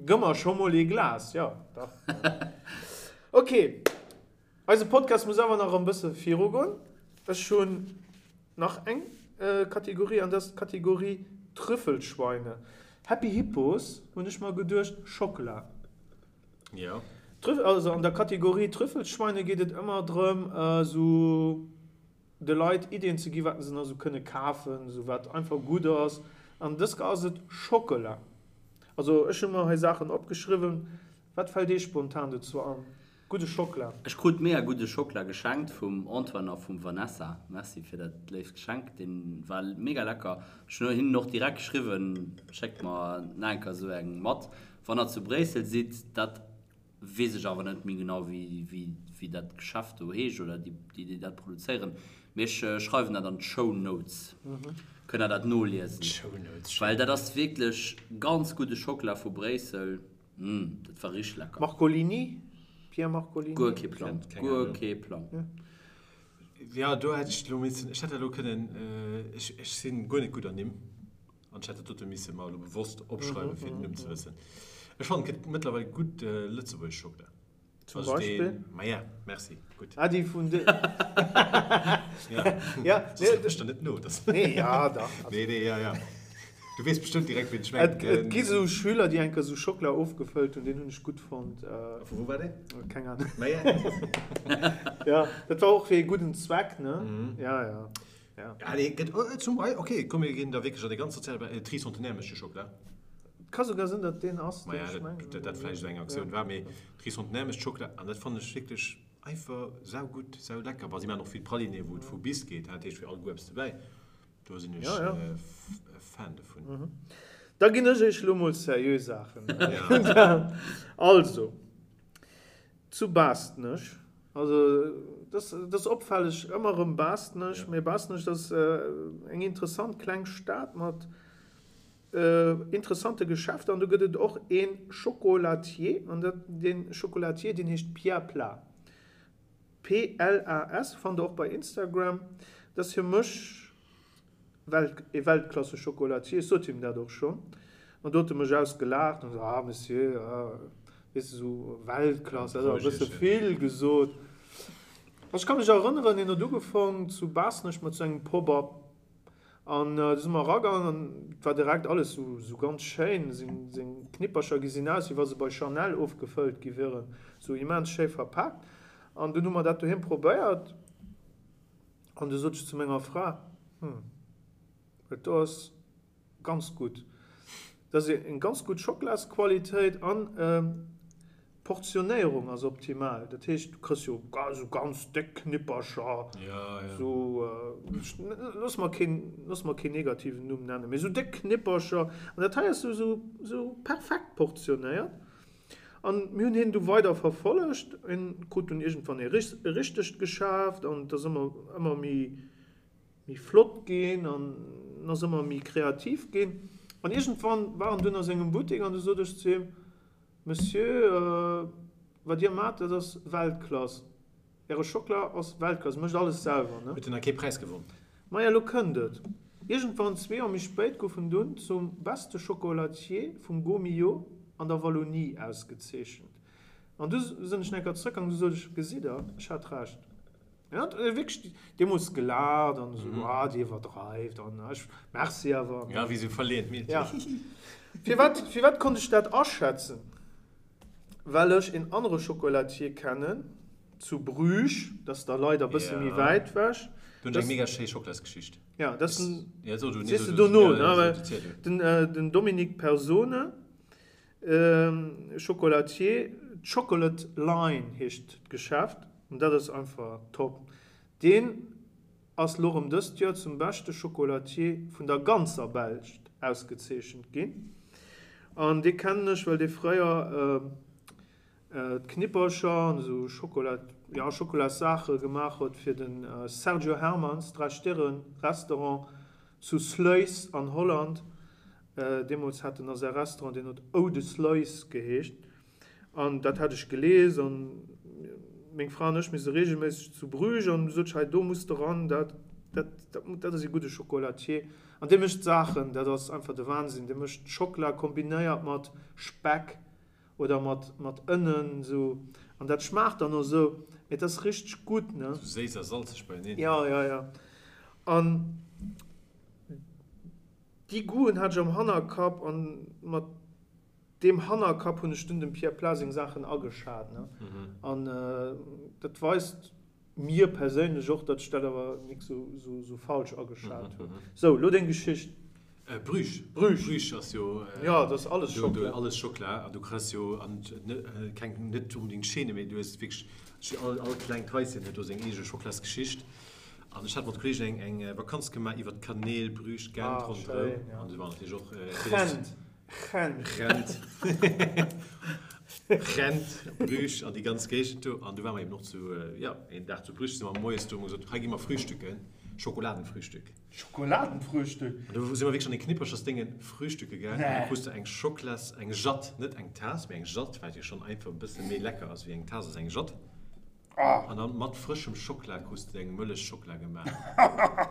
gëmm mer scho mol ee Glas. Jo, dach. Ok, eise Podcast muss awer nach e bësse virugoen. Ech hunn nach eng Kategorie an dat ass d'Kategorie Trüffelschweine. Happy Hippos hunn ech mer geduecht, Schockela. Jo. Also an der Kategorie Trüffelschweine geet et ëmmer drëm, esou de Leit Iddien ze gi wat se nach esou kënne kafen, esou wat einfach gutt ass. An dës Kéier ass et Schockela. Also ech hu mer hei Saachen opgeschriwwen. Wat fält Iech spontan dozou an? Gudde Schockela. Ech krut mega gudde Schockela geschenkt vum Antoine a vum Vanessa. Merci fir dat léift Geschenk, deen war mega lecker. Ech hunn hinnen och direkt geschriwwen, schéckt mer nach eng Kéier esou eng mat wann der zu Bréissel sidd. Dat Weess ech awer net méi genau wéi dat Geschäft do heescht oder déi déi dat produzéieren. Mee ech schreiwen dat an d'Show Notes, kënnt der dat noliesen. Well dat ass wierklech ganz gudde Schockela vu Bréissel. Mmh, dat war richteg lecker. Marcolini? Pierre Marcolini? Guer kee Plang, guer kee Plang. Jo, do hätt ech elo missen, ech hätt dat elo kënnen, ech sinn guer net gutt an Nimm. An ech hätt dat dote misse mer elo bewosst opschreiwen, fir den Numm ze wëssen. Ech fannen, et gëtt mëttlerweil gutt lëtzebuergesch Schockela. Zum Beispill? Maja, merci, gutt. Ah, déi vun de. Ja. Ja, Soss kucken ech der net no. Dass. Nee, ja, dach. Nee, nee, ja, ja. Du weess bestëmmt direkt, wien ech mengen. Et, et gi sou Schüler, déi eng Kéier sou Schockela ofgefëllt hunn, deen hunn ech gutt fonnt. A vu wou war deen? Keng Ahnung. Maja. Ja, dat war och fir ee gudden Zweck, ne? Ja, ja. Ja. Ja, nee, gëtt, oh, zum Beispill, okay, komm, mir ginn da wierklech an de ganz soziale Beräich, Tricentenaire mécht jo Schockela. Et ka souguer sinn, datt deen ass, deen Maja, ech dat, mengen. dat, dat vläicht esou eng Aktioun war, mee Tricentenaire mécht Schockela an dat fannen ech wierklech. Einfach saugutt, saulecker. Bon, si maachen och vill Praliné, wou et vu bis geet, dat heescht fir all Goût eppes dobäi. Do sinn ech e Fan dovun. Da ginn ech iech elo mol seriö Saachen. Also, zu Baastnech, also dat ass opfälleg, ëmmer erëm Baastnech, mee Baastnech, dat ass eng interessant kleng Stad mat interessante Geschäfter an do gëtt et och ee Chocolatier an dat, dee Chocolatier, deen heescht Pierre Plas. PLAS, fannt der och bei Instagram. Dat ass fir mech Welt, ee Weltklasse-Chocolatier. Ech sot him dat och schonn an do huet e mech ausgelaacht an esou, ah Monsieur, ah, weess de, esou Weltklass, dat ass awer e bësse vill gesot. Ech ka mech erënneren, hien huet ugefaangen zu Baasnech mat sou engem Pop-up An du si mer eragaangen an et war direkt alles sou ganz schéin. Seng Knippercher gesinn aus, wéi wa se bei Chanel ofgefëllt gi wieren, sou immens schéi verpaakt. An dunn hu mer dat doheem probéiert an du sot ech zu menger Fra, Hm, dat do ass ganz gutt. Dat ass eng ganz gutt Schocklasqualitéit an d'Portionéierung ass optimal. Dat heescht, du kriss jo esou ganz déck Knippercher, esou, looss mer keen, looss mer keen negativen Numm nennen, mee esou déck Knippercher. An dat hei ass esou, esou perfekt portionéiert. An mir hunn hien du weider verfollegt. Hien krut dunn iergendwann e richtegt Geschäft an et ass ëmmer, ëmmer méi, méi flott ginn an en ass ëmmer méi kreativ ginn. An iergendwann war en dunn a sengem Buttek an du sot ech zu him, Monsieur, wat Dir maacht, dat ass Weltklass. Äre Schockela ass Weltklass. Dir mécht alles selwer, ne? Huet en da kee Präis gewonn? Maja, elo kënnt et. Iergendwann, zwee Joer méi spéit, gouf en dunn zum beste Chocolatier vum Gault-Millau an der Wallonie ausgezeechent. An du sinn ech nach eng Kéier zrëckgaangen, du sot ech, Gesitt Der, ech hat Recht. En hat wierklech deemools gelaacht an esou, ah, déi iwwerdreift an ech, merci awer. Ja, wéi esou verleeënt Meedchen. Ja. Firwat, firwat konnt ech dat aschätzen? Well ech een anere Chocolatier kennen, zu Bruges, dat ass da leider e bësse méi wäit wech. Do hunn ech eng mega schéi Schocklasgeschicht. Ja, dat ass den, sees de dono, ne? Well den, den Dominique Persone, Chocolatier, Chocolate Line heescht d'Geschäft an dat ass einfach top. Deen ass lo rem dëst Joer zum beschte Chocolatier vun der ganzer Belsch ausgezeechent ginn an dee kennen ech well dee fréier d'Knippercher an esou Schokola, jo Schokolas-Saache gemaach huet fir de Sergio Hermans Dräi-Stirren Restaurant zu Sluis an Holland. Deemools hat en a säi Restaurant, deen huet Oude Sluis geheescht, an dat hat ech gelies an meng Fra an ech, mir si reegelméisseg zu Bruges an du sot ech, hei do muss de ran, dat, dat, dat ass ee gudde Chocolatier an dee mécht Saachen, dat ass einfach de Wahnsinn, dee mécht Schockela kombinéiert mat Speck oder mat, mat Ënnen esou an dat schmaacht dann och esou, mee et ass richteg gutt, ne. Sou séiss a salzeg beieneen. Jo, jo, jo an. Déi Goûten hat ech am Hannerkapp an mat deem Hannerkapp hunn ech dunn dem Pierre Plas seng Saachen ageschat. An dat weist mir perséinlech och, datt ech dat awer nik sou falsch ageschat hunn. Sou, lo deng Geschicht. Bruges. Bruges. Bruges ass jo. Jo, dat ass alles Schockela. Alles Schockela an du kriss jo an keng net onbedéngt Chaîne, mee du hues wierklech all klengt Haischen huet do seng eege Schocklasgeschicht. An ech hat mat Kollegen eng eng Vakanz gemaach iwwer d'Kanäl Bruges, Gent Ah, ronderëm. schéin, ja. An do war natierlech och Gent, Gent. Gent. Gent, Bruges an déi ganz Géigend do. An du ware mer eben och zu, jo, een Dag zu Bruges, si mer moies do, hu mer gesot, hei gi mer frühstücken, Schokoladenfrühstück. Schokoladenfrühstück? An do si mer wierklech an ee Knipperchersdénge frühstücke gaangen. An Nee. du krus du eng Schoklas, eng Jatt, net eng Taass, mee eng Jatt, wat jo schonn einfach e bësse méi lecker ass wéi eng Taass, ass eng Jatt. An dann mat frëschem Schockla krus de deng Mëllechschockla gemaach.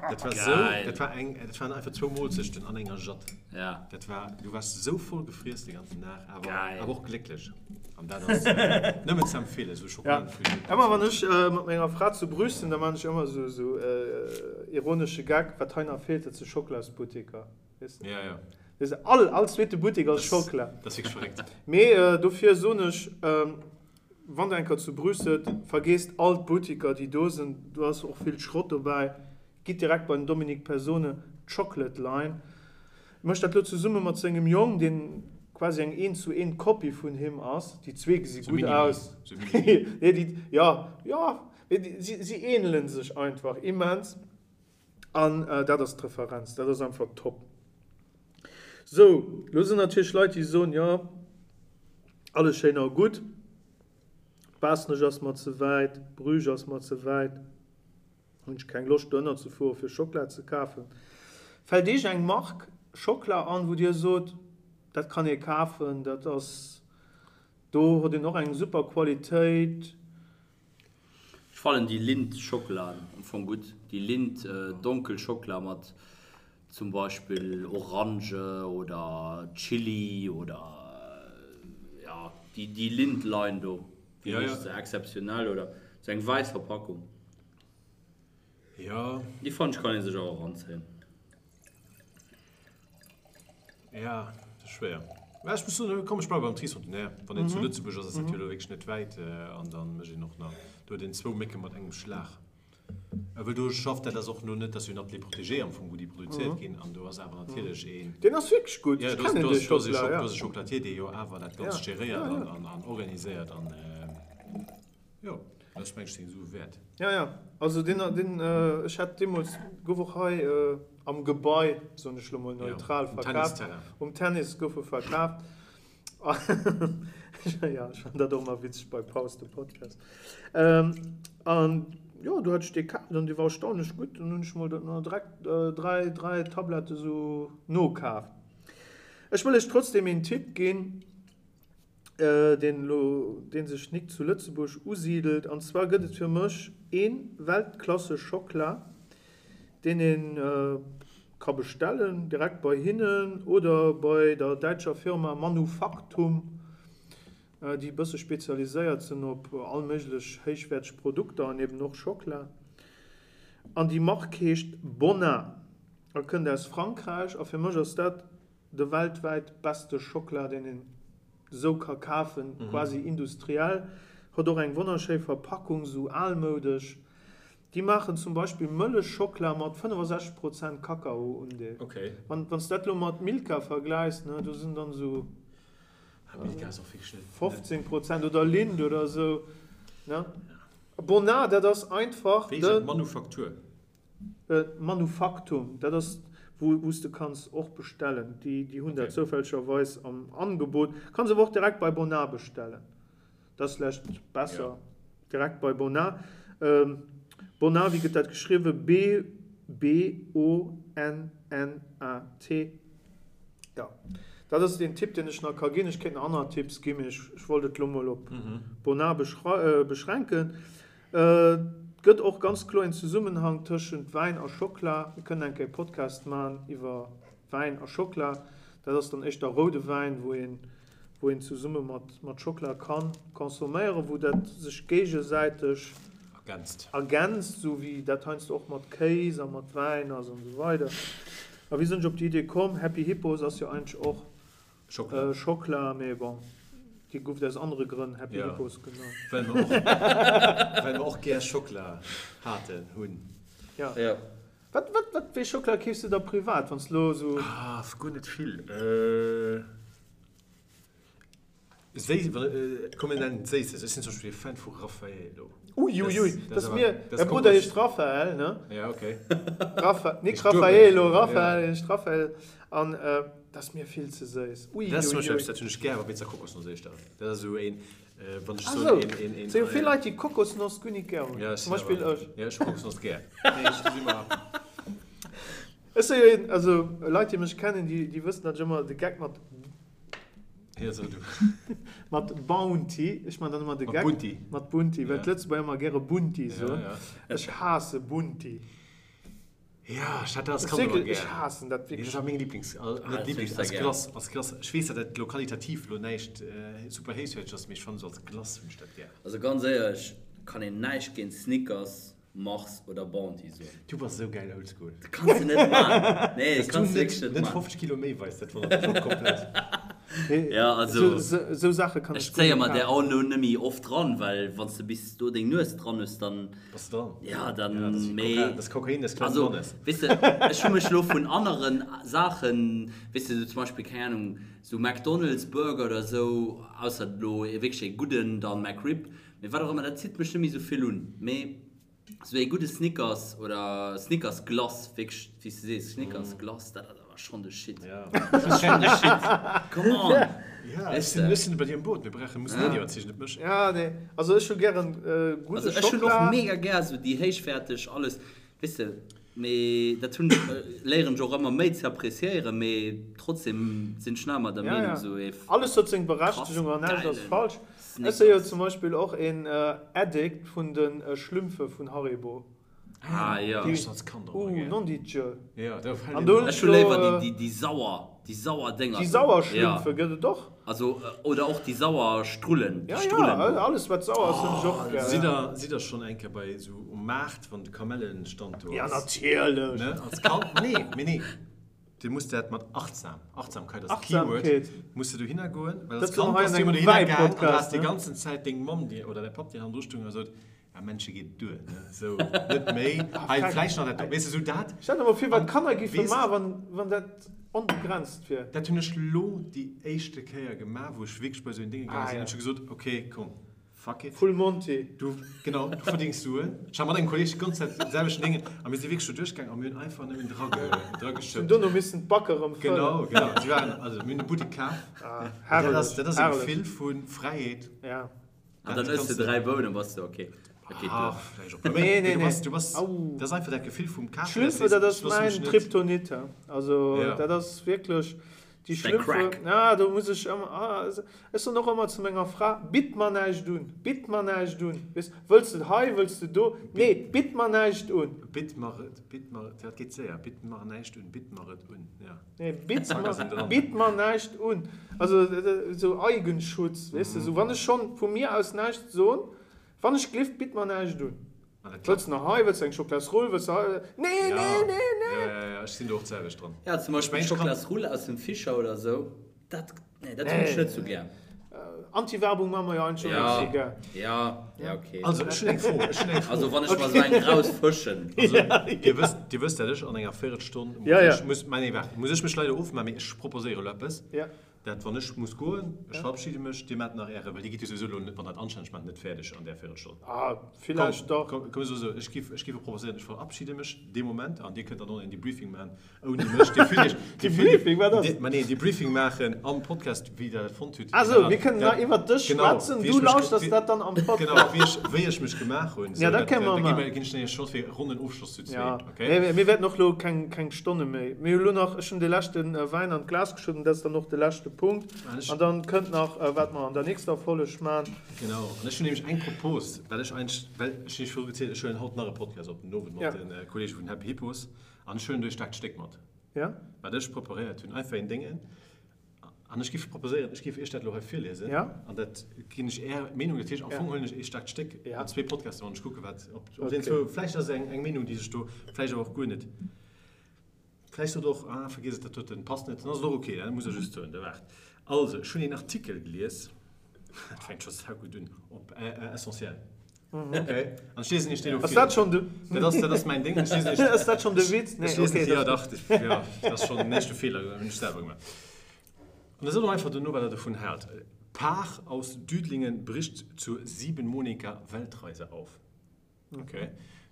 Dat war sou, dat war eng, dat waren einfach zwou Moolzechten an enger Jatt. Ja. Dat war, du waars sou voll gefriess de ganzen Dag, awer, Geil. awer och glécklech. An dat ass nëmmen ze empfeelen, sou Ja. Schokoladenfrühstück. Ëmmer wann ech mat menger Fra zu Bruges sinn, da maan ech ëmmer sou, sou ironesche Gag, wat hei nach feelt, dat si Schocklasbutteker. Weess de? Ja, ja. Weess de, all, all zweete Buttek ass Schockla. Dat ass wierklech verréckt. Mee dofir soen ech, Wann der eng Kéier zu Bruges sidd, vergeesst all d'Boutiker déi do sinn, do ass och vill Schrott dobäi, gitt direkt bei den Dominique Persone, Chocolate Line. Mécht dat lo zesumme mat sengem Jong, deen. quasi eng eent zu eent Kopie vun him ass. Déi zwee gesi gutt aus. Nee, déi, jo, jo, mee déi, si, si ähnelen sech einfach immens. An dat ass d'Referenz, dat ass einfach top. Sou, lo sinn natierlech Leit, déi soen, jo, alles schéin a gutt, Baaschtnech ass mer ze wäit, Bruges ass mer ze wäit, hunn ech keng Loscht dohinner ze fuere fir Schockela ze kafen. Fält Iech eng Mark Schockela an, wou Dir sot, dat kann ee kafen, dat ass, do huet een och eng super Qualitéit? Ech fannen déi Lindt Schockelaen am Fong gutt, déi Lindt donkel Schockela mat zum Beispill Orange oder Chili oder jo déi déi Lindt Line do fir mech se exzeptionell oder sou eng wäiss Verpackung. Jo. Déi fannen ech kann ee sech och eranzéien. Ja, dat ass schwéier. Mä ech muss soen, komm ech bleiwe beim Tricentenaire. Wann een zu Lëtzebuerg ass, ass dat jo elo wierklech net wäit an da mécht een och nach, do huet een zwou Mécke mat engem Schlag. Well do schafft, dat ass och elo net, dat ass jo en Atelier protégé am Fong, wou déi produzéiert ginn an do ass awer natierlech een. Deen ass wierklech gutt, ech kennen dee Schockela, ja. Do ass e Chocolatier, dee jo awer dat Ganzt geréiert an organiséiert an. Jo, dat ass mengt seng Sue wäert. Ja, ja, also deen, deen, ech hat deemools, gouf och hei am Gebai, soen ech lo mol neutral, verkaaft. Um Tennis gouf e verkaaft. Jo, ech fannen dat och ëmmer witzeg bei Paus de Podcast. An jo, do hat ech dee kaaft an dee war erstaunlech gutt. Dann hunn ech mol direkt 3, 3 Tablette sou nokaaft. Ech wëll iech trotzdem een Tipp ginn. deen elo, dee sech nik zu Lëtzebuerg usidelt. An zwar gëtt et fir mech ee Weltklasse Schockla, deen ee ka bestellen, direkt bei hinnen oder bei der däitscher Firma Manufactum, déi e bësse spezialiséiert sinn op all méiglech héichwäerteg Produkter an eben och Schockla. An déi Mark heescht Bonnat a kënnt aus Frankräich. A fir mech ass dat De weltwäit beste Schockela deen een sou ka kafen, quasi industriell, huet och eng wonnerschéi Verpackung, sou almoudesch. Déi maachen zum Beispill Mëllechschockela mat 65 Prozent Kakaoundeel. Wann s dat lo mat Milka vergläichs, ne, do sinn dann sou 15 Prozent oder Lindt oder sou, ne. Bonnat, dat ass einfach de. Manufaktur. Manufactum, dat ass wou s de kanns och bestellen. Déi hunn dat zoufällegerweis am Angebot. Kanns awer och direkt bei Bonnat bestellen. Dat ass vläicht besser, direkt bei Bonnat. Bonnat, wéi gëtt dat geschriwwen? B-O-N-N-A-T. Jo, dat ass deen Tipp, deen ech nach ka ginn. Ech kéint nach aner Tipps ginn, mee ech wollt et elo mol op Bonnat beschränken. Et gëtt och ganz kloer een Zesummenhang tëschent Wäin a Schockla. Mir kënnen eng Kéier e Podcast man iwwer Wäin a Schockla. Dat ass dann éischter roude Wäin, wou een, wou een zesumme mat, mat Schockla kann consomméieren, wou dat sech géigesäiteg Ergänzt. ergänzt, esou wéi dat heiansdo och mat Kéis a mat Wäin ass an esou weider. A wéi sinn ech op déi Idee komm? Happy Hippos ass jo eigentlech och Schockla. Schockla, mee bon, déi gouf et aus anere Grënn Happy Ja, Hippos genannt. well mer och, well mer och gär Schockla haten, hunn. Ja. Ja. Wat, wat, wat, wéi Schockla keefs de da privat, wann s de lo esou. Ah, guer net vill. Séi, komm mir nennen et Séisses. Ech sinn zum Beispill e Fan vu Raffaello. Uiuiui, dat ass mir, mäi Brudder heescht Raphael, ne? Ja, okay. Rapha, nik Raffaello, Raphael heescht Raphael. An dat ass mir vill ze séiss. Uiuiui. Dat ass zum Beispill eppes, dat hunn ech gär, wa Pizza Kokosnoss éischter. Dat ass esou een, wann ech soen, een, een, een. Sou vill Leit, déi Kokosnoss guer nik gär hunn. Ja, zum Beispill ech. Ja, ech hu Kokosnoss gär. Nee, ech, do si mer. Ech si jo een, also Leit, déi mech kennen, déi, déi wëssen, datt ech ëmmer de Geck mat. Ja, so du. Mat Bounty, ech man dann ëmmer de Mat Geck. Bunti. Mat Bunti, well Ja. d'Lëtzebuerger ëmmer gäre Bunti soen. Ja, ja. Ech haasse Bunti. Ja, ech hat dat als Ech Kand ëmmer wierklech, ech gär. haassen dat Nee, dat wierklech. war meng Lieblings, al, Ah, net dat Lieblings, hunn ech als sehr gär. Glace, als Glace. Ech weess, datt dat elo qualitativ elo näischt super héichwäerteg ass, mee ech fannen esou als Glace hunn ech dat gär. Also ganz éierlech, kann een näischt géint Snickers, Mars oder Bounty soen. Du bass esou gäil oldschool. Dat kanns de net man. Nee, Dass dat kanns du de wierklech net net man. 50 Kilo méi weis, dat wonnert mech och komplett. Ja, also Esou Saache kann ech zéie mer där och elo net méi oft dran, well wann s de bis do deng Nues dran hues, dann, Bass de dran? ja, dann, Ja, dat ass wéi mee, Kokain, dat ass Kokain des kleinen also, Mannes. weess de, ech hu mech elo vun aneren Saachen, weess de, sou zum Beispill, keng Ahnung, sou McDonald's Burger oder sou, ausser elo ee wierklech ee gudden, dann McRib, mee wat och ëmmer, dat zitt mech net méi sou vill un, mee Sou ee gudde Snickers oder Snickers Glace, wierklech wéi s de sees, Snickers Glace, dat ass awer schonn de Shit. Dat ass schonn de Shit. Come on! Ja, ech sinn, ech sinn bei dir am Boot. Mir brauchen, mussen net iwwerzeegen, net mech. Ja, nee, also ech hu gären gudde Also ech hunn och Schockela. mega gär sou déi héichwäerteg alles, weess de, mee dat hunn, léieren ech och ëmmer méi ze appréciéieren, mee trotzdem sinn ech nach ëmmer der Meenung, sou ee Alles huet seng krass Berechtegung an näischt ass gäilen falsch. Ech si jo Snickers. zum Beispill och een Addict vun de Schlümpfe vun Haribo. Ah jo. Déi, Ech als Kand och uh, gär. non di Dieu. Ja, do fällt An een do hunn Ech ech hu léiwer lo. déi, déi sauer, déi sauer Dénger Déi do. sauer Ja. Schlümpfe gëtt et och. Also, oder och déi sauer Strullen, déi Ja, Strullen ja, do. alles wat sauer ass hunn ech och gär. Sidd der, sidd der schonn eng Kéier bei esou um Maart, wann de Kamellenstand do Ja, ass? natierlech. Ne, als Kand? Nee, mee nee. Du muss dat mat achtsam, Achtsamkeit ass Keyword, Achtsamkeet. muss de dohinner goen, well als Dat soll Kand hei bass an du ëmmer engem dohinner gaang an du Wäi-Podcast, has déi ne? ganzen Zäit deng Mamm dir oder däi Papp dir hannendru stoung a sot, ja Männche geet et duer, ne, sou net méi, hei vläicht nach dat do, weess de, sou dat. Stell der mol vir, wat An d'Kanner géife weess, maachen, wann, wann dat onbegrenzt wier. dat hunn ech lo déi éischte Kéier gemaach, wou ech wierklech bei sou en Dénge gaange Ah sinn, ja. hunn ech gesot, okay, komm, Fuck it. Full Monty. Du, genau, du verdéngs Suen. Ech hat mat engem Kolleg déi ganz Zäit den selwechten Déngen a mir si wierklech do duerchgaangen a mir hunn einfach nëmmen Hunn drageschëppt. dono missen d'Backe rëm fëllen. Genau, genau. Si waren, also mir hunn de Buttek kaf. Ah, An dat ass, herrlech, dat ass e herrlech. Gefill vu Fräiheet. Ja. An Dat dann ëss kanns de de. 3 Bounen, bass de ok. Dat geet Ah, duer. vläicht och e puer méi. Nee, Mee nee, du nee. bass, du bass, Au. dat ass einfach dat Gefill vum Kafen, dat D'Schlümpfe, sees, dat ech ass loosse mech mäin net. Kryptonit, he. Also, Ja. dat ass wierklech. Déi Däi Schlümpfe, Crack. ah, do muss ech ëmmer, ah, ech soen och ëmmer zu menger Fra, Bitt mer näischt un, bitt mer näischt un. Weess, wëlls de hei, wëlls de do? Nee, bitt mer näischt un. Bitt mer et, bitt mer et, dat geet séier, bitt mer näischt un, bitt mer et un, ja. Nee, bitt Zack ass en mer, dran. bitt mer näischt un. Also, esou Eigenschutz, weess de, esou wann ech schonn vu mir aus näischt soen, wann ech glift, bitt mer näischt un. An dat Wëlls klappt. de nach hei, wëlls de eng Schoklasrull, wëlls de hei, nee, Ja, nee, nee, nee. ja, ja, ja, ech sinn do och d'selwecht dran. Ja, zum Ech Beispill mengen, ech kann. Schoklasrull aus dem Fischer oder sou, dat, nee, dat hunn ech Nee. net sou gär. Anti-Werbung maache mer jo eigentlech och net sou Ja, gär. ja, ja, okay. Also, ech hunn eng Fro, ech hunn eng Fro. Also wann ech mer sou eng rausfëschen. Also, dir wësst, dir wësst, dat ech an enger Véirelstonn muss Ja, ja. ech, muss, mä nee, waart, muss ech mech leider ofmaachen, mee ech proposéiere elo eppes. Ja. Dat wann ech muss goen, ech verabschide mech, dir maacht nach äre, well dir gitt jo souwisou elo net, wann dat anstänneg maacht, net fäerdeg an där Véirelstonn. Ah, villäicht dach. Komm, komm, esou, ech giff, ech giff proposéieren, ech verabschide mech dee Moment an dir kënnt dann och en Debriefing maachen ouni mech. Dir fillt iech, dir fillt iech, Debriefing, wat ass? Dir, ma nee, Debriefing maachen am Podcast, wéi der dat fonnt hutt. Ah sou, mir kënnen nach iwwert dech Genau, schwätzen, wéi du ech mech, lauschters wéi, dat dann am genau, Podcast. wéi ech, wéi ech mech gemaach hunn, Ja, sou, dat dat, kënne mer da gi mer, maachen. ginn ech dann iech Chance fir e ronnen Ofschloss zu zwee, Ja, okay? mee mir wäerten och elo keng, keng Stonne méi. Mir hu lo nach, ech hunn de leschte Wäin an d'Glas geschëtt an dat ass dann och de leschte Punkt. An ech. An dann kënnt nach, wat mer an der nächster Folleg man. Genau, an ech hunn nämlech eng Propos, well ech eigentlech, well ech hunn iech viru gezielt, ech huelen haut nach e Podcast op den Owend mat Ja. de Kollege vun Happy Hippos an ech huelen do ee staarkt Stéck mat, Ja. wat ech preparéiert hunn, einfach een Déngen. An ech géif proposéieren, ech géif Iech dat elo hei virliesen. Ja. An dat ginn ech Är Meenung. Dat heescht, am Ja. Fong huelen ech ee staarkt Stéck Ja. an zwee Podcasten an ech kucke wat, ob, ob deen Okay. zwou, vläicht ass et eng, eng Meenung, déi sech do, vläicht awer och guer net. Vläicht sot och, ah, vergiess et, dat doten passt net, dann ass et och okay, dat muss Der just soen. Da waart. Also, ech hunn een Artikel gelies, dat fänkt scho saugutt un, op Essentiel. Okay. An ech liesen Iech deen elo Ass vir. dat schonn de. Dat ass, dat ass mäin Ding. Ech liesen Iech. Ass dat schonn de Witz? Nee, Ech liesen okay, ja, dat. dach, ja, dat ass schonn den éischte Feeler, den hunn ech selwer gemaach. An da sot och einfach dono, wat Der dovun haalt. Paar aus Düdlingen bricht zur siebenmonatiger Weltreise auf. Okay.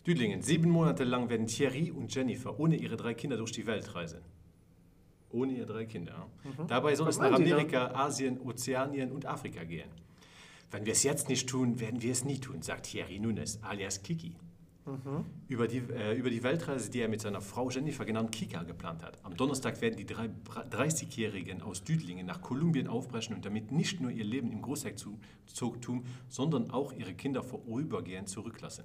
Düdlingen, Sieben Monate lang werden Thierry und Jennifer ohne ihre drei Kinder durch die Welt reisen. Ohne ihre drei Kinder. Mhm. Dabei soll es nach Amerika, Asien, Ozeanien und Afrika gehen. Wenn wir es jetzt nicht tun, werden wir es nie tun, sagt Thierry Nunes, alias Kiki. Mhm. Über, die, äh, über die Weltreise, die er mit seiner Frau Jennifer genannt Kika geplant hat. Am Donnerstag werden die 30-Jährigen aus Düdlingen nach Kolumbien aufbrechen und damit nicht nur ihr Leben im Großherzogtum, sondern auch ihre Kinder vorübergehend zurücklassen.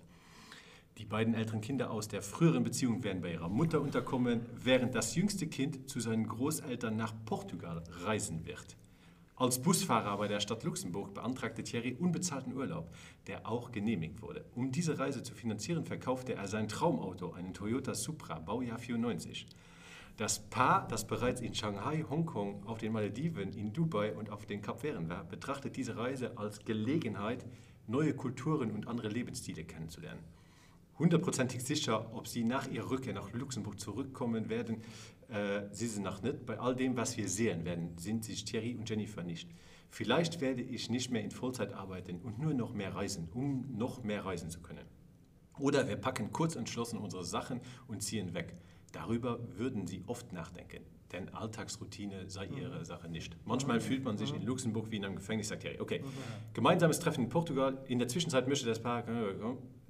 Die beiden älteren Kinder aus der früheren Beziehung werden bei ihrer Mutter unterkommen, während das jüngste Kind zu seinen Großeltern nach Portugal reisen wird. Als Busfahrer bei der Stadt Luxemburg beantragte Thierry unbezahlten Urlaub, der auch genehmigt wurde. Um diese Reise zu finanzieren, verkaufte er sein Traumauto, einen Toyota Supra Baujahr 94. Das Paar, das bereits in Shanghai, Hongkong, auf den Malediven, in Dubai und auf den Kapverden war, betrachtet diese Reise als Gelegenheit, neue Kulturen und andere Lebensstile kennenzulernen. Hundertprozentig sicher, ob sie nach ihrer Rückkehr nach Luxemburg zurückkommen werden, äh, si se nach net. Bei all dem, was wir sehen werden, sind sich Thierry und Jennifer nicht. Vielleicht werde ich nicht mehr in Vollzeit arbeiten und nur noch mehr reisen, um noch mehr reisen zu können. Oder wir packen kurz entschlossen unsere Sachen und ziehen weg. Darüber würden sie oft nachdenken, denn Alltagsroutine sei ihre Sache nicht. Manchmal fühlt man sich in Luxemburg wie in einem Gefängnis, sagt Thierry. Okay. Gemeinsames Treffen in Portugal. In der Zwischenzeit möchte das Paar,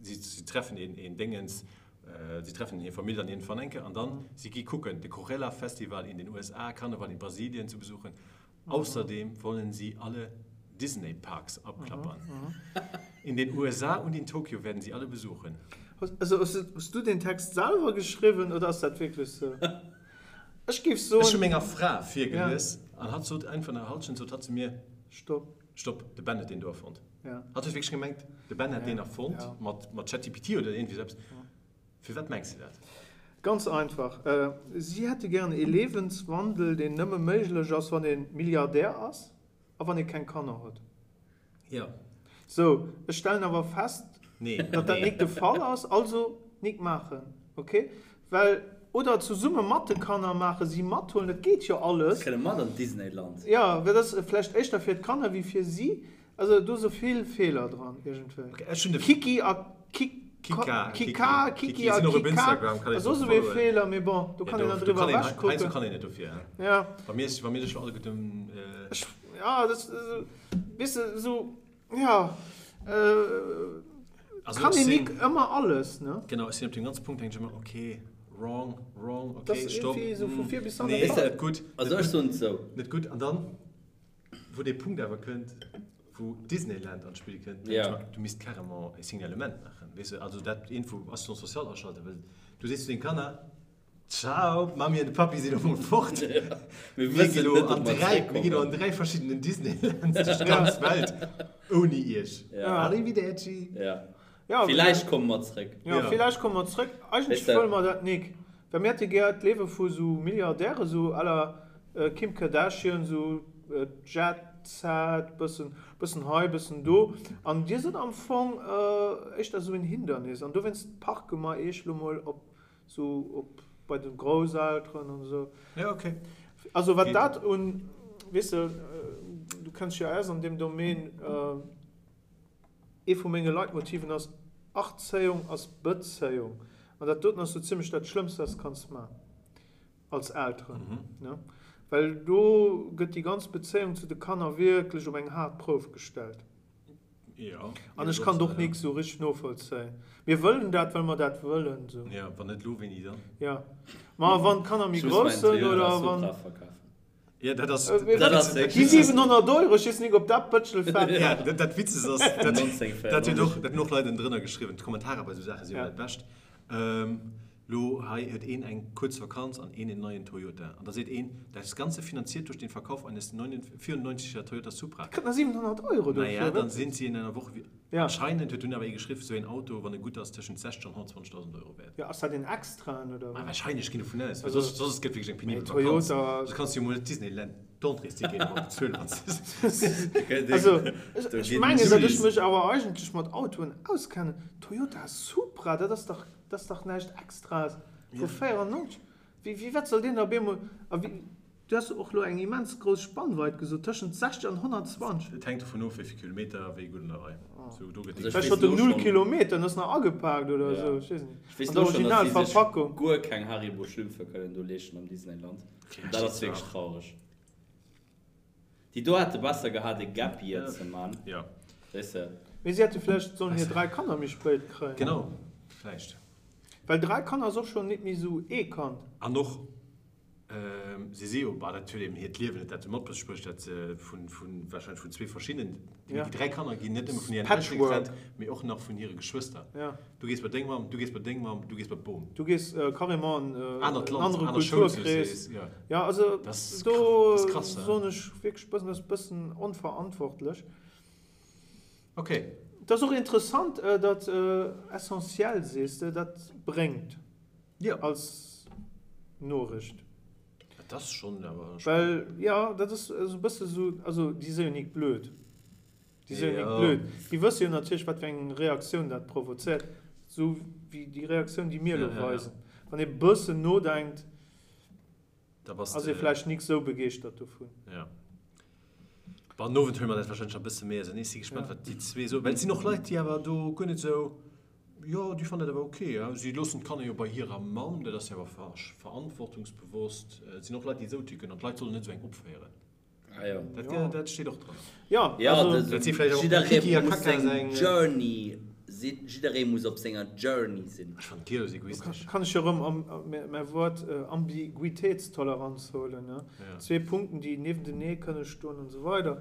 sie, sie treffen in, in Dingens, äh, sie treffen hir Famill dann iergendwann eng Kéier an dann si gi kucken de Coachella Festival in den USA, Karneval in Brasilien zu besuchen. Außerdem wollen sie alle Disney Parks abklappern. In den USA und in Tokio werden sie alle besuchen. Also hues du den Text selwer geschriwwen oder ass dat wierklech sou? Ech géif soen. Ech hu menger Fra virgelies an hatt sot eng vun der Halschent sot hatt zu mir, Stopp. Stopp, de Ben huet deen do erfonnt. Hatt huet wierklech gemengt, de Ben hätt deen erfonnt mat ChatGPT oder iergendwéi sou eppes. Firwat mengs de dat? Ganz einfach, si hätte gären ee Lebenswandel, deen nëmme méiglech ass, wann ee Milliardär ass a wann ee keng Kanner huet. Jo. Sou, ech stellen awer fest, datt dat nik de Fall ass, also nik maachen, ok? Well, oder zesumme mat de Kanner maachen, si mathuelen, dat geet jo alles. Si kënne mat an d'Disneyland. Jo, well dat ass vläicht éischter fir d'Kanner wéi fir si. Also do se vill Feeler dran iergendwéi. Kiki a Kika, Kika, Kiki a Kika ass och esou ee Feeler, mee bon, do kann een dann driwwer ewech kucken. Kann een net dofir. Ja. Wa mir wa mir sech lo alleguerten. Ech, ja, dat, weess de, esou, ja, kann een nik ëmmer alles, ne? Genau, ech sinn op deem ganze Punkt, denken ech ëmmer, okay, wrong, wrong, okay, stopp. Dat ass iergendwéi esou vu vir bis hannen. Nee, net gutt. Also ech soen et esou. Net gutt. An dann? Wou dee Punkt awer kënnt, wou Disneyland an d'Spill kënnt, denke ech mer, du misst carrément e Signalement maachen, weess de, also dat iergendwou Assistance sociale aschalten, well du sees zu denge Kanner, Ciao, d'Mammi an de Pappi sinn elo mol fort, mir ginn elo an dräi, mir ginn elo an dräi verschiddenen Disneylands duerch d'ganz Welt ouni iech. Arrivederci. Villäicht komme mer zréck. Jo, villäicht komme mer zréck. Eigentlech wëlle mer dat nik. Well mir hätte gär d'Liewe vu sou Milliardäre, sou à la Kim Kardashian, sou Jet Set, bëssen, bëssen hei, bëssen do. An dir sidd am Fong éischter sou en Hindernis. An dowéinst parke mer iech lo mol op sou op bei de Grousselteren an esou. Ja, okay. Also wat dat un, weess de, du kenns dech jo aus an deem Domaine, Ee vu menge Leitmotiven ass, Erzéiung ass Bezéiung. An dat doten ass sou zimlech dat Schlëmmst, wat s de kanns man als Elteren. Well do gëtt déi ganz Bezéiung zu de Kanner wierklech op eng haart Prouf gestellt. An ech kann et och nik sou richteg novollzéien. Mir wëllen dat, well mer dat wëllen. Jo, wann net elo, wéini dann? Jo, ma wann d'Kanner méi grouss sënn oder wann. Ja, dat ass, dat ass, déi 700 Euro, ech weess nik op dat Bëtschel fält. Ja, dat, dat Witzegst ass, dat, dat huet och, dat hunn och Leit ënnendrënner geschriwwen, d'Kommentarer bei esou Saache si jo dat Bescht. Lo hei huet een eng kuerz Vakanz an een en neien Toyota. An da seet een, Das Ganze finanziert durch den Verkauf eines 94 er Toyota Supra. Kritt nach 700 Euro dofir. Naja, dann sind sie in einer Woche wie. Ja. Anscheinend huet dunn awer ee geschriwwen, esou een Auto, wann e gutt ass, tëschent 60 an 120.000 Euro wäert. Jo, ass dat een extraen oder wat? Wahrscheinlech, ginn dovun aus, well soss, soss gëtt wierklech eng penibel Vakanz. Toyota. Soss kanns du jo mol net Disneyland d'Entréesticket emol bezuelen, wann s de. Also, ech mengen, datt ech mech awer eigentlech mat Autoen auskennen. Toyota Supra, dat ass dach, dat ass dach näischt Extraes vu 94. Wéi, wéi, wat soll deen da op eemol, a wéi. Du has och lo eng immens grouss Spannweit gesot, tëschent 60 an 120. Et hänkt dovun of, wéi vill Kilometer a wéi gutt an der Rei. Sou, do gëtt déi. Vläicht huet en null Kilometer an ass nach agepaakt oder esou, ech weess net. Ech weess lo schonn, datt si sech guer keng Haribo Schlümpfe kënnen do leeschten am Disneyland. An dat ass wierklech traureg. Déi do hätte besser gehat e Gap Year ze man. Jo. Weess de. Mee si hätte vläicht sollen hir 3 Kanner méi spéit kréien. Genau, vläicht. Well 3 Kanner ass och schonn nit méi esou ee Kand. An och Si si jo, bah, dat huet eben hiert Liewen net dat sou matbesprécht, dat se vun, vun, wahrscheinlech vun zwee verschiddenen, déi 3 Kanner ginn net nëmme vun hiren Eltere getrennt, mee och nach vun hire Geschwëster. Du gees bei deng Mamm, du gees bei deng Mamm, du gees bei d'Bom. Du gees carrément an en anert Land, anere aner Kulturkrees. Jo. Ja, also do soen ech wierklech e bëssen, dat ass e bëssen onverantwortlech. Ok. Et ass och interessant, datt essentiel sees de, dat bréngt. Jo. Als Noricht. Dat ass schonn awer. Well, jo, dat ass esou e bësse sou, also déi si jo nik blöd. Déi si jo nik blöd. Déi wësse jo natierlech, wat fir eng Reaktioun dat provozéiert, esou wéi déi Reaktioun, déi mir elo weisen. Wann ee bëssen nodenkt, ass ee vläicht nik sou begeeschtert dovun. Jo. Bon, den Owend huele mer dat warscheinlech nach e bësse méi ausenee. Ech si gespannt, wat déi zwee soen. Well et sinn och Leit, déi awer do guer net esou, jo, déi fannen dat awer ok. Si loossen d'Kanner jo bei hirer Mamm, dat ass jo awer verantwortungsbewosst. Et sinn och Leit, déi esou ticken an d'Leit sollen net esou eng opféieren. Ah jo. Dat, dat steet och dran. Jo, Ja, also. Dat si vläicht och jidderee Kiki a muss Kaka seng seng. Journey sinn, jidderee muss op senger Journey sinn. Ech fannen d'Giel egoistesch. Kann ech jo erëm am, mäi Wuert Ambiguitéitstoleranz huelen, ne? Ja. Zwee Punkten, déi niewentenee kënne stoen an esou weider.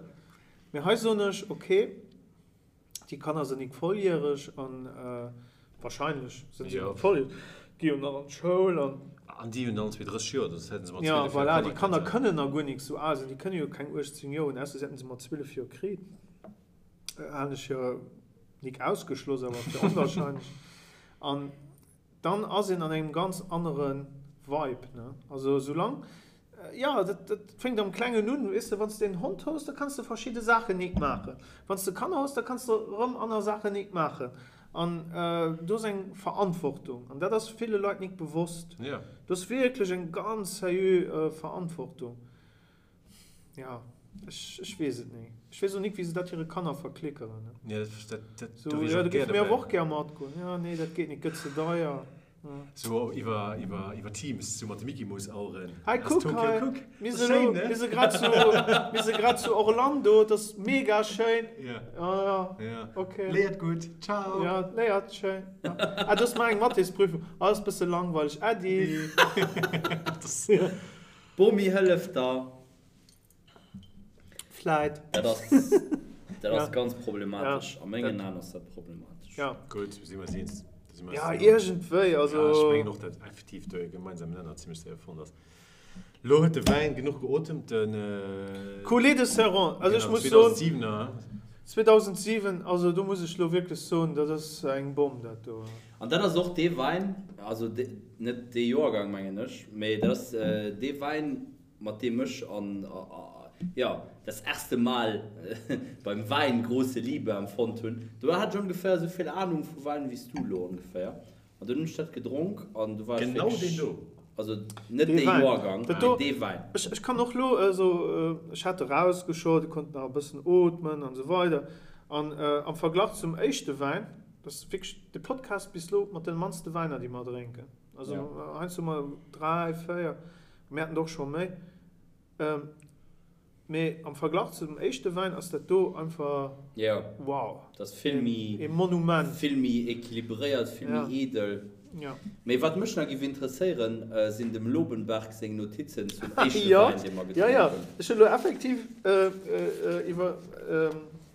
Mee hei soen ech, okay, Déi Kanner sinn nik volljäreg an wahrscheinlech sinn se nik volljäreg, gi jo nach an d'Schoul an. An déi hunn allen zwee 30 Joer, dat hätten se mat 12 Joer Kanner Ja, voilà, déi Kanner kënnen. kënnen nach guer nik sou al sinn, déi kënne jo keng 18 Joer hunn, ausser se hätten se mat 12 Joer kritt. Halen ech jo nik ausgeschloss, awer fir onwahrscheinlech. An dann ass een an engem ganz anere Vibe, ne? Also soulaang, jo, dat, dat fänkt am Klengen un, weess de, wann s de en Hond hues, da kanns de verschidde Saachen nik maachen. Wann s de Kanner hues, da kanns de erëm aner Saachen nik maachen. An do ass eng Verantwortung, an dat ass ville Leit nik bewosst. Do ass wierklech eng ganz seriö Verantwortung. Ja, ech, ech weess et ni. Ech weess och nik, wéi se dat hire Kanner verklickeren, ne. Ja, dat, dat, dat, So, do wier ech ja, och do gär géife mir dobäi. awer och gär matgoen. Ja, nee, dat geet nik, gëtt ze deier. Ja. So iwwer, iwwer, iwwer Teams, sou mat de Mickey-Mouse-Aueren. Hei, Ass kuck Tokio, hei, kuck. mir Ass si schéin, lo, ne? mir si grad zu, mir si grad zu Orlando, et ass mega schéin. Ja. Ja, ja, Ja. okay. Léiert gutt. Ciao. Ja, léiert schéin. Ja. Ah, do ass mar eng Mathésprüfung. Ah, ass bësse langweileg. Äddi. Dat ass. Bomi hëlleft der. Vläit. Dat ass, dat ass ganz problematesch. Ja. A mengen Aen ass dat problematesch. Ja. Gutt, si mer eis eens. Da si mer eis Ja, eens. iergendwéi, also. Ja, ech mengen och, datt effektiv do e gemeinsamen Nenner zimmlech séier fonnt ass. Lo huet de Wäin genuch geotemt, den. Coulée de Serrant, also ech muss soen. 2007er. 2007, also do muss ech lo wierklech soen, dat ass eng Bomm, dat do. An dat ass och dee Wäin, also net dee Joergang mengen ech, mee dat ass dee Wäin, mat deem ech an, jo, das erste Mal beim Wein große Liebe empfonnt hunn. Do hat ech ongeféier esou vill Ahnung vu Wäin wéi s du elo ongeféier. An dunn hunn ech dat gedronk an du war ech Genau deen wierklech, do. also net Dee dee Wäin. Joergang, Dat mee do, dee Wäin. ech, ech kann och elo esou, ech hat erausgeschott, ech konnt nach e bëssen ootmen an esou weider. An am Verglach zum éischte Wäin, dat ass wierklech de Podcast bis elo mat de mannste Wäiner, déi mer drénken. Also heiansdo hu mer 3, 4, mir haten der och scho méi. Mee am Verglach zu dem éischte Wäin ass dat do einfach Jo, wow, dat ass vill méi, e Monument. Vill méi equilibréiert, vill méi edel. Jo. Mee wat mech nach géif interesséieren, sinn dem Lobenberg seng Notizen zum éischte Jo, Wäin, dee mer jo, gedronk jo. hunn. Ech hunn elo effektiv iwwer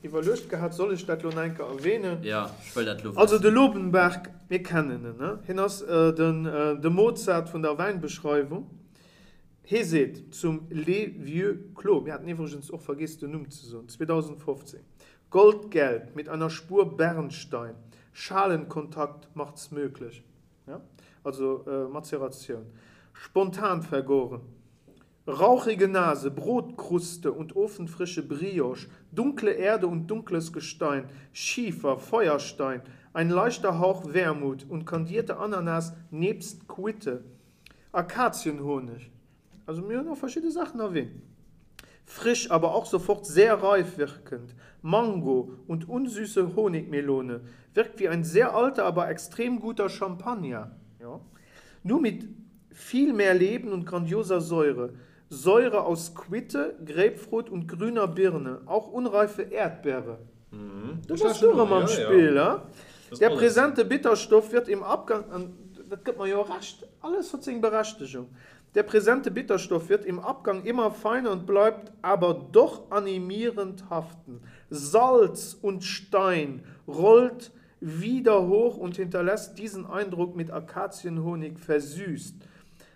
iwwerluecht gehat, soll ech dat lo nach eng Kéier erwähnen? Jo, ech wëll dat lo Also de wëssen. Lobenberg, mir kennen en, ne? Hien ass den de Mozart vun der Wäinbeschreiwung. Hee seet zum Les Vieux Clos, mir haten iwwregens och vergeess den Numm ze soen, 2015, Goldgelb mit einer Spur Bernstein, Schalenkontakt macht's möglich, ja, also Mazeratioun, spontan vergoren, rauchige Nase, Brotkruste und ofenfrische Brioche, dunkle Erde und dunkles Gestein, Schiefer, Feuerstein, ein leichter Hauch Wermut und kandierte Ananas nebst Quitte, Akazienhonig. Also mir hunn och verschidde Saachen erwähnt. Frisch, aber auch sofort sehr reif wirkend, Mango und unsüße Honigmelone, wirkt wie ein sehr alter, aber extrem guter Champagner, jo, nur mit viel mehr Leben und grandioser Säure, Säure aus Quitte, Grapefruit und grüner Birne, auch unreife Erdbeere. Do bass du erëm am Spill, he? Der präsente Bitterstoff wird im Abgang, an dat gëtt mer jo Recht, alles huet seng Berechtegung, der präsente Bitterstoff wird im Abgang immer feiner und bleibt aber doch animierend haften. Salz und Stein rollt wieder hoch und hinterlässt diesen Eindruck mit Akazienhonig versüßt.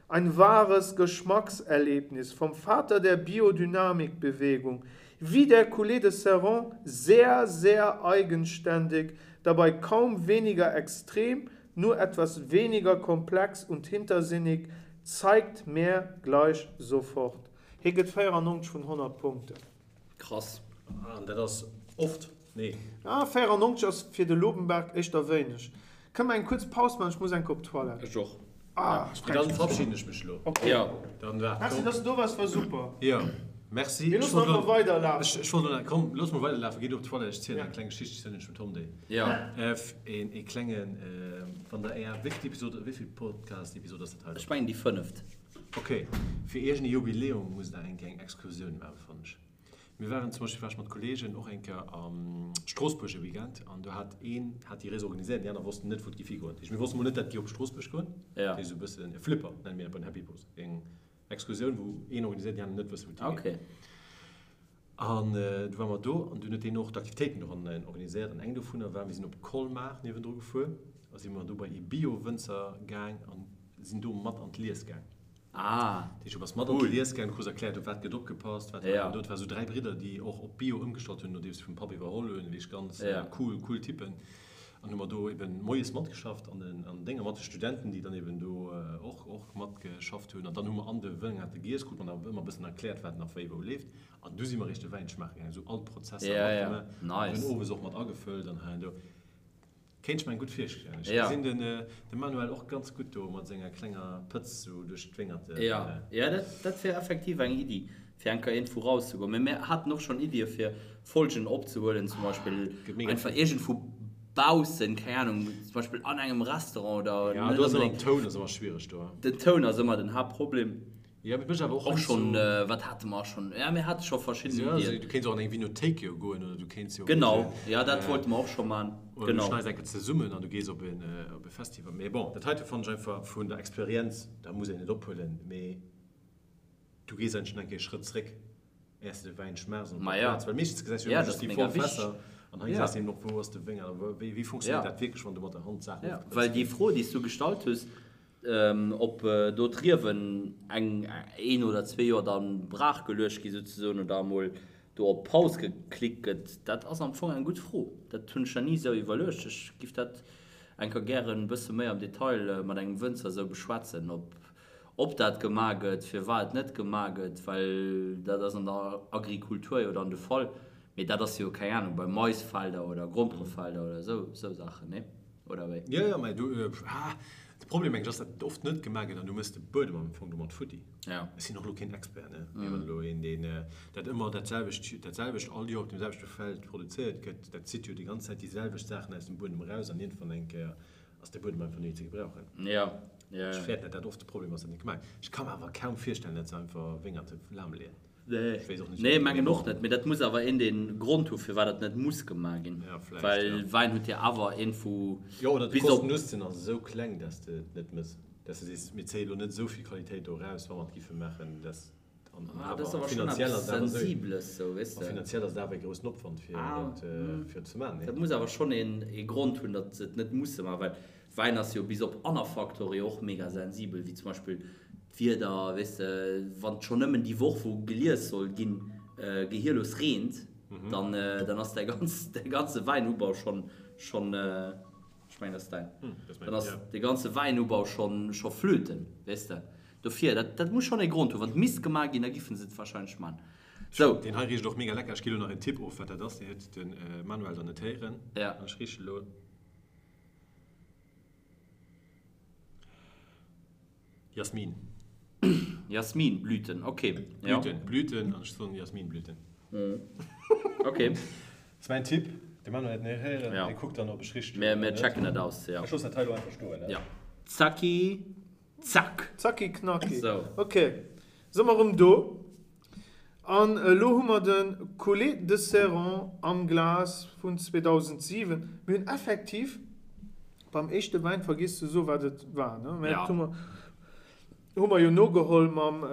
Ein wahres Geschmackserlebnis vom Vater der Biodynamikbewegung, wie der Coulée de Serrant sehr, sehr eigenständig, dabei kaum weniger extrem, nur etwas weniger komplex und hintersinnig. Zeigt mer gleich sofort. Hie gëtt 94 vun 100 Punkten. Krass. An dat ass oft, nee. Ah, 94 ass fir de Lobenberg éischter wéineg. Kënne mer eng kuerz Paus maachen? Ech muss eng Kéier op d'Toilette. Ech och. Ah, ech Mee dann verabschieden ech mech elo. Ok. Jo. Dann waart. Merci, dass du do waars, war super. Jo, merci. Mir loossen einfach weiderlafen. Ech wollt elo nach, komm, looss mol weiderlafen, géi du op d'Toilette, ech zielen eng kleng Geschicht, ech zielen iech dem Tom déi. Jo. Een ee klengen, wann der Är, wéivill Episode, wéivill Podcast-Episode ass dat hei? Ech mengen déi fënneft. Ok, fir iergend e Jubiläum musst der eng Kéier eng Excursioun maachen, fannen ech. Mir waren zum Beispill, war ech mat Kollegen och eng Kéier a Stroossbuerg e Weekend an do hat een hat déi Rees organiséiert, déi aner wossten net wou et géif higoen. Dat heescht mir wosste mol net dat et géif op Stroossbuerg goen. Dat heescht esou e bëssen e Flipper nenne mir dat bei den Happy Bros, eng Excursioun wou een organiséiert, déi aner net wëssen wou et higeet. An du ware mer do an dunn huet deen och d'Aktivitéiten doran organiséiert an eng dovunner war, mir sinn op Colmar niewendru gefuer a si mer do bei ee Bio-Wënzer gaang an sinn do mat an d'Lies gaang. Ah, Dat heescht, du bass mat an d'Lies gaang, du krus erkläert, op wat gëtt opgepasst, wat war do. Et war sou 3 Bridder, déi och op Bio ëmgestallt hunn, nodeems se vum Papp iwwerholl hunn, wierklech ganz cool, cool Typen. An hu mer do eben moies matgeschafft an den an Dénger mat de Studenten, déi dann eben do och och matgeschafft hunn. An dann hu mer an de Wëngerte giess, krut mer nach ëmmer e bëssen erkläert, wat nach wéi wou leeft. An du si mer eréischt de Wäin schmaache gaangen, esou all d'Prozesser matgemaach. An dunn owes och mat agefëllt an hei an do. Kéint ech mer eng gutt virstellen. Ech gesinn den de Manuel och ganz gutt do mat senger klenger Pëtz sou duerch d'Wéngerte. Jo, jo, dat dat wier effektiv eng Iddi, fir eng Kéier iergendwou rauszegoen. Mee mir haten och schonn Iddie fir Folgen opzehuelen, zum Beispill einfach iergendwou baussen, keng Ahnung, zum Beispill an engem Restaurant oder Ja, do ass ëmmer den Toun ass ëmmer schwiereg do. Den Toun ass ëmmer den Haaptproblem. Ja, mee mécht awer och Och schonn, wat hate mer schonn? Ja, mir hate scho verschidden Iddien. Ja, du kéints och an eng Vinothéik jo goen oder du kéints jo. Genau, ja, dat wollte mer och scho man. Oder du schneis eng Kéier zesummen an du gees op en, op e Festival. Mee bon, dat heite fannen ech einfach vun der Experienz, da muss een et ophuelen, mee du gees eigentlech nach eng Kéier e Schrëtt zréck, äers de de Wäin schmaachs an op der Plaz, well meeschtens gesäis du jo ëmmer just déi voll Fässer an hei gesäis de eben och, wou ass de Wéngert a wéi, wéi funktionéiert dat wierklech, wann du mat der Hand d'Saachen ofpréchs. Well déi Fro, déi s du gestallt hues, Ob do d'Riewen eng, een oder zwee Joer da brach geluecht gi souzesoen oder emol do op Paus geklickt gëtt, dat ass am Fong eng gutt Fro. Dat hunn ech nach ni esou iwwerluecht. Ech giff dat eng Kéier gären e bësse méi am Detail mat engem Wënzer esou beschwätzen, ob, ob dat gemaach gëtt, firwat et net gemaach gëtt, well dat ass an der Agrikultur jo dann de Fall. Mee dat ass jo, keng Ahnung, bei Maisfelder oder Gromperefelder oder esou, esou Saachen, nee? Oder wéi? Jo, jo, mä du, ah, de Problem mengen ech ass, datt et oft net gemaach gëtt an du méchs de Buedem am Fong domat futti. Ja. Ech sinn och elo keen Expert, ne, mee wann elo een, deen dat ëmmer dat selwecht, dat selwecht all Joer op deem selwechte Feld produzéiert gëtt, dat zitt jo déi ganz Zäit déi selwecht Saachen aus dem Buedem eraus an iergendwann eng Kéier ass de Buedem einfach net méi ze gebrauchen. Ja, ja, ja. Ech fäerten, datt dat oft de Problem ass, datt net gemaach gëtt. Ech ka mer awer kaum virstellen, datt se einfach Wéngerte lahmleeën. Nee, mengen och net, mee dat muss awer een deen Grond hu firwat dat net muss gemaach ginn, well Wäin huet jo awer een vu Jo, oder de Kosten-Nutzen ass esou kleng, dass de et net mëss, dass de sees, mir zéie lo net esou vill Qualitéit do eraus, wa mer et giffe maachen, dass an awer finanziell ass et awer esou, a finanziell ass et awer e groussen Opwand fir dat fir et ze maachen. Dat muss awer schonn een ee Grond hunn, datt se et net musse maachen, well Wäin ass jo bis op aner Faktore jo och mega sensibel, wéi zum Beispill d'Wieder, weess de, wann et schonn nëmmen déi Woch wou gelies soll ginn, gehierlos reent, dann dann ass däi ganz däi ganze Wäinubau schonn schonn, ech mengen dat ass däin, dann ass de ganze Wäinubau schonn scho flöten, weess de. Dofir, dat dat muss schonn ee Grond hunn. Wann et misst gemaach ginn, da giffen se et wahrscheinlech man. Sou. Deen hei richt och mega lecker. Ech gi lo nach een Tipp of wat dat ass, deen huet de Manuel dann net héieren. An ech riche lo. Jasmin. Jasminblüten, ok. Blüten, Blüten, an ech soen Jasminblüten. Ok. Dat ass mäin Tipp. De Manuel huet net héieren, hie kuckt dann, ob ech richteg hunn oder net. Mir checken dat aus, jo. Ech loossen dat hei elo einfach stoen, ne? Jo. Zacki, zack! Zacki, knacki. Ok, si mer erëm do. An elo hu mer de Coulée de Serrant am Glas vun 2007. Mir hunn effektiv beim éischte Wäin vergiess ze soen, wat et war, ne? Mä dat hu mer, hu mer jo nogeholl mam,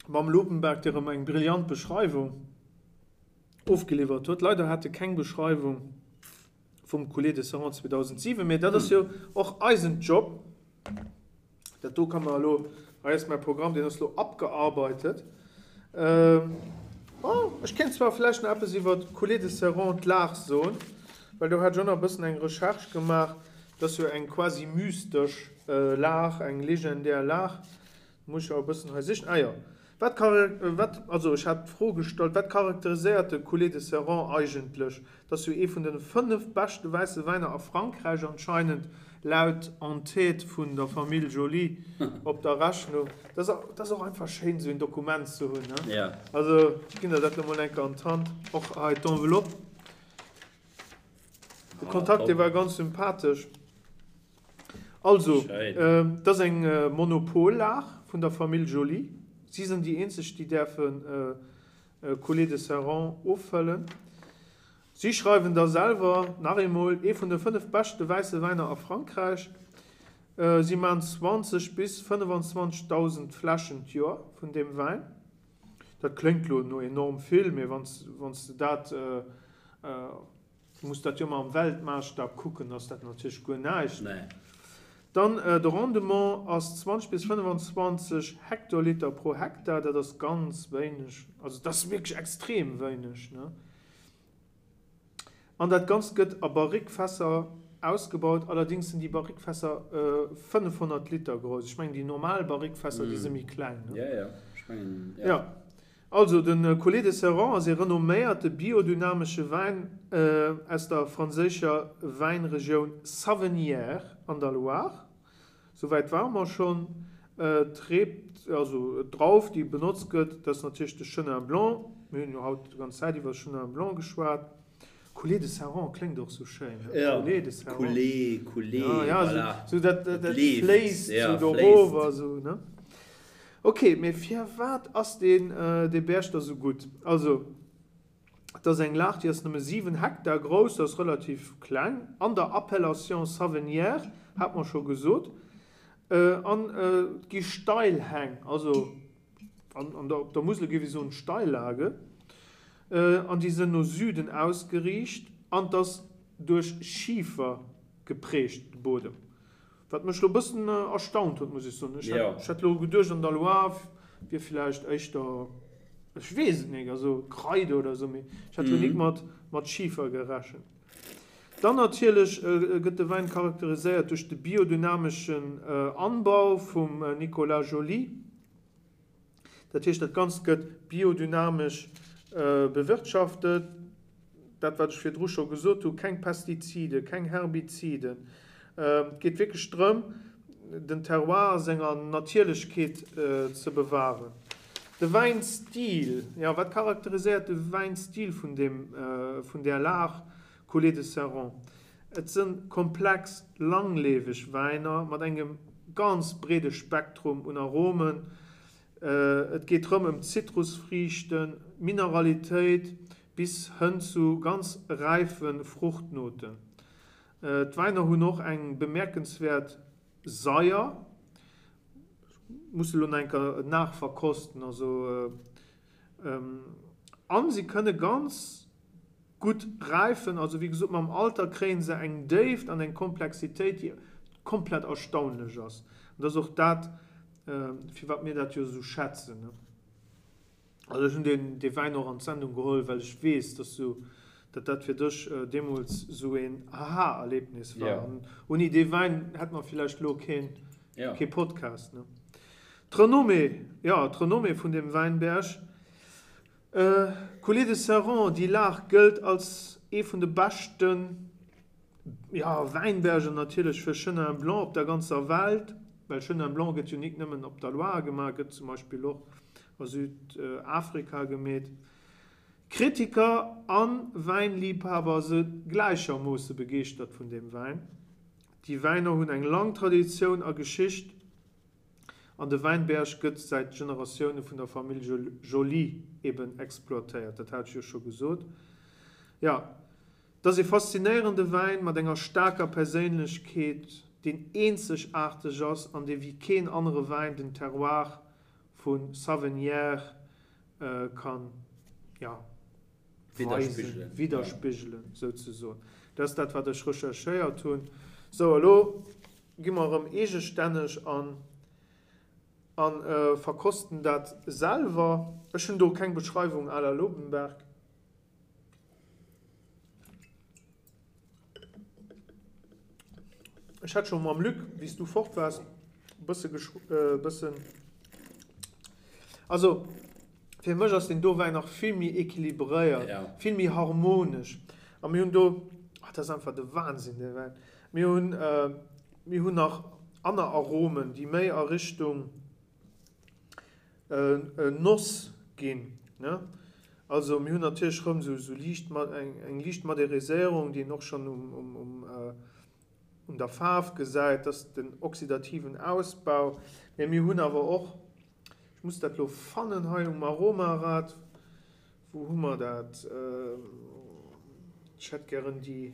mam Lobenberg, dee rëm eng brillant Beschreiwung ofgeliwwert huet. Leider hat e keng Beschreiwung vum Coulée de Serrant 2007, mä dat ass jo och eisen Job. Dat do kann mer elo, hei ass mäi Programm, deen ass elo abgearbeitet. Bon, ech kéint zwar vläicht nach eppes iwwer d'Coulée de Serrant, d'Lag soen, well do hat ech och nach e bëssen eng Recherche gemaach. Dat ass jo eng quasi mystesch Lag, eng legendär Lag. Muss ech awer e bëssen hei sichen. Ah jo. Wat, wat, also ech hat d'Fro gestallt, wat charakteriséiert de Coulée de Serrant eigentlech? Dat ass jo ee vun de 5 beschte wäisse Wäiner a Frankräich anscheinend, laut Entête vun der Famill Joly op der Rechnung. Dat ass, dat ass och einfach schéin, esou een Dokument ze hunn, ne? Ja. Also ech ginn der dat elo mol eng Kéier an d'Hand. Och hei d'Enveloppe. De Kontakt, dee war ganz sympathesch. Also, et ass eng Monopollag vun der Famill Joly. Si sinn déi eenzeg, déi däerfe Coulée de Serrant offëllen. Si schreiwen da selwer, nach eemol, ee vun de 5 beschte wäisse Wäiner a Frankräich. Si maachen 20 bis 25.000 Fläschen d'Joer vun deem Wäin. Dat kléngt lo no enorm vill, mee wann s de dat Du muss dat jo emmer am Weltmaasstap kucken, ass dat natierlech guer näischt. Nee. Dann de Rendement ass 20 bis 25 Hektoliter pro Hektar, dat ass ganz wéineg, also dat ass wierklech extrem wéineg, ne? An dat Ganzt gëtt a Barrique-Fässer ausgebaut, allerdings sinn déi Barrique-Fässer 500 Liter grouss. Ech mengen déi normal Barrique-Fässer, déi si méi kleng, ne? Jo, jo, ech mengen, jo. Jo. Also, de Coulée de Serrant ass ee renomméierte biodynamesche Wäin aus der franséischer Wäinregioun Savennières an der Loire. Souwäit ware mer schonn. D'Reeb, also d'Drauf, déi benotzt gëtt, dat ass natierlech de Chenin Blanc. Mir hunn jo haut déi ganz Zäit iwwer Chenin Blanc geschwat. Coulée de Serrant kléngt och sou schéin, ne? Ja, Coulée de Serrant. Coulée, Coulée, Ja, ja, voilà. sou, sou dat, dat, dat leeft, fléisst ja, sou do fléisst. rof a sou, ne? Ok, mee firwat ass deen, dee Berg da sou gutt? Also, et ass eng Lag, déi ass nëmme 7 Hektar grouss, dat ass relativ kleng, an der Appellation Savennières, hat mer scho gesot, an et gi Steilhäng, also an, an der, op der Musel géif ee soen Steillage, An déi sënn no Süden ausgeriicht an 't ass duerch Schifer geprägt, de Bodem. Wat mech lo bëssen erstaunt huet, muss ech soen. Ech hätt, ech hätt lo geduecht an der Loire wier villäicht éischter, ech weess et nik, also Kreide oder esou, mee ech hätt lo nik mat, mat Schifer gerechent. Dann natierlech gëtt de Wäin charakteriséiert duerch de biodynameschen Anbau vum Nicolas Joly. Dat heescht, dat Ganzt gëtt biodynamesch bewirtschaftet. Dat, wat ech virdru scho gesot hu, keng Pestizide, keng Herbiziden. Et geet wierklech drëm, den Terroir a senger Natierlechkeet ze bewahren. De Wäinstil, jo, wat charakteriséiert de Wäinstil vun deem, vun där Lag Coulée de Serrant? Et sënn komplex, langleweg Wäiner mat engem ganz breede Spektrum un Aromen. Et geet rëm ëm Zitrusfriichten, Mineralitéit bis hënn zu ganz räife Fruchtnoten. D'Wäiner hunn och eng bemierkenswäert Saier. Muss elo nach eng Kéier nachverkosten, also an si kënne ganz gutt räifen, also wéi gesot mam Alter kréien se eng Déift an eng Komplexitéit déi komplett erstaunlech ass. An dat ass och dat firwat mir dat jo esou schätzen. Also ech hunn deen dee Wäin och an d'Sendung geholl, well ech weess, dass du, datt dat fir dech deemools esou een Aha-Erlebnis war. An ouni dee Wäin hätt mer villäicht elo keen kee Podcast. D'Renommée, jo d'Renommée vun deem Wäinberg, Coulée de Serrant, déi Lag gëllt als ee vun de beschte Wäinberger natierlech fir Chenin Blanc op der ganzer Welt, well Chenin Blanc gëtt jo nik nëmmen op der Loire gemaach, gëtt zum Beispill och a Südafrika gemeet. Kritiker a Wäinliibhaber se gläichermoosse begeeschtert vun deem Wäin. Déi Wäiner hunn eng lang Traditioun a Geschicht. An de Wäinberg gëtt säit Generatioune vun der Famill Joly eben exploitéiert, dat hat ech jo scho gesot. Jo, et ass ee faszinéierende Wäin mat enger staarker Perséinlechkeet, deen eenzegaarteg ass an dee wéi keen anere Wäin den Terroir vu Savennières kann, jo, weisen, widderspigelen souzesoen. Dat ass dat, wat ech recherchéiert hunn. Sou, elo Gi mer erëm eegestänneg an a verkosten dat selwer. Ech hunn do keng Beschreiwung à la Lobenberg. Ech hat scho mam Luc, wéi s du fort waars, e bësse bëssen. Also fir mech ass deen do Wäin nach vill méi equilibréiert, vill méi harmonesch. A mir hunn do, ah dat ass einfach de Wahnsinn dee Wäin, mir hunn, mir hunn nach aner Aromen, déi méi a Richtung Noss ginn, ne. Also mir hunn natierlech rëm esou liicht, eng liicht Madériséierung, déi een och schonn um, um, un der Faarf gesäit, dass den oxidativen Ausbau, mä mir hunn awer och, ech muss dat elo fannen hei um Aromarad, wou hu mer dat, ech hätt gären déi,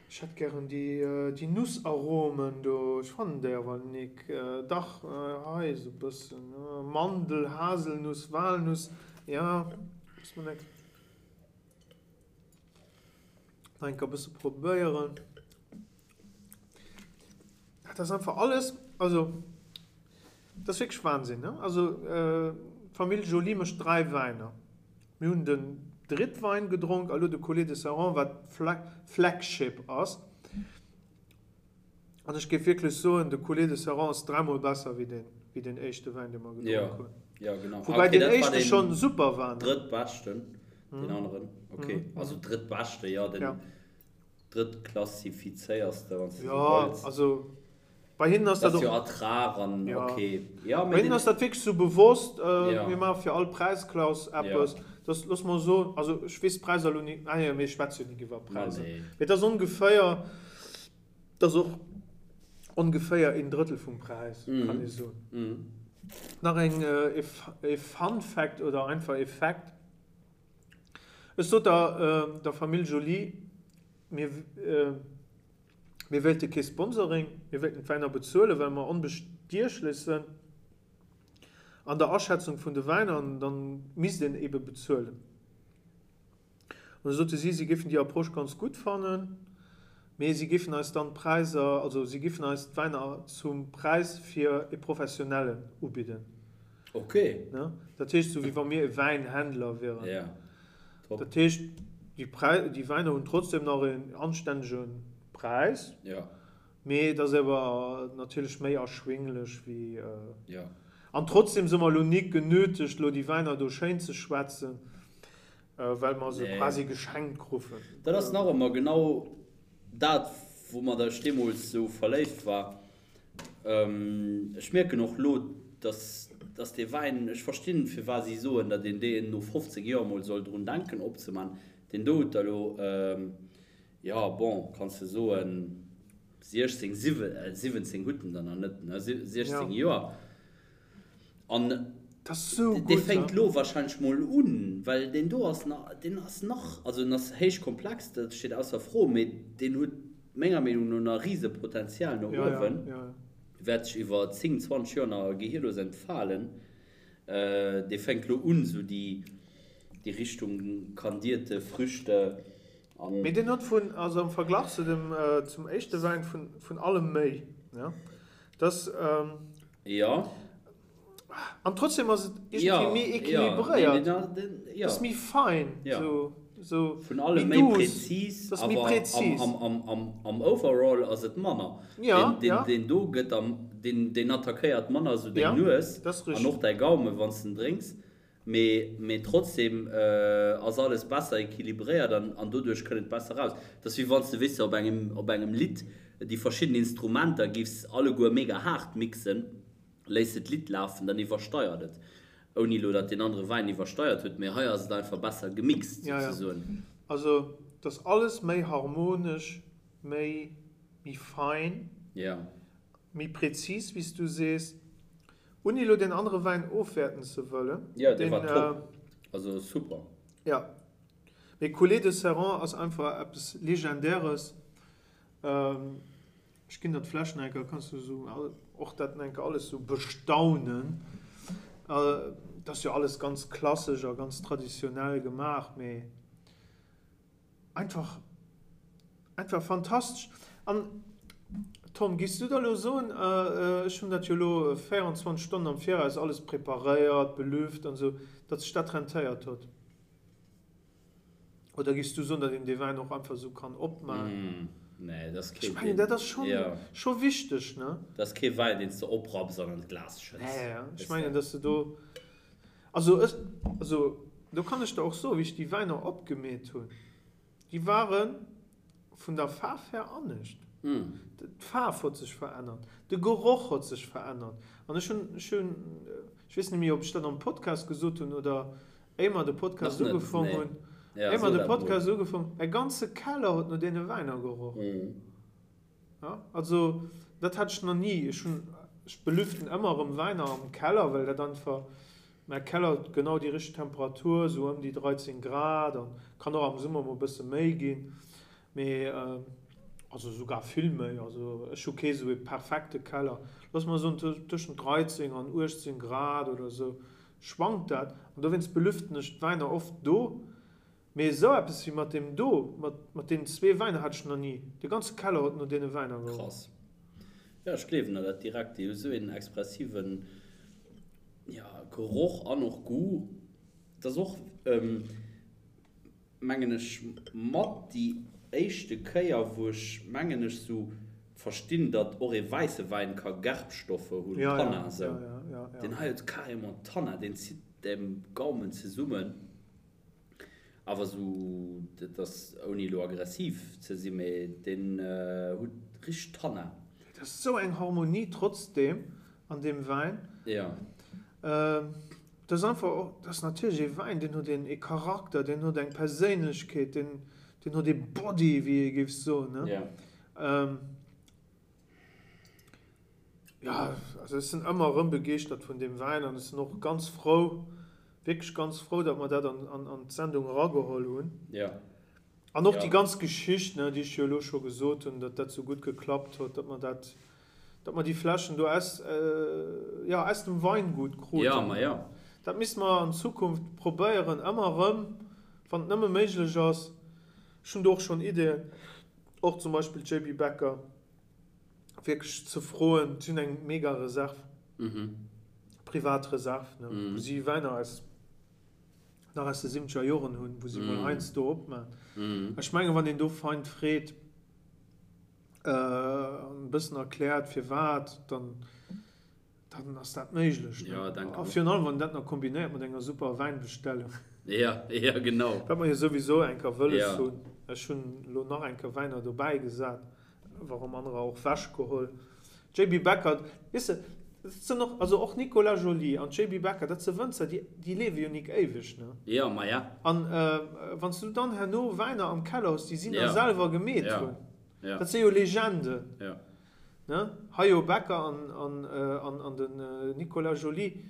ech hätt gären déi, déi Nussaromen do, ech fannen déi awer nik, dach hei esou e bëssen, Mandel, Haselnuss, Walnuss, jo, muss mer eng. Nach eng Kéier e bësse probéieren. Dat ass einfach alles, also dat ass wierklech Wahnsinn, ne? Also d'Famill Joly mécht 3 Wäiner. Mir hunn den Drittwein gedronk a lo de Coulée de Serrant, wat Flagship ass. An ech géif wierklech soen, de Coulée de Serrant ass dräimol besser wéi deen, wéi deen éischte Wäin, dee mer gedronk hunn. Ja, genau. Woubäi okay, deen dat war éischte den schonn super war, ne? Drëttbeschten, deen aneren. Okay, also drëttbeschte, jo, den Ja. drëttklassifizéierste, wann s de esou Ja, wëlls. also bei hinnen ass Dat dat ass jo och. Ertrag an Ja. okay. Ja, Bei mee hinnen den. ass dat wierklech sou bewosst, Ja. mir maache fir all Präisklass Ja. eppes. Dass, looss mer soen, also ech weess d'Präisser elo ni, ah jo, mir schwätze jo nik iwwer Ma Präisser. nee. Mee et ass ongeféier. Dat ass och ongeféier een Drëttel vum Präis, kann ee soen. Nach eng e Fun Fact oder einfach e Fact, Ech sot der der Famill Joly, mir mir wéilte kee Sponsoring, mir wéilten d'Wäiner bezuelen, well mer onbestiechlech sënn an der Aschätzung vun de Wäiner an dann misst een ebe bezuelen. An da sote si, si géifen déi Approche ganz gutt fannen, mee si géifen eis dann d'Präisser, also si géifen eis d'Wäiner zum Präis fir e Professionellen ubidden. Ok. Ne? Dat heescht, esou wéi wa mir e Wäinhändler wieren. Ja, top. Dat heescht, déi Präi, déi Wäiner hunn trotzdem nach en anstännege Präis. Ja. Mee et ass awer natierlech méi erschwinglech wéi. Ja. An trotzdem si mer elo nik genötegt, elo déi Wäiner do schéin ze schwätzen. Well mer se quasi geschenkt krufen. Dat ass nach ëmmer genau dat, woumat ech deemools esou verléift war. Ech mierken och elo, dass, dass dee Wäin, ech verstinn, firwat si soen, datt een deen no 15 Joer emol soll drun denken opzeman. Deen do huet der elo, jo, bon, kanns de soen, 16, 17 hutt en der nach net, ne, 16 Joer. An dee fänkt lo wahrscheinlech mol un, well deen do ass nach, deen ass nach, also en ass héich komplex, dat steet ausser Fro, mee deen huet menger Meenung no nach Risepotenzial no uewen, wäert sech iwwer 10, 20 Joer nach gehirlos entfalen. Dee fänkt lo un, esou déi Richtung kandierte Früchte an. Mee deen huet vun, also am Verglach zu dem, zum éischte Wäin, vun allem méi, ne? Dass, Jo. An trotzdem ass et iergendwéi méi equilibréiert. Et ass méi fein. Sou, Vun allem méi präzis, awer am Overall ass et manner. Deen do gëtt am, deen attackéiert manner sou deng Nues an och däi Gaume wann s de en drénks. Mee trotzdem ass alles besser equilibréiert an doduerch kënnt et besser raus. Et ass wéi wann s de, weess de, op engem, op engem Lidd déi verschidden Instrumenter giffs alleguer mega haart mixen, léiss de d'Lidd lafen, dann iwwersteiert et. Ouni elo datt deen anere Wäin iwwersteiert huet, mee hei ass et einfach besser gemixt souzesoen. Jo, jo. Also et ass alles méi harmonesch, méi, méi fein, méi präzis, wéi s du sees. Ouni elo deen anere Wäin ofwäerten ze wëllen. Jo, dee war top. Also super. Jo. Mee Coulée de Serrant ass einfach eppes Legendäres. Ech ginn der d'Fläsch nach eng Kéier, kanns du esou och dat nach eng Kéier alles esou bestaunen. Et ass jo alles ganz klassesch a ganz traditionell gemaach, mee. Einfach, einfach fantastesch. An Tom, giffs du da lo soen, ech hunn dat jo lo 24 Stonnen am Viraus alles preparéiert, belüft an esou, datt sech dat rentéiert huet? Oder giffs du soen, datt een dee Wäin och einfach esou kann opman? Nee, dat ass kee. Ech mengen, dat ass scho, scho wichteg, ne? Dat ass kee Wäin, deen s de oprapps an an d'Glas schëtts. Nee, ech mengen, datt s de do. Also ech, also do kann ech der och soen, wéi ech déi Wäiner opgemeet hunn, déi ware vun der Faarf her anescht. D'Faarf huet sech verännert, de Geroch huet sech verännert. An ech hunn, ech hunn, ech weess net méi, ob ech dat am Podcast gesot hunn oder éier mer de Podcast ugefong hunn, éier mer de Podcast ugefong, mäi ganze Keller huet no deene Wäiner geroch. Ja, also dat hat ech nach ni. Ech hunn, ech belüften ëmmer erëm Wäiner am Keller, well dat einfach, mäi Keller huet genau déi richteg Temperatur, esou ëm déi 13 Grad an kann och am Summer mol e bësse méi ginn, mee also sougar vill méi. Also ech hu kee sou ee perfekte Keller. Looss mer soen tëschent 13 an 18 Grad oder esou schwankt dat an dowéinst belüften ech d'Wäiner oft do. Mee esou eppes wéi mat deem do, mat mat deenen zwee Wäiner hat ech nach ni. De ganze Keller huet no deene Wäiner geroch. Krass. Jo, ech gleewen der dat direkt. Déi hu sou een expressiven, jo, Geroch an och Goût. Et ass och, mengen ech, mat déi éischte Kéier, wou ech, mengen ech, sou verstinn, datt och ee wäisse Wäin ka Gerbstoffe hunn, Tannin esou. Deen hei huet carrément Tannin, deen zitt dem Gaumen zesummen. Awer sou, dat ass ouni elo aggressiv ze sinn, mee deen huet richteg Tannin. Et ass sou eng Harmonie trotzdem an deem Wäin. Jo. Dat ass einfach och, dat ass natierlech ee Wäin, deen huet een ee Charakter, deen huet eng Perséinlechkeet, deen deen huet ee Body, wéi ee géif soen, ne? Jo. Jo, also ech sinn ëmmer erëm begeeschtert vun deem Wäin an ech sinn och ganz frou, wierklech ganz frou, datt mer dat an d'Sendung erageholl hunn. Jo. An och déi ganz Geschicht, ne, déi ech jo elo scho gesot hunn, datt dat esou gutt geklappt huet, datt mer dat, datt mer déi Fläschen do aus, jo, aus dem Weingut kruten. Jo, ma jo. Dat misste mer an Zukunft probéieren, ëmmer erëm, wann et nëmme méiglech ass. Ech hunn do och schonn Ideeën, och zum Beispill JB Becker. wierklech ze froen, si hunn eng mega Reserv, privat Reserv, ne, wou si Wäiner aus, nach aus de siwwenzeger Joren hunn, wou si mol heiansdo opman. Ech mengen, wann een do fein freet an e bëssen erkläert firwat, dann Dann ass dat méiglech, ne? Ja, denken A virun allem, wann een dat nach kombinéiert mat enger super Wäinbestellung. Ja, ja, genau. Wat mer jo souwisou eng Kéier wëlles Ja. hunn. Ech hunn elo nach eng Kéier Wäiner dobäi gesat, warum anerer och wechgeholl. JB Becker, weess de, dat sinn och, also och Nicolas Joly an JB Becker, dat si Wënzer, déi, déi liewe jo nik éiweg, ne? Ja, ma ja. An wann s du dann herno Wäiner am Keller hues, déi si nach Ja. selwer gemeet Ja. hunn, Ja. dat si jo Legenden. Ja. Ne? Hajo Becker an, an, an, an den Nicolas Joly,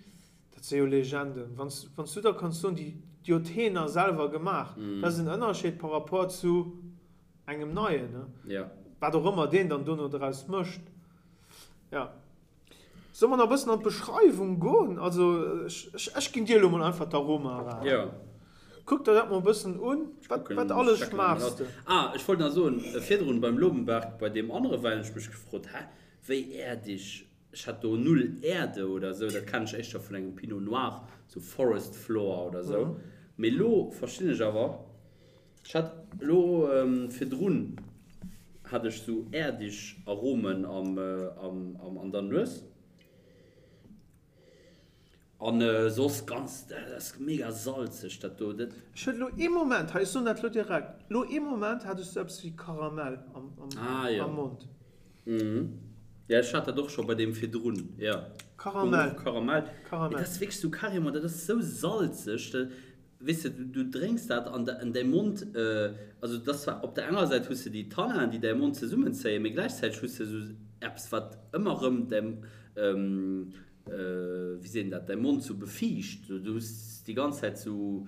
dat si jo Legenden. Wann s, wann s du da kanns soen, déi, déi huet heen nach selwer gemaach, dat ass en Ënnerscheed par rapport zu engem Neien, ne? Ja. Wat och ëmmer deen dann dono draus mécht. Ja. Solle mer nach e bëssen an d'Beschreiwung goen? Also, ech, ech, ech ginn dir elo mol einfach d'Aroma era. Ja. Kuck der dat mol e bëssen un. Ech Wat, kucken, wat ech alles checken dat mol schmaachs aus. de? Ah, ech wollt nach soen, virdrun beim Lobenberg, bei deem anere Wäin, hunn ech mech gefrot, hä, wéi äerdeg? Ech hat do null Äerde oder esou, dat kennen ech éischter vun engem Pinot Noir, sou Forest Floor oder esou. Mee elo verstinn ech awer, Ech hat elo virdrun hat ech sou äerdeg Aromen am an der Nues an soss ganz, dat ass mega salzeg dat do. Dat. Ech huet elo ee Moment, hei ech soen dat elo direkt, elo ee Moment hat ech sou eppes wéi Karamell am Mond. Jo ech hat dat och scho bei deem virdrun, jo. Karamell. Karamell. Mee dat ass wierklech sou carrément, dat ass sou salzeg. Weess de, du drénks dat an däi Mond, also et ass zwar, op der enger Säit hues de déi Tanninen, déi däi Mond zesummenzéien, mee gläichzäiteg hues de esou eppes, wat ëmmer erëm däi, wéi seet een dat, däi Mond sou befiicht. Du hues déi ganz Zäit sou.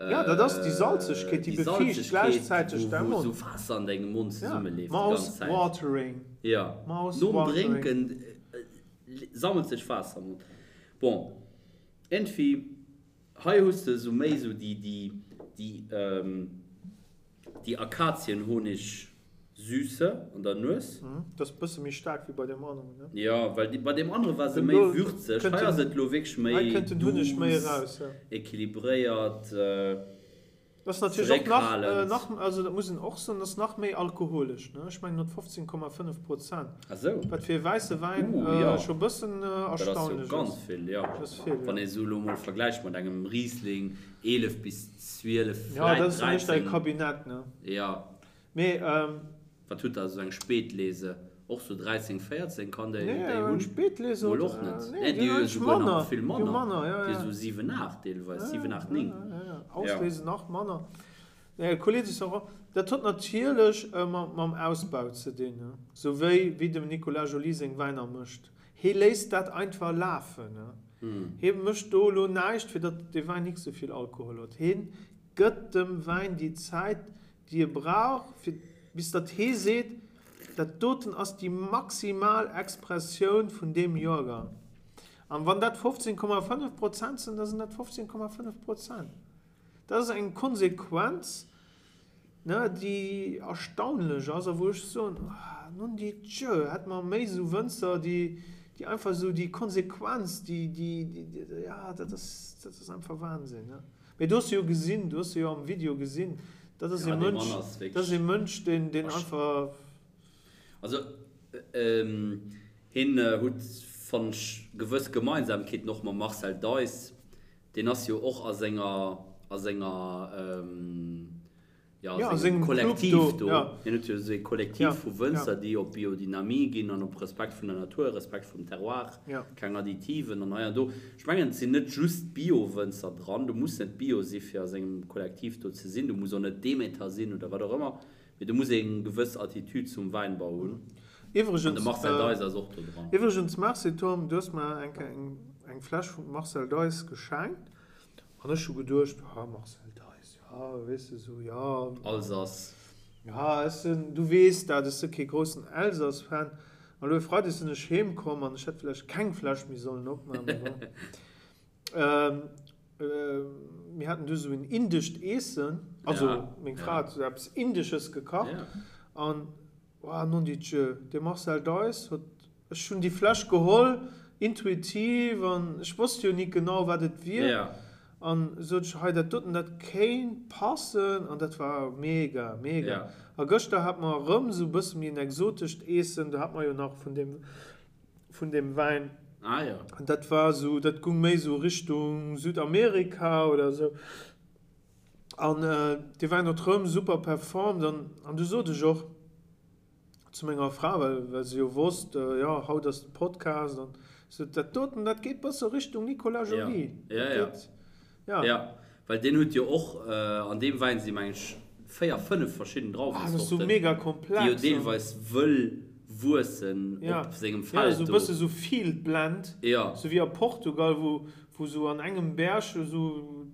Ja, dat ass déi Salzegkeet, déi befiicht gläichzäiteg däi Mond. Wou sou Waasser an dengem Mond zesummeleeft déi ganz Zäit. Mouth-watering. Ja, nom Drénken sammelt sech Waasser am Mond. Bon, iergendwéi. Hei hues de sou méi sou déi déi déi déi Akazienhonig-Süße an der Nues. Dat ass bësse méi staark wéi bei deem aneren, ne? Jo, well bei deem anere war se méi würzeg. Hei ass et lo wierklech méi Hei kënnt den Hunneg méi douce, eraus, jo. équilibréiert. Dat ass natierlech och nach, nach, also dat muss een och soen, dat ass nach méi alkoholesch, ne? Ech mengen huet 15,5 Prozent. Ah sou. Wat fir e wäisse Wäin Uh, jo. scho bëssen Dat ass jo erstaunlech ass. ganz vill, jo. Dat ass vill, jo. Wann ee sou elo mol vergläicht mat engem Riesling, 11 bis 12, Ja, dat vläit ass dann éischter e 13. Kabinett, ne? Jo. Mee, Wat hutt der, esou eng Spätlese? Och sou 13, 14 kann déi Nee, déi hunn? Spätlese Mol huet, och net. nee, Nee, déi déi hunn hu jo eigentlech souguer nach manner. vill Déi hu manner. manner, ja, Déi ja. sou 7, 8 deelweis, Ja, 7, 8, ja, 9. ja, ja. Ja. Auslese nach manner. Nee, Coulée de Serrant, dat huet natierlech mam Ausbau ze dinn, ne? Sou wéi wéi dem Nicolas Joly seng Wäiner mécht. Hee léisst dat einfach lafen, ne? Hee mécht do elo näischt, fir datt dee Wäin nik sou vill Alkohol huet. Heen gëtt dem Wäin déi Zäit, déi e brauch, fir bis datt hee seet, dat doten ass déi maximal Expressioun vun deem Joergang. An wann dat 15,5 Prozent sinn, da sinn dat 15,5 Prozent. Dat ass eng Konsequenz, ne, déi erstaunlech ass a wou ech soen, non di Dieu, hätte mer méi esou Wënzer, déi, déi einfach esou déi Konsequenz, déi, déi, déi, ja, dat ass, dat ass einfach Wahnsinn, ne. Mee do hues de jo gesinn, du hues se jo am Video gesinn, dat ass e Mënsch, dat ass e Mënsch, deen, deen einfach. Also hien hutt, fannen ech, gewëss Gemeinsamkeeten och mam Marcel Deiss. Deen ass jo och a senger, a senger, jo, a sengem Kollektiv do. Hien huet jo esou ee Kollektiv vu Wënzer, déi op Biodynamie ginn an op Respekt vun der Natur, Respekt vum Terroir, keng Additiven an hei an do. Ech mengen, et sinn net just Bio-Wënzer dran. Du muss net Bio si fir a sengem Kollektiv do ze sinn. Du muss och net Demeter sinn oder wat och ëmmer. Mee du muss eng gewëss Attitude zum Wäinbau hunn. An de Marcel Deiss ass och do dran. Iwwregens, Merci Tom, du hues mer eng Kéier eng Fläsch vum Marcel Deiss geschenkt. An ech hu geduecht, ah, Marcel Deiss, jo, weess de, sou, jo. Alsace. Jo, ech sinn, du weess dat, ech si kee groussen Elsass-Fan. An elo e Freideg sinn ech heem komm an ech hätt vläicht keng Fläsch méi sollen opmaachen, mee bon. Mir haten du sou en indescht Eessen, also meng Fra hat sou eppes Indesches gekacht an, oh non di Dieu, de Marcel Deiss huet Ech hunn déi Fläsch geholl, intuitiv, an ech wosst jo nik genau, wat et wier. An sot ech, hei dat doten, dat kéint passen. An dat war mega, mega. A gëschter hat mer erëm esou e bësse méi en exotescht Eessen, do hat mer jo nach vun deem, vun deem Wäin. An dat war esou, dat gung méi esou Richtung Südamerika oder esou. An dee Wäin huet rëm super performt. An du sot ech och, zu menger Fra, well, well se jo wosst, jo, haut ass de Podcast an sou, dat doten, dat geet bësse Richtung Nicolas Joly. Ja, ja, ja. Ja. Ja, well deen huet jo och, an deem Wäin si meng ech 4, 5 verschidden Ah, dat ass sou mega komplex. Déi jo deelweis wëll wuessen op sengem Feld do. Ja, sou bësse sou Field Blend, sou wéi a Portugal, wou, wou sou an engem Berg sou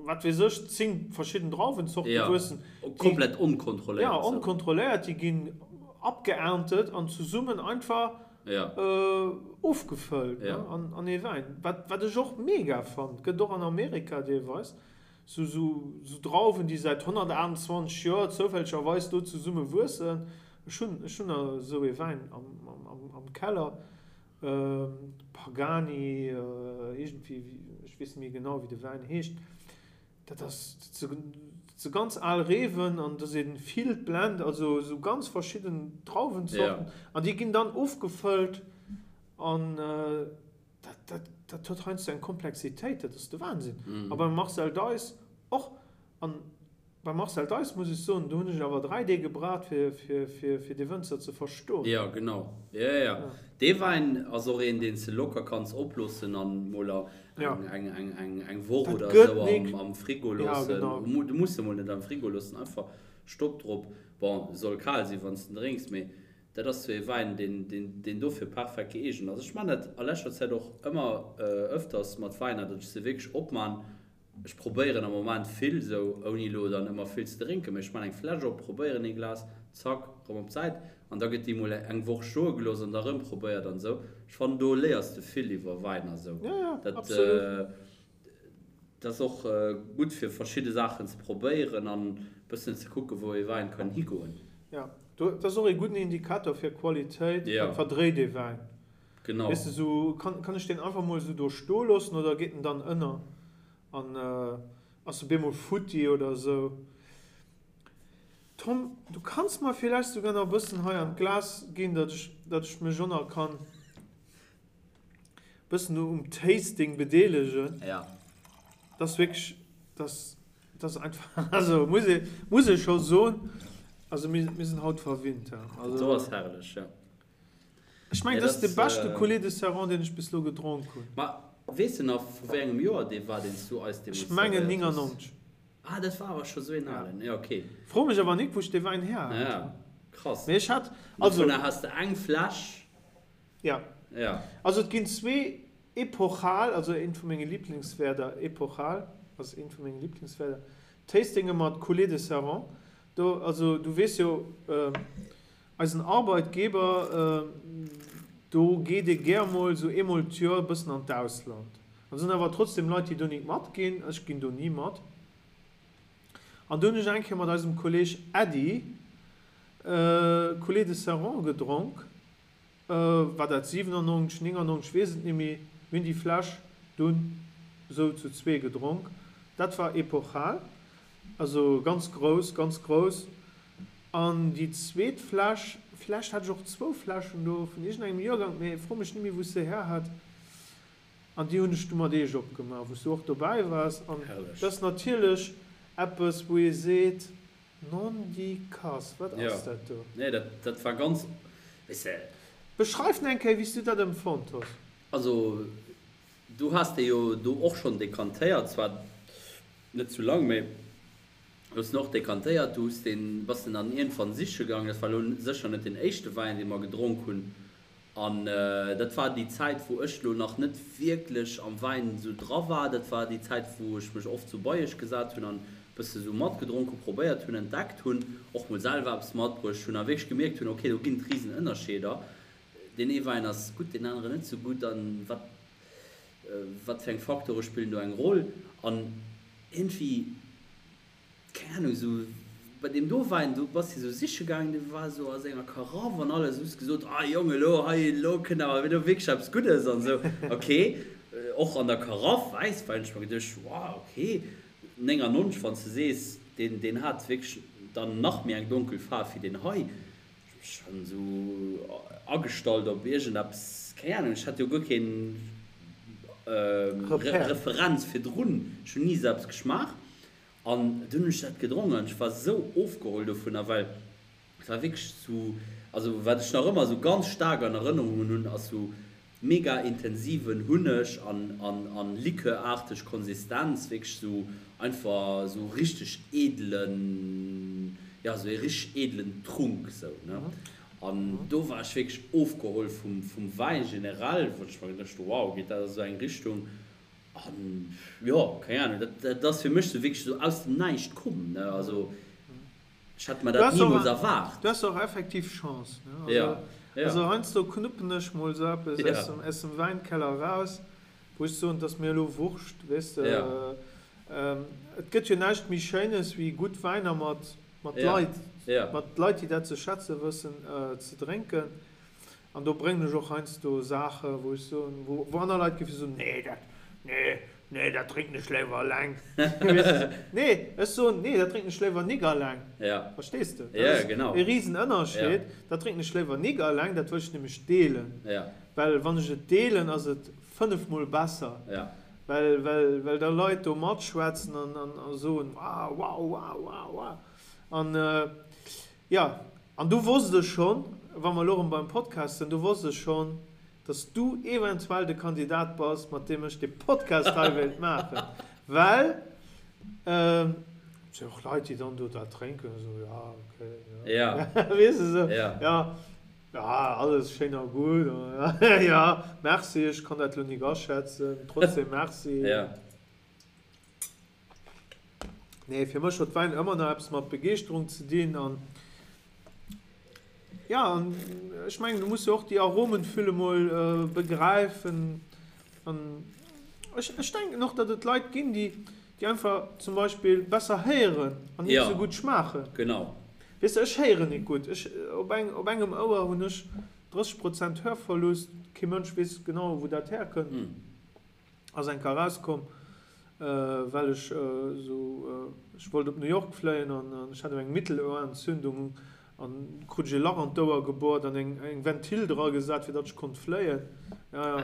wat weess ech, 10 verschidden Drauwenzorte ja, wuessen. Komplett onkontrolléiert. Ja, onkontrolléiert, déi ginn abgeerntet an zesummen einfach ja. äh, ofgefëllt ja. ne, an, an ee Wäin. Wat, wat ech och mega fand, gëtt och an Amerika deelweis, sou, sou, sou Drauwen, déi säit 128 Joer zoufällegerweis do zesumme wuessen. Ech hunn, ech hunn esou ee Wäin am, am, am Keller. Pagani, iergendwéi, ech weess net méi genau wéi de Wäin heescht, dat ass, dat si ganz al Reewen an do si vill Blend, also esou ganz verschidden Drauwenzorten an déi ginn dann ofgefëllt an dat, dat, dat huet heiansdo eng Komplexitéit, dat ass de Wahnsinn. A beim Marcel Deiss och an Beim Marcel Deiss muss ech soen, do hunn ech awer 3 Deeg gebraucht fir fir dee Wënzer ze verstoen. Jo genau, jo jo dee Wäin ass och een deen s de locker kanns oploossen an mol eng Woch oder esou am Frigo loossen. Du muss e mol net am Frigo loossen, einfach Stopp drop. Bon, soll kal sinn wann s de en drénks, mee dat ass sou ee Wäin deen deen dofir perfekt gëeegent ass. Ech man dat a leschter Zäit och ëmmer ëfters mat Wäiner, datt ech se wierklech opman Ech probéieren am Moment vill, sou ouni elo dann ëmmer vill ze drénken, mee ech man eng Fläsch op, probéieren ee Glas, zack, rëm op d'Säit an da gëtt déi mol eng Woch stoe gelooss an da rëm probéiert an sou. Ech fannen do léiers de vill iwwer Wäin a sou. Ja, ja, Dat absolut. dat ass och gutt fir verschidde Saachen ze probéieren an bëssen ze kucken wou ee Wäin kann higoen. Ja, do, dat ass och ee gudden Indikator fir Qualitéit, Ja. wat verdréit ee Wäin. Genau. Weess de, sou, kann, kann ech deen einfach mol sou do stoe loossen oder geet en dann ënner? An. Ass op eemol futti oder esou. Tom, du kanns mer villäicht souguer nach e bëssen hei an d'Glas ginn, datt ech, datt ech mech och nach kann bëssen um Tasting bedeelegen. Ja. Dat ass wierklech, dat ass, dat ass einfach, also muss ee, muss ee scho soen, also mir, mir sinn haut verwinnt, ja. Also, Dat do ass herrlech, ja. Ech mengen, dat ass de beschte Coulis de Serrant, deen ech bis elo gedronk hunn. Ma weess de nach, vu wéi engem Joer dee war, deen s du eis deemools Ech mengen servéiert hues? 99. Ah, dat war awer scho sou een alen. Jo, ok. Fro mech awer nik, wou ech dee Wäin her hat. Ja, krass. Mee ech hat, also. Dovunner has de eng Fläsch. Ja. Ja. Also et ginn zwee epochal, also eent vu menge Liblingswäerder, epochal ass eent vu menge Liblingswäerder, Tastinge mat Coulis de Serrant. Do, also du weess jo, Eisen Arbeitgeber, do geet ee gär mol sou eemol d'Joer e bëssen an d'Ausland. An et sinn awer trotzdem Leit, déi do nik matginn. Ech ginn do ni mat. An do hunn ech eng Kéier mat eisem Kolleg Äddi Coulis de Serrant gedronk. War dat 97, 99, weess et nimmi. Mir hunn déi Fläsch dunn sou zu zwee gedronk. Dat war epochal. Also ganz grouss, ganz grouss. An déi zweet Fläsch, villäicht hat ech och zwou Fläschen do vun iergendengem Joergank, mee fro mech nimmi wou ech se her hat. An déi hunn ech du mat eech opgemaach, wou s du och dobäi waars. An Herrlech. dat ass natierlech eppes, wou ee seet, Nondikass, wat Jo, ass dat do? nee, dat, dat war ganz, weess de. Beschreif eng Kéier, wéi s du dat empfonnt hues. Also, du has dee jo do och schonn dekantéiert, zwar net zu lang, mee du hues en och dekantéiert, du hues deen, bass den dann iergendwann siche gaangen. Dat war elo sécher net deen éischte Wäin, dee mer gedronk hunn. An dat war déi Zäit, wou ech elo nach net wierklech am Wäin esou dra war. Dat war déi Zäit, wou ech mech oft sou bei iech gesat hunn an e bësse sou matgedronk hunn, probéiert hunn, entdeckt hunn, och mol selwer eppes matbruecht hunn a wierklech gemierkt hunn, okay, do ginn et risen Ënnerscheeder. Deen ee Wäin ass gutt, deen aneren net sou gutt an wat wat fir eng Faktore spillen do eng Roll an iergendwéi, keng Ahnung, esou bei deem do Wäin, do bass de esou siche gaangen, dee war esou a senger Karaff an alles, hues gesot, ah Jong, elo hei, elo kënnt awer elo wierklech eppes Guddes an esou, ok, och an der Karaff Wäisswäin, hu ech mer geduecht, wow, ok, 99, wann s de sees, deen, deen hat wierklech dann nach méi eng donkel Faarf wéi deen hei. Schon sou agestallt op iergendeppes, keng Ahnung, ech hat jo guer keen Referenz virdrun, ech hunn ni sou eppes geschmaach an dunn hunn ech dat gedronk an ech war sou ofgeholl dovunner, well et war wierklech sou, also wat ech nach ëmmer sou ganz staark an Erënnerungen hunn, ass sou Mega intensiven Hunneg an an Likör-arteg Konsistenz, wierklech sou einfach sou richteg edelen, jo sou ee richteg edelen Trunk sou ne. An do war ech wierklech ofgeholl vum vum Wäin generell, wou ech mer geduecht hu wow, geet dat a sou eng Richtung an jo keng Ahnung, dat dat ass fir mech sou wierklech sou aus dem Näischt komm ne, also. Ech hätt mer dat nimools erwaart. Du has och effektiv Chance, ne? Also, ja, ja. Also heiansdo knuppen ech mol sou eppes ja. aus dem, aus dem Wäinkeller raus, wou ech soen, 't ass mir elo Wurscht, weess de. Ja. Ähm, et gëtt jo näischt méi Schéines wéi gutt Wäiner mat, mat ja. Leit, ja. mat Leit, déi dat ze schätze wëssen, äh, ze drénken. An do bréngen ech och heiansdo Saachen, wou ech soen, wou, wou aner Leit géife soen, nee, dat, nee, nee, dat drénken ech léiwer eleng. Nee, ech soen, nee, dat drénken ech léiwer nik eleng. Ja. Verstees de? Dat ass genau. e Risenënnerscheed. Ja. Dat drénken ech léiwer nik eleng, dat wëll ech nämlech deelen. Ja. Well wann ech et deelen, ass et fënnefmol besser. Ja. Well, well, well da Leit do matschwätzen an, an, a soen, wow, wow, wow, wow, wow. An, jo. An du wosst ech schonn, wa mer elo erëm beim Podcast sinn, du wosst ech schonn, dass du eventuell de Kandidat bass, mat deem ech dee Podcast hei wéilt maachen, well et si och Leit, déi dann do dat drénken, esou, ja, okay, ja, weess de, esou, ja, ja, alles schéin a gutt, ja, merci, ech kann dat elo nik aschätzen, trotzdem merci. Nee, fir mech huet Wäin ëmmer nach eppes mat Begeeschterung ze dinn an ja, an ech mengen, du muss jo och déi Aromenfülle mol begräifen an ech, ech denken och, datt et Leit ginn, déi, déi einfach zum Beispill besser héieren an net esou gutt schmaachen. Genau. Weess de, ech héieren nik gutt. Ech, op eng, op engem Ouer hunn ech 30 Prozent Hörverlust, kee Mënsch weess genau, wou dat herkënnt. Ass eng Kéier erauskomm. Well ech esou, ech wollt op New York fléien an ech hat eng Mittelohrentzündung an krut ech e Lach an d'Ouer gebohrt an eng eng Ventil dra gesat fir datt ech konnt fléien. Ja ja.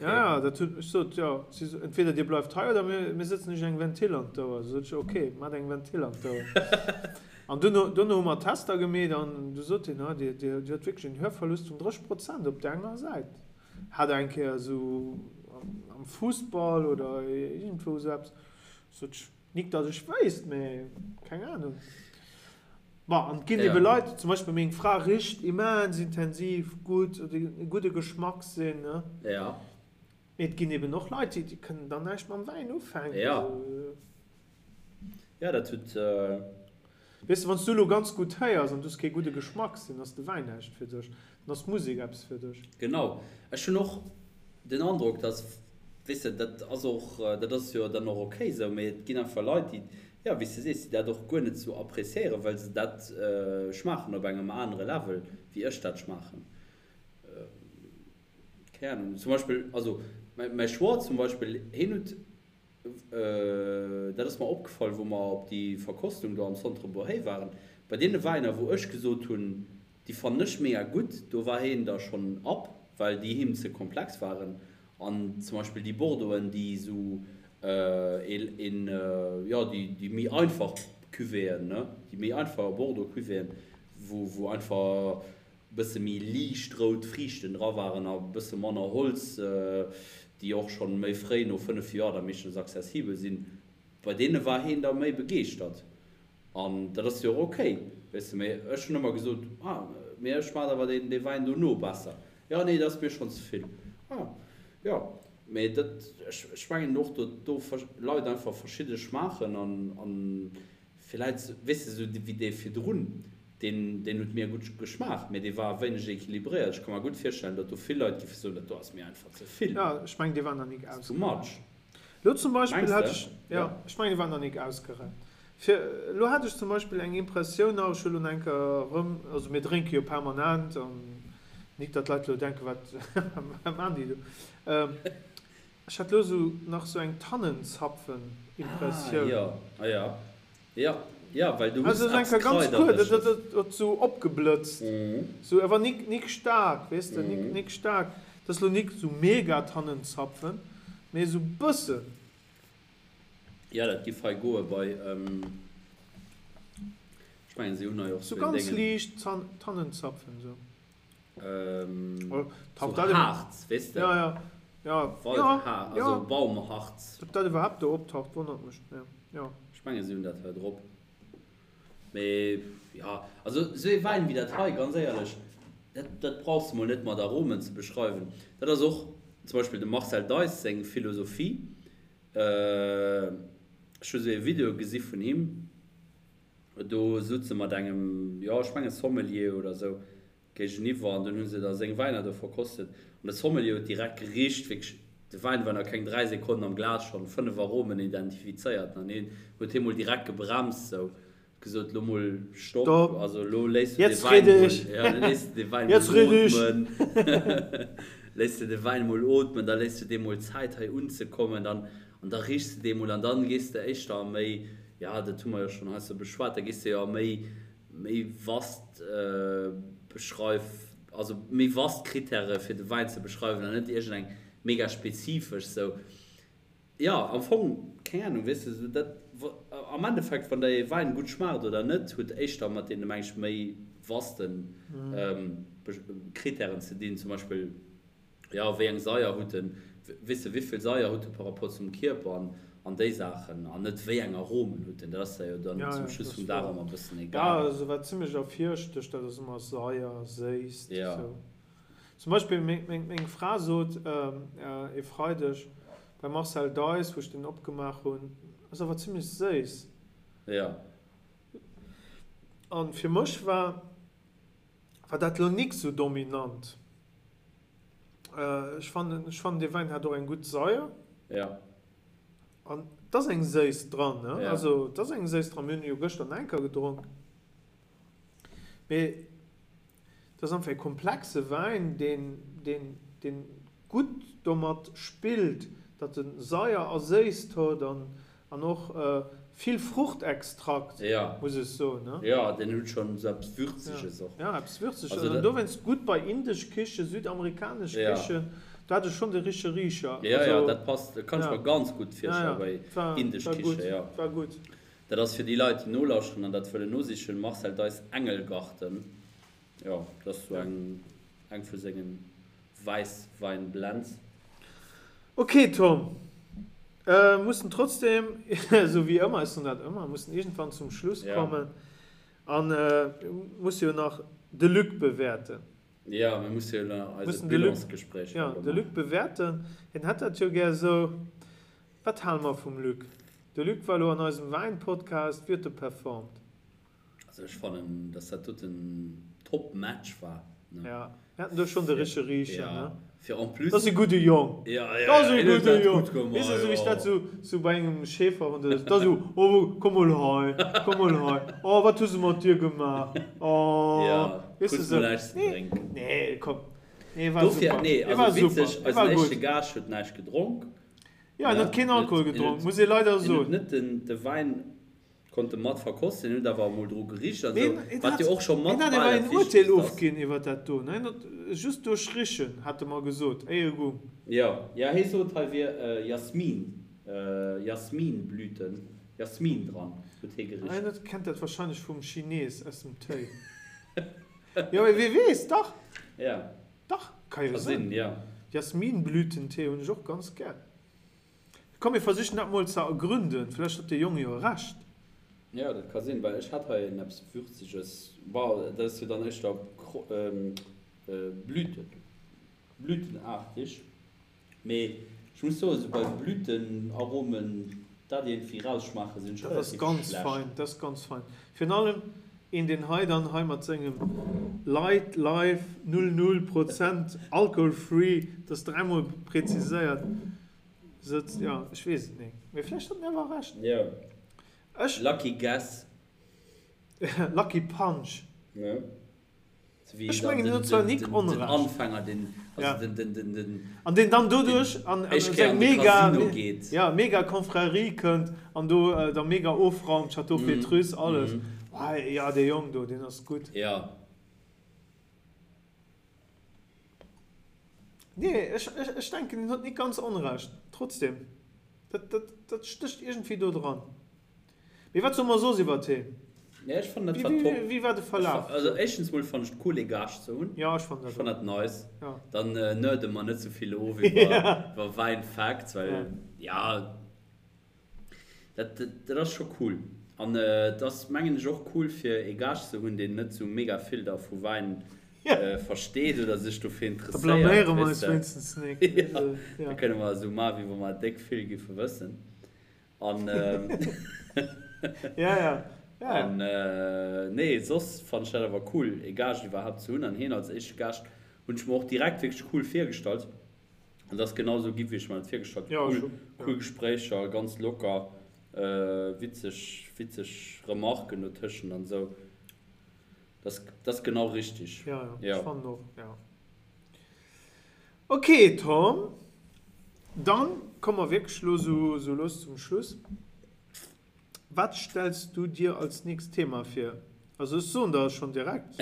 Ja ja, dat huet, ech sot, jo, si so, entweder dir bleift hei oder mir mir sëtzen iech eng Ventil an d'Ouer. Sot ech, ok, maacht eng Ventil an d'Ouer. An duerno duerno hu mer Tester gemeet an du sot hien, ah dir dir hutt wierklech en Hörverlust vun 30 Prozent op där enger Säit. Hat eng Kéier esou am Fussball oder iergendwou esou eppes, sot ech, nik datt ech wéisst, mä keng Ahnung. Bon, an et ginn ebe Leit, zum Beispill meng Fra richt immens intensiv gutt, huet e gudde Geschmackssinn, ne? Ja. Mee et ginn eben och Leit, déi kënnen dann näischt mam Wäin ufänken. Ja. Ja, dat huet. Weess de, wann s du elo ganz gutt héiers an du hues kee gudde Geschmackssinn, ass de Wäin näischt fir dech. Dann ass d'Musek eppes fir dech. Genau. Ech hunn och den Androck, dass, weess de, dat ass och, dat ass jo dann och okay esou, mee et ginn einfach Leit, déi, jo, wéi s de sees, déi dat och guer net esou appréciéieren, well se dat schmaachen op engem anere Level, wéi ech dat schmaachen. Keng Ahnung. Zum Beispill, also mäi Schwoer zum Beispill, hien huet Dat ass mer opgefall, wou mer op déi Verkostung do am Centre Bourhey waren. Bei deene Wäiner, wou ech gesot hunn, déi fannen ech mega gutt, do war hien da schonn ab, well déi him ze komplex waren. An zum Beispill déi Bordeauxen, déi esou een, jo, déi méi einfach Cuvéeën, ne, déi méi einfach Bordeaux-Cuvéeën, wou, wou einfach bësse méi liicht rout Friichten dra waren a bësse manner Holz, déi och schonn méi fréi, no 5 Joer, da meeschtens accessibel sinn, bei deene war heen da méi begeeschtert. An dat ass jo och ok, weess de. Mee ech hunn ëmmer gesot, ah, mee ech schmaacht awer deen, dee Wäin dono besser. Jo, nee, dat ass mir schonn ze vill. Ah, jo. Mee dat, ech, ech mengen och, datt do Leit einfach verschidde schmaachen an, an Villäit, weess de, esou wéi dee virdrun, deen, deen huet mir gutt geschmaacht, mee dee war e wéineg equilibréiert. Ech ka mer gutt virstellen, datt do vill Leit géife soen, dat do ass mir einfach ze vill. Jo, ech mengen, dee war nach nik It's too much. Elo zum Beispill Mengs hat de? ech, jo, Jo. ech mengen, dee war nach nik ausgerennt. Fir, elo hat ech zum Beispill eng Impressioun nach, ech hu lo nach eng Kéier erëm, also mir drénke jo permanent an nik datt d'Leit elo denken, wat, wat maachen déi do? Ech hat lo sou nach sou eng Tannenzapfen-Impressioun. Ah jo, ah jo, jo, jo, well du hues Also eppes enker ganz kuerz, Kraidereges. dat huet sou opgeblëtzt, sou awer nik nik staark, weess de, nik nik staark. Dat ass lo nik sou mega Tannenzapfen, mee sou bëssen. Jo, dat giff hei goe bei, ech mengen si hunn hei och Sou sou een ganz Déngen. liicht Tannenzapfen, sou. Ähm, so Harz, weess de? Ja, ja. Ja, Waldhaar, ja, also Baumharz. Ob dat iwwerhaapt do optaucht, wonnert mech, mee jo. Ech mengen, si hunn dat hei drop. Mee ja, also esou ee Wäin wéi dat hei, ganz éierlech, dat, dat brauchs de mol net mat Aromen ze beschreiwen. Dat ass och zum Beispill dem Marcel Deiss seng Philosophie. Ech hu esou ee Video gesi vun him, do sutz e mat engem, jo, ech mengen Sommelier oder esou, Géigeniwwer an dunn hu se da seng Wäiner do verkostet an de Sommelier huet direkt gericht, wierklech, de Wäin war nach keng 3 Sekonnen am Glas, schonn 5 Aromen identifizéiert an hien huet hie mol direkt gebremst, sou, huet gesot, lo mol Stopp, also lo léiss du de Wäin mol, jo, lo léiss du de Wäin mol ootmen, léiss du de Wäin mol ootmen, da léiss du deem mol Zäit hei unzekommen, dann, an da riechs de dee mol an dann gees de éischter a méi, jo, dat hu mer jo schonn heiansdo beschwat, da gees de jo a méi méi vast beschreif, also méi vast Kritäre fir de Wäin ze beschreiwen an net iergend eng mega spezifesch sou. Jo, am Fong, keng Ahnung, weess de, sou dat, am Endeffekt, wann der ee Wäin gutt schmaacht oder net, huet éischter mat deene, meng ech, méi vaste Kritären ze dinn, zum Beispill, Jo, wéi eng Saier hutt en, weess de, wéivill Saier hutt e par rapport zum Kierper an, an déi Saachen, an net wéi eng Aromen hutt en. Dat ass der jo dann Ja, zum ja, Schluss dat vum ass Dag wouer. ëmmer e bëssen Ja, egal. also wat zimlech ervirstëcht, dat ass ëmmer Saier, Séisst, Ja. esou. Zum Beispill meng, meng, meng Fra sot e Freideg beim Marcel Deiss, wou ech deen opgemaach hunn, ass awer zimlech séiss. Ja. An fir mech war, war dat lo nik sou dominant. Ech fannen, ech fannen dee Wäin hat och eng gutt Saier. Ja. An et ass eng Séisst dran, ne? Ja. Also et ass eng Séisst dran. Mir hunn e jo gëschter nach eng Kéier gedronk. Mee et ass einfach e komplexe Wäin, deen, deen, deen gutt domat spillt. Datt en Saier a Séisst huet an an och vill Fruchtextrakt, muss ech soen. Jo, deen huet schonn esou eppes Würzeges och. Jo, eppes Würzeges an dowéinst gutt bei indesch Kichen, südamerikanesch Kichen, do hat e schonn de richtege Richer. Jo, jo, dat passt, dat kann ech mer ganz gutt virstellen bei indesch Kichen, jo. War gutt. Dat ass fir déi Leit, déi nolauschteren an dat wëllen nosichen, Marcel Deiss Engelgarten. Jo, dat ass sou eng eng vu sengen Wäisswäin-Blends. Ok Tom, mussen trotzdem, esou wéi ëmmer, ech soen dat ëmmer, mussen iergendwann zum Schluss kommen an musse jo nach de Luc bewäerten. Jo, mir musse jo nach eise Bilansgespréich jo de Luc bewäerten. Hien hätt dat jo gär esou. Wat hale mer vum Luc? De Luc war elo an eisem Wäin-Podcast, wéi huet e performt? Also ech fannen dass dat doten top Match war ne. Ja, mir haten do schon de richtege Riicher ne. Fir en plus. Dat ass e gudde Jong. Ja, ja, dat ass e gudde Jong. Weess de sou wéi ech dat sou sou bei engem Schäferhond oder sou, dat ass sou, oh komm mol hei, komm mol hei, oh wat hu se mat dir gemaach, oh. Ja, weess de sou. Kriss mol näischt ze drénken. Nee, komm. Nee, war super. Dofir, nee, also witzeg, eisen éischte Gaascht huet näischt gedronk. Ja, en huet keen Alkohol gedronk, muss ee leider soen. En huet net den de Wäin Konnt e mat verkosten, huet awer emol dru gericht an esou, wat jo och scho mat bal dat Wichtegst ass. Hien hat awer een Urteel ofginn iwwer dat do, ne? Hien huet just duerch Richen, hat e mer gesot, éier e gung. Jo, jo, hie sot, hei wier Jasmin, Jasminblüten, Jasmin dran, huet hie gericht. Hien kennt dat wahrscheinlech vum Chines aus dem Téi. Jo, mee wee weess, dach! Ja. Dach, ka jo sinn. Jasminblütentee hunn ech och ganz gär. Komm mir versichen dat mol ze ergründen, vläicht huet de Jong jo Recht. Jo, dat ka sinn, well ech hat hei en eppes Würzeges, bon, dat ass jo dann éischter Blüten, blütenartig, mee ech muss soen, esou bei Blütenaromen dat iergendwéi rausschmaachen, sinn ech relativ schlecht. Dat ass ganz fein, dat ass ganz fein. Virun allem een deen hei dann hei mat sengem Light Life 0 0 Prozent Alcohol Free, dat ass dräimol präziséiert, sëtzt. Jo, ech weess et nik, mee vläicht huet en awer Recht. Jo. Ech. Lucky guess. Lucky punch. Ne? Ech mengen, en huet zwar nik Onrecht. Den Anfänger, den, also den, den, den, den. An deen dann doduerch an seng mega, ja, mega Confrérie kënnt an do da mega ofraumt, Château Pétrus, alles. Jo, dee Jong do, deen ass gutt. Jo. Nee, ech, ech, ech denken, en huet nik ganz Onrecht. Trotzdem, dat, dat, dat stécht iergendwéi do dran. Mee wat soe mer soss iwwert heen? Nee, ech fannen dat war top. Wéi war de Verlaf? Also éischtens mol fannen ech et cool ee Gaascht ze hunn. Jo, ech fannen dat och. Ech fannen dat nice. Jo. Dann nerde mer net sou vill of iwwer Wäin Facts, well ja, dat, dat ass scho cool. An et ass mengen ech och cool fir ee Gaascht ze hunn, deen net sou mega vill da vu Wäin versteet oder sech dofir interesséiert. Da blaméiere mer eis wéinstens nik. Jo, da kënne mer esou maachen, wéi wa mer déck vill giffe wëssen. An ja, ja. Ja, an nee, soss fannt ech dat awer cool, ee Gaascht iwwerhaapt ze hunn. An hien als éischte Gaascht hunn ech mer och direkt wierklech cool virgestallt. An et ass genau esou gi wéi ech mer dat virgestallt hunn. Ja, Cool, cool Gespréicher, ganz locker, witzeg, witzeg Remarken dotëschent an esou. Dat ass genau richtig. Ja, ja, ech fannen och, ja. Ok Tom, dann komme mer wierklech elo sou lues zum Schluss. Wat stells du dir als nächst Thema vir? Also ech soen der schonn direkt.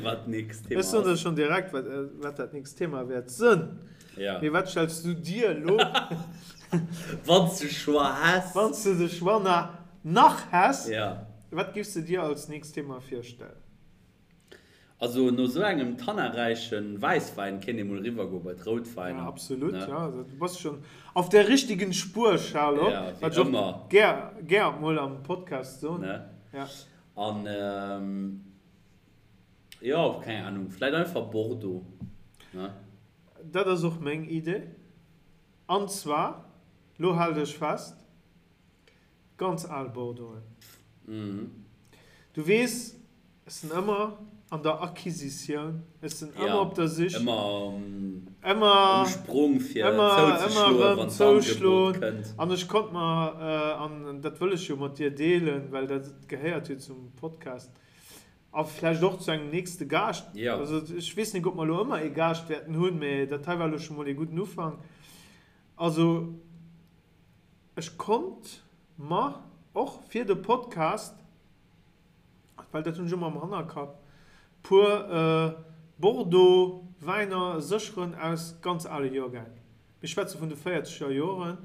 Wat d'nächst Thema ass. Ech soen der schonn direkt wat dat nächst Thema wäert sënn. Ja. Mee wat stells du dir elo? Wann s de Choix häss. Wann s de de Choix nach häss. Ja. Wat giffs de dir als nächst Thema virstellen? Also no sou engem tannaräichen Wäisswäin kéint ee mol riwwer goe bei d'Routwäiner. Ja absolut, ja du bass schon auf der richtigen Spur Charlotte, Ja, wéi wat ech och ëmmer. gär gär mol am Podcast soen. Ne? Ja. An jo, keng Ahnung, vläit einfach Bordeaux, ne? Dat ass och meng Idee. An zwar, lo hal dech fest, Ganz al Bordeauxen. Du weess, ech sinn ëmmer an der Acquisitioun, ech sinn ëmmer op der Sich. Ëmmer um Sprong fir zouzeschloen, wann d'Angebot kënnt. An ech konnt mer, an dat wëll ech jo mat dir deelen, well dat gehéiert jo zum Podcast a vläicht och zu engem nächste Gaascht. Also ech weess net, ob mer elo ëmmer ee Gaascht wäerten hunn, mä dat hei war elo scho mol ee gudden Ufank. Also ech konnt mer och fir de Podcast, well dat hunn ech ëmmer am Hannerkapp, puer Bordeaux Wäiner sécheren aus ganz ale Joergäng. Mir schwätze vun de véierzeger Joren,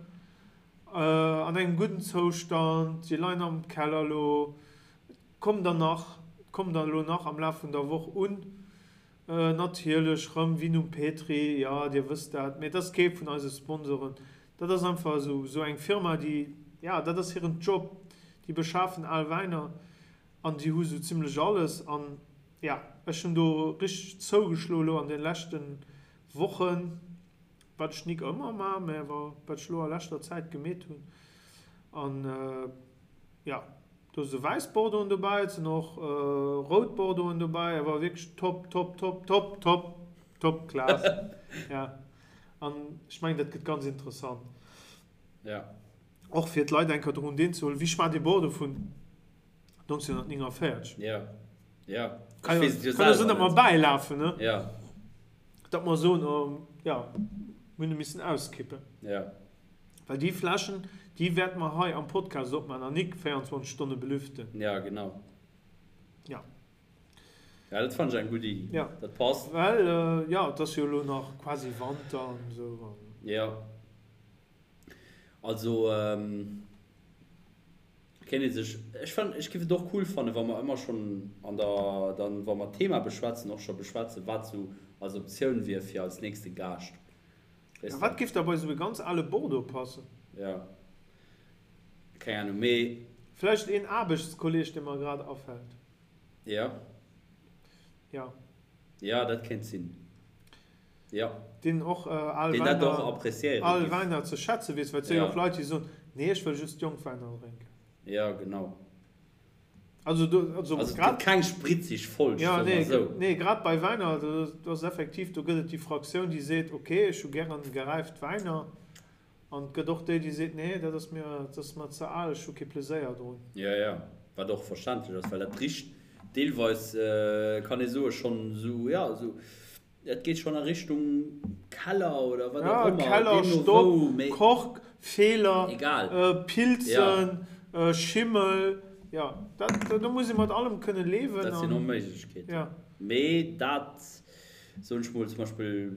an engem gudden Zoustand, déi leien am Keller elo, et kommen der nach, et kommen der elo nach am Laf vun der Woch un. Natierlech rëm Vinum Petri, jo dir wësst dat, mee et ass kee vun eise Sponsoren, dat ass einfach esou esou eng Firma déi, jo dat ass hiren Job, déi beschafen al Wäiner an déi hu sou zimlech alles an jo ech hunn do richteg zougeschloe lo an de leschte Wochen, wat ech nik ëmmer maa, mä awer wat ech lo a leschter Zäit gemeet hunn an jo. Do si wäiss Bordeauxen dobäi, et sinn och rout Bordeauxen dobäi, awer wierklech top, top, top, top, top, top Class. Ja. An ech mengen, dat gëtt ganz interessant. Ja. Och fir d'Leit eng Kéier drun deelzehuelen, wéi schmaacht ee Bordeaux vun 1949? Ja. Ja. Kann jo sinn, datt mer bäilafen, ne? Ja. Datt mer soen, oh, ja, mir hunn e missen auskippen. Ja. Well déi Fläschen, déi wäerte mer hei am Podcast opmaachen an nik 24 Stonne belüften. Ja, genau. Ja. Ja, dat fannen ech eng gutt Iddi. Ja. Dat passt. Well, jo, et ass jo elo nach quasi Wanter an esou an. Ja. Also, kéint ee sech, ech fannen, ech géif et och cool fannen, wa mer ëmmer schonn an der, dann, wa mer d'Thema beschwätzen, och scho beschwätzen, wat sou als Optioun wier fir als nächste Gaascht. Weess Wat giff da bei sou e ganz ale Bordeaux passen? Ja. Keng Ahnung, mee. Vläicht een Aarbechtskolleg, dee mer grad afält. Ja. Ja. Ja, dat kéint sinn. Ja. Deen och al Deen dat och appréciéiere Wäiner, al Wäiner ze schätze weess, well et si jo och Leit, déi soen, nee, ech wëll just jonk Wäiner drénken. Ja, genau. Also do, also Also et gëtt keng spritzig Folg, soe mer esou. Nee, grad bei Wäiner, do ass effektiv, do gëtt et déi Fraktioun, déi seet, ok, ech hu gären geräift Wäiner. An et gëtt och déi, déi seet, nee, dat ass mir, dat ass mer ze al, ech hu kee Pleséier drun. Jo, jo, wat och verständlech ass, well dat richt deelweis, kann ee soe, schonn esou, jo, esou Et geet schon a Richtung Keller oder wat och ëmmer. Keller, Stopp, Kork, Feeler, Pilzen, Schimmel, jo, dat, do muss ee mat allem kënne liewen. Dat sinn och Méiglechkeeten. Mee dat, soen ech mol, zum Beispill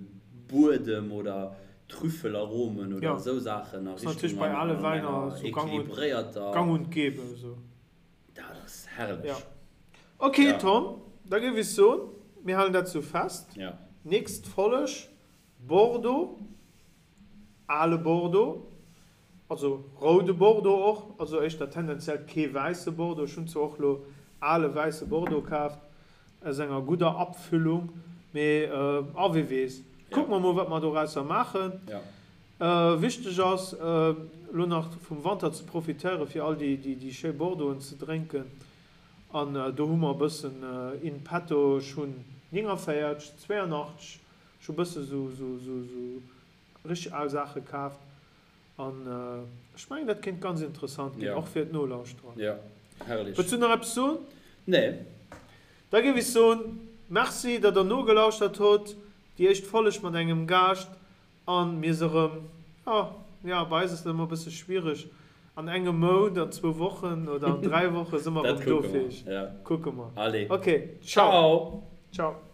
Buedem oder Trüffelaromen oder esou Saachen a Richtung enger equilibréierter. Gang und gäbe esou. Dat ass herrlech. Ja. Ok ja. Tom, da géif ech soen, mir halen dat sou fest. Ja. Nächst Folleg, Bordeaux, ale Bordeaux, also roude Bordeaux och, also éischter tendenziell kee wäisse Bordeaux. Ech hunn zwar och lo ale wäisse Bordeaux kaaft aus enger gudder Abfüllung, mee a wie weess. Kucke mer mol wat mer dorausser maachen. Ja. Wichteg ass elo nach vum Wanter ze profitéieren fir all déi schéi Bordeauxen ze drénken an do hu mer e bëssen in petto. Ech hunn 49, 82, ech hu bësse sou richteg al Saache kaaft an ech mengen dat kéint ganz interessant ginn, och fir d'Nolauschterer. Wëlls du nach eppes soen? Nee. Da géif ech soen, Merci datt der nogelauschtert hutt, déi éischt Folleg mat engem Gaascht. An mir se erëm, jo, jo, bei eis ass dat ëmmer e bësse schwiereg, an engem Mount, an zwou Wochen oder an 3 Woche si mer erëm do fir iech. Kucke mer. Allez. Ok, ciao. Ciao. Ciao.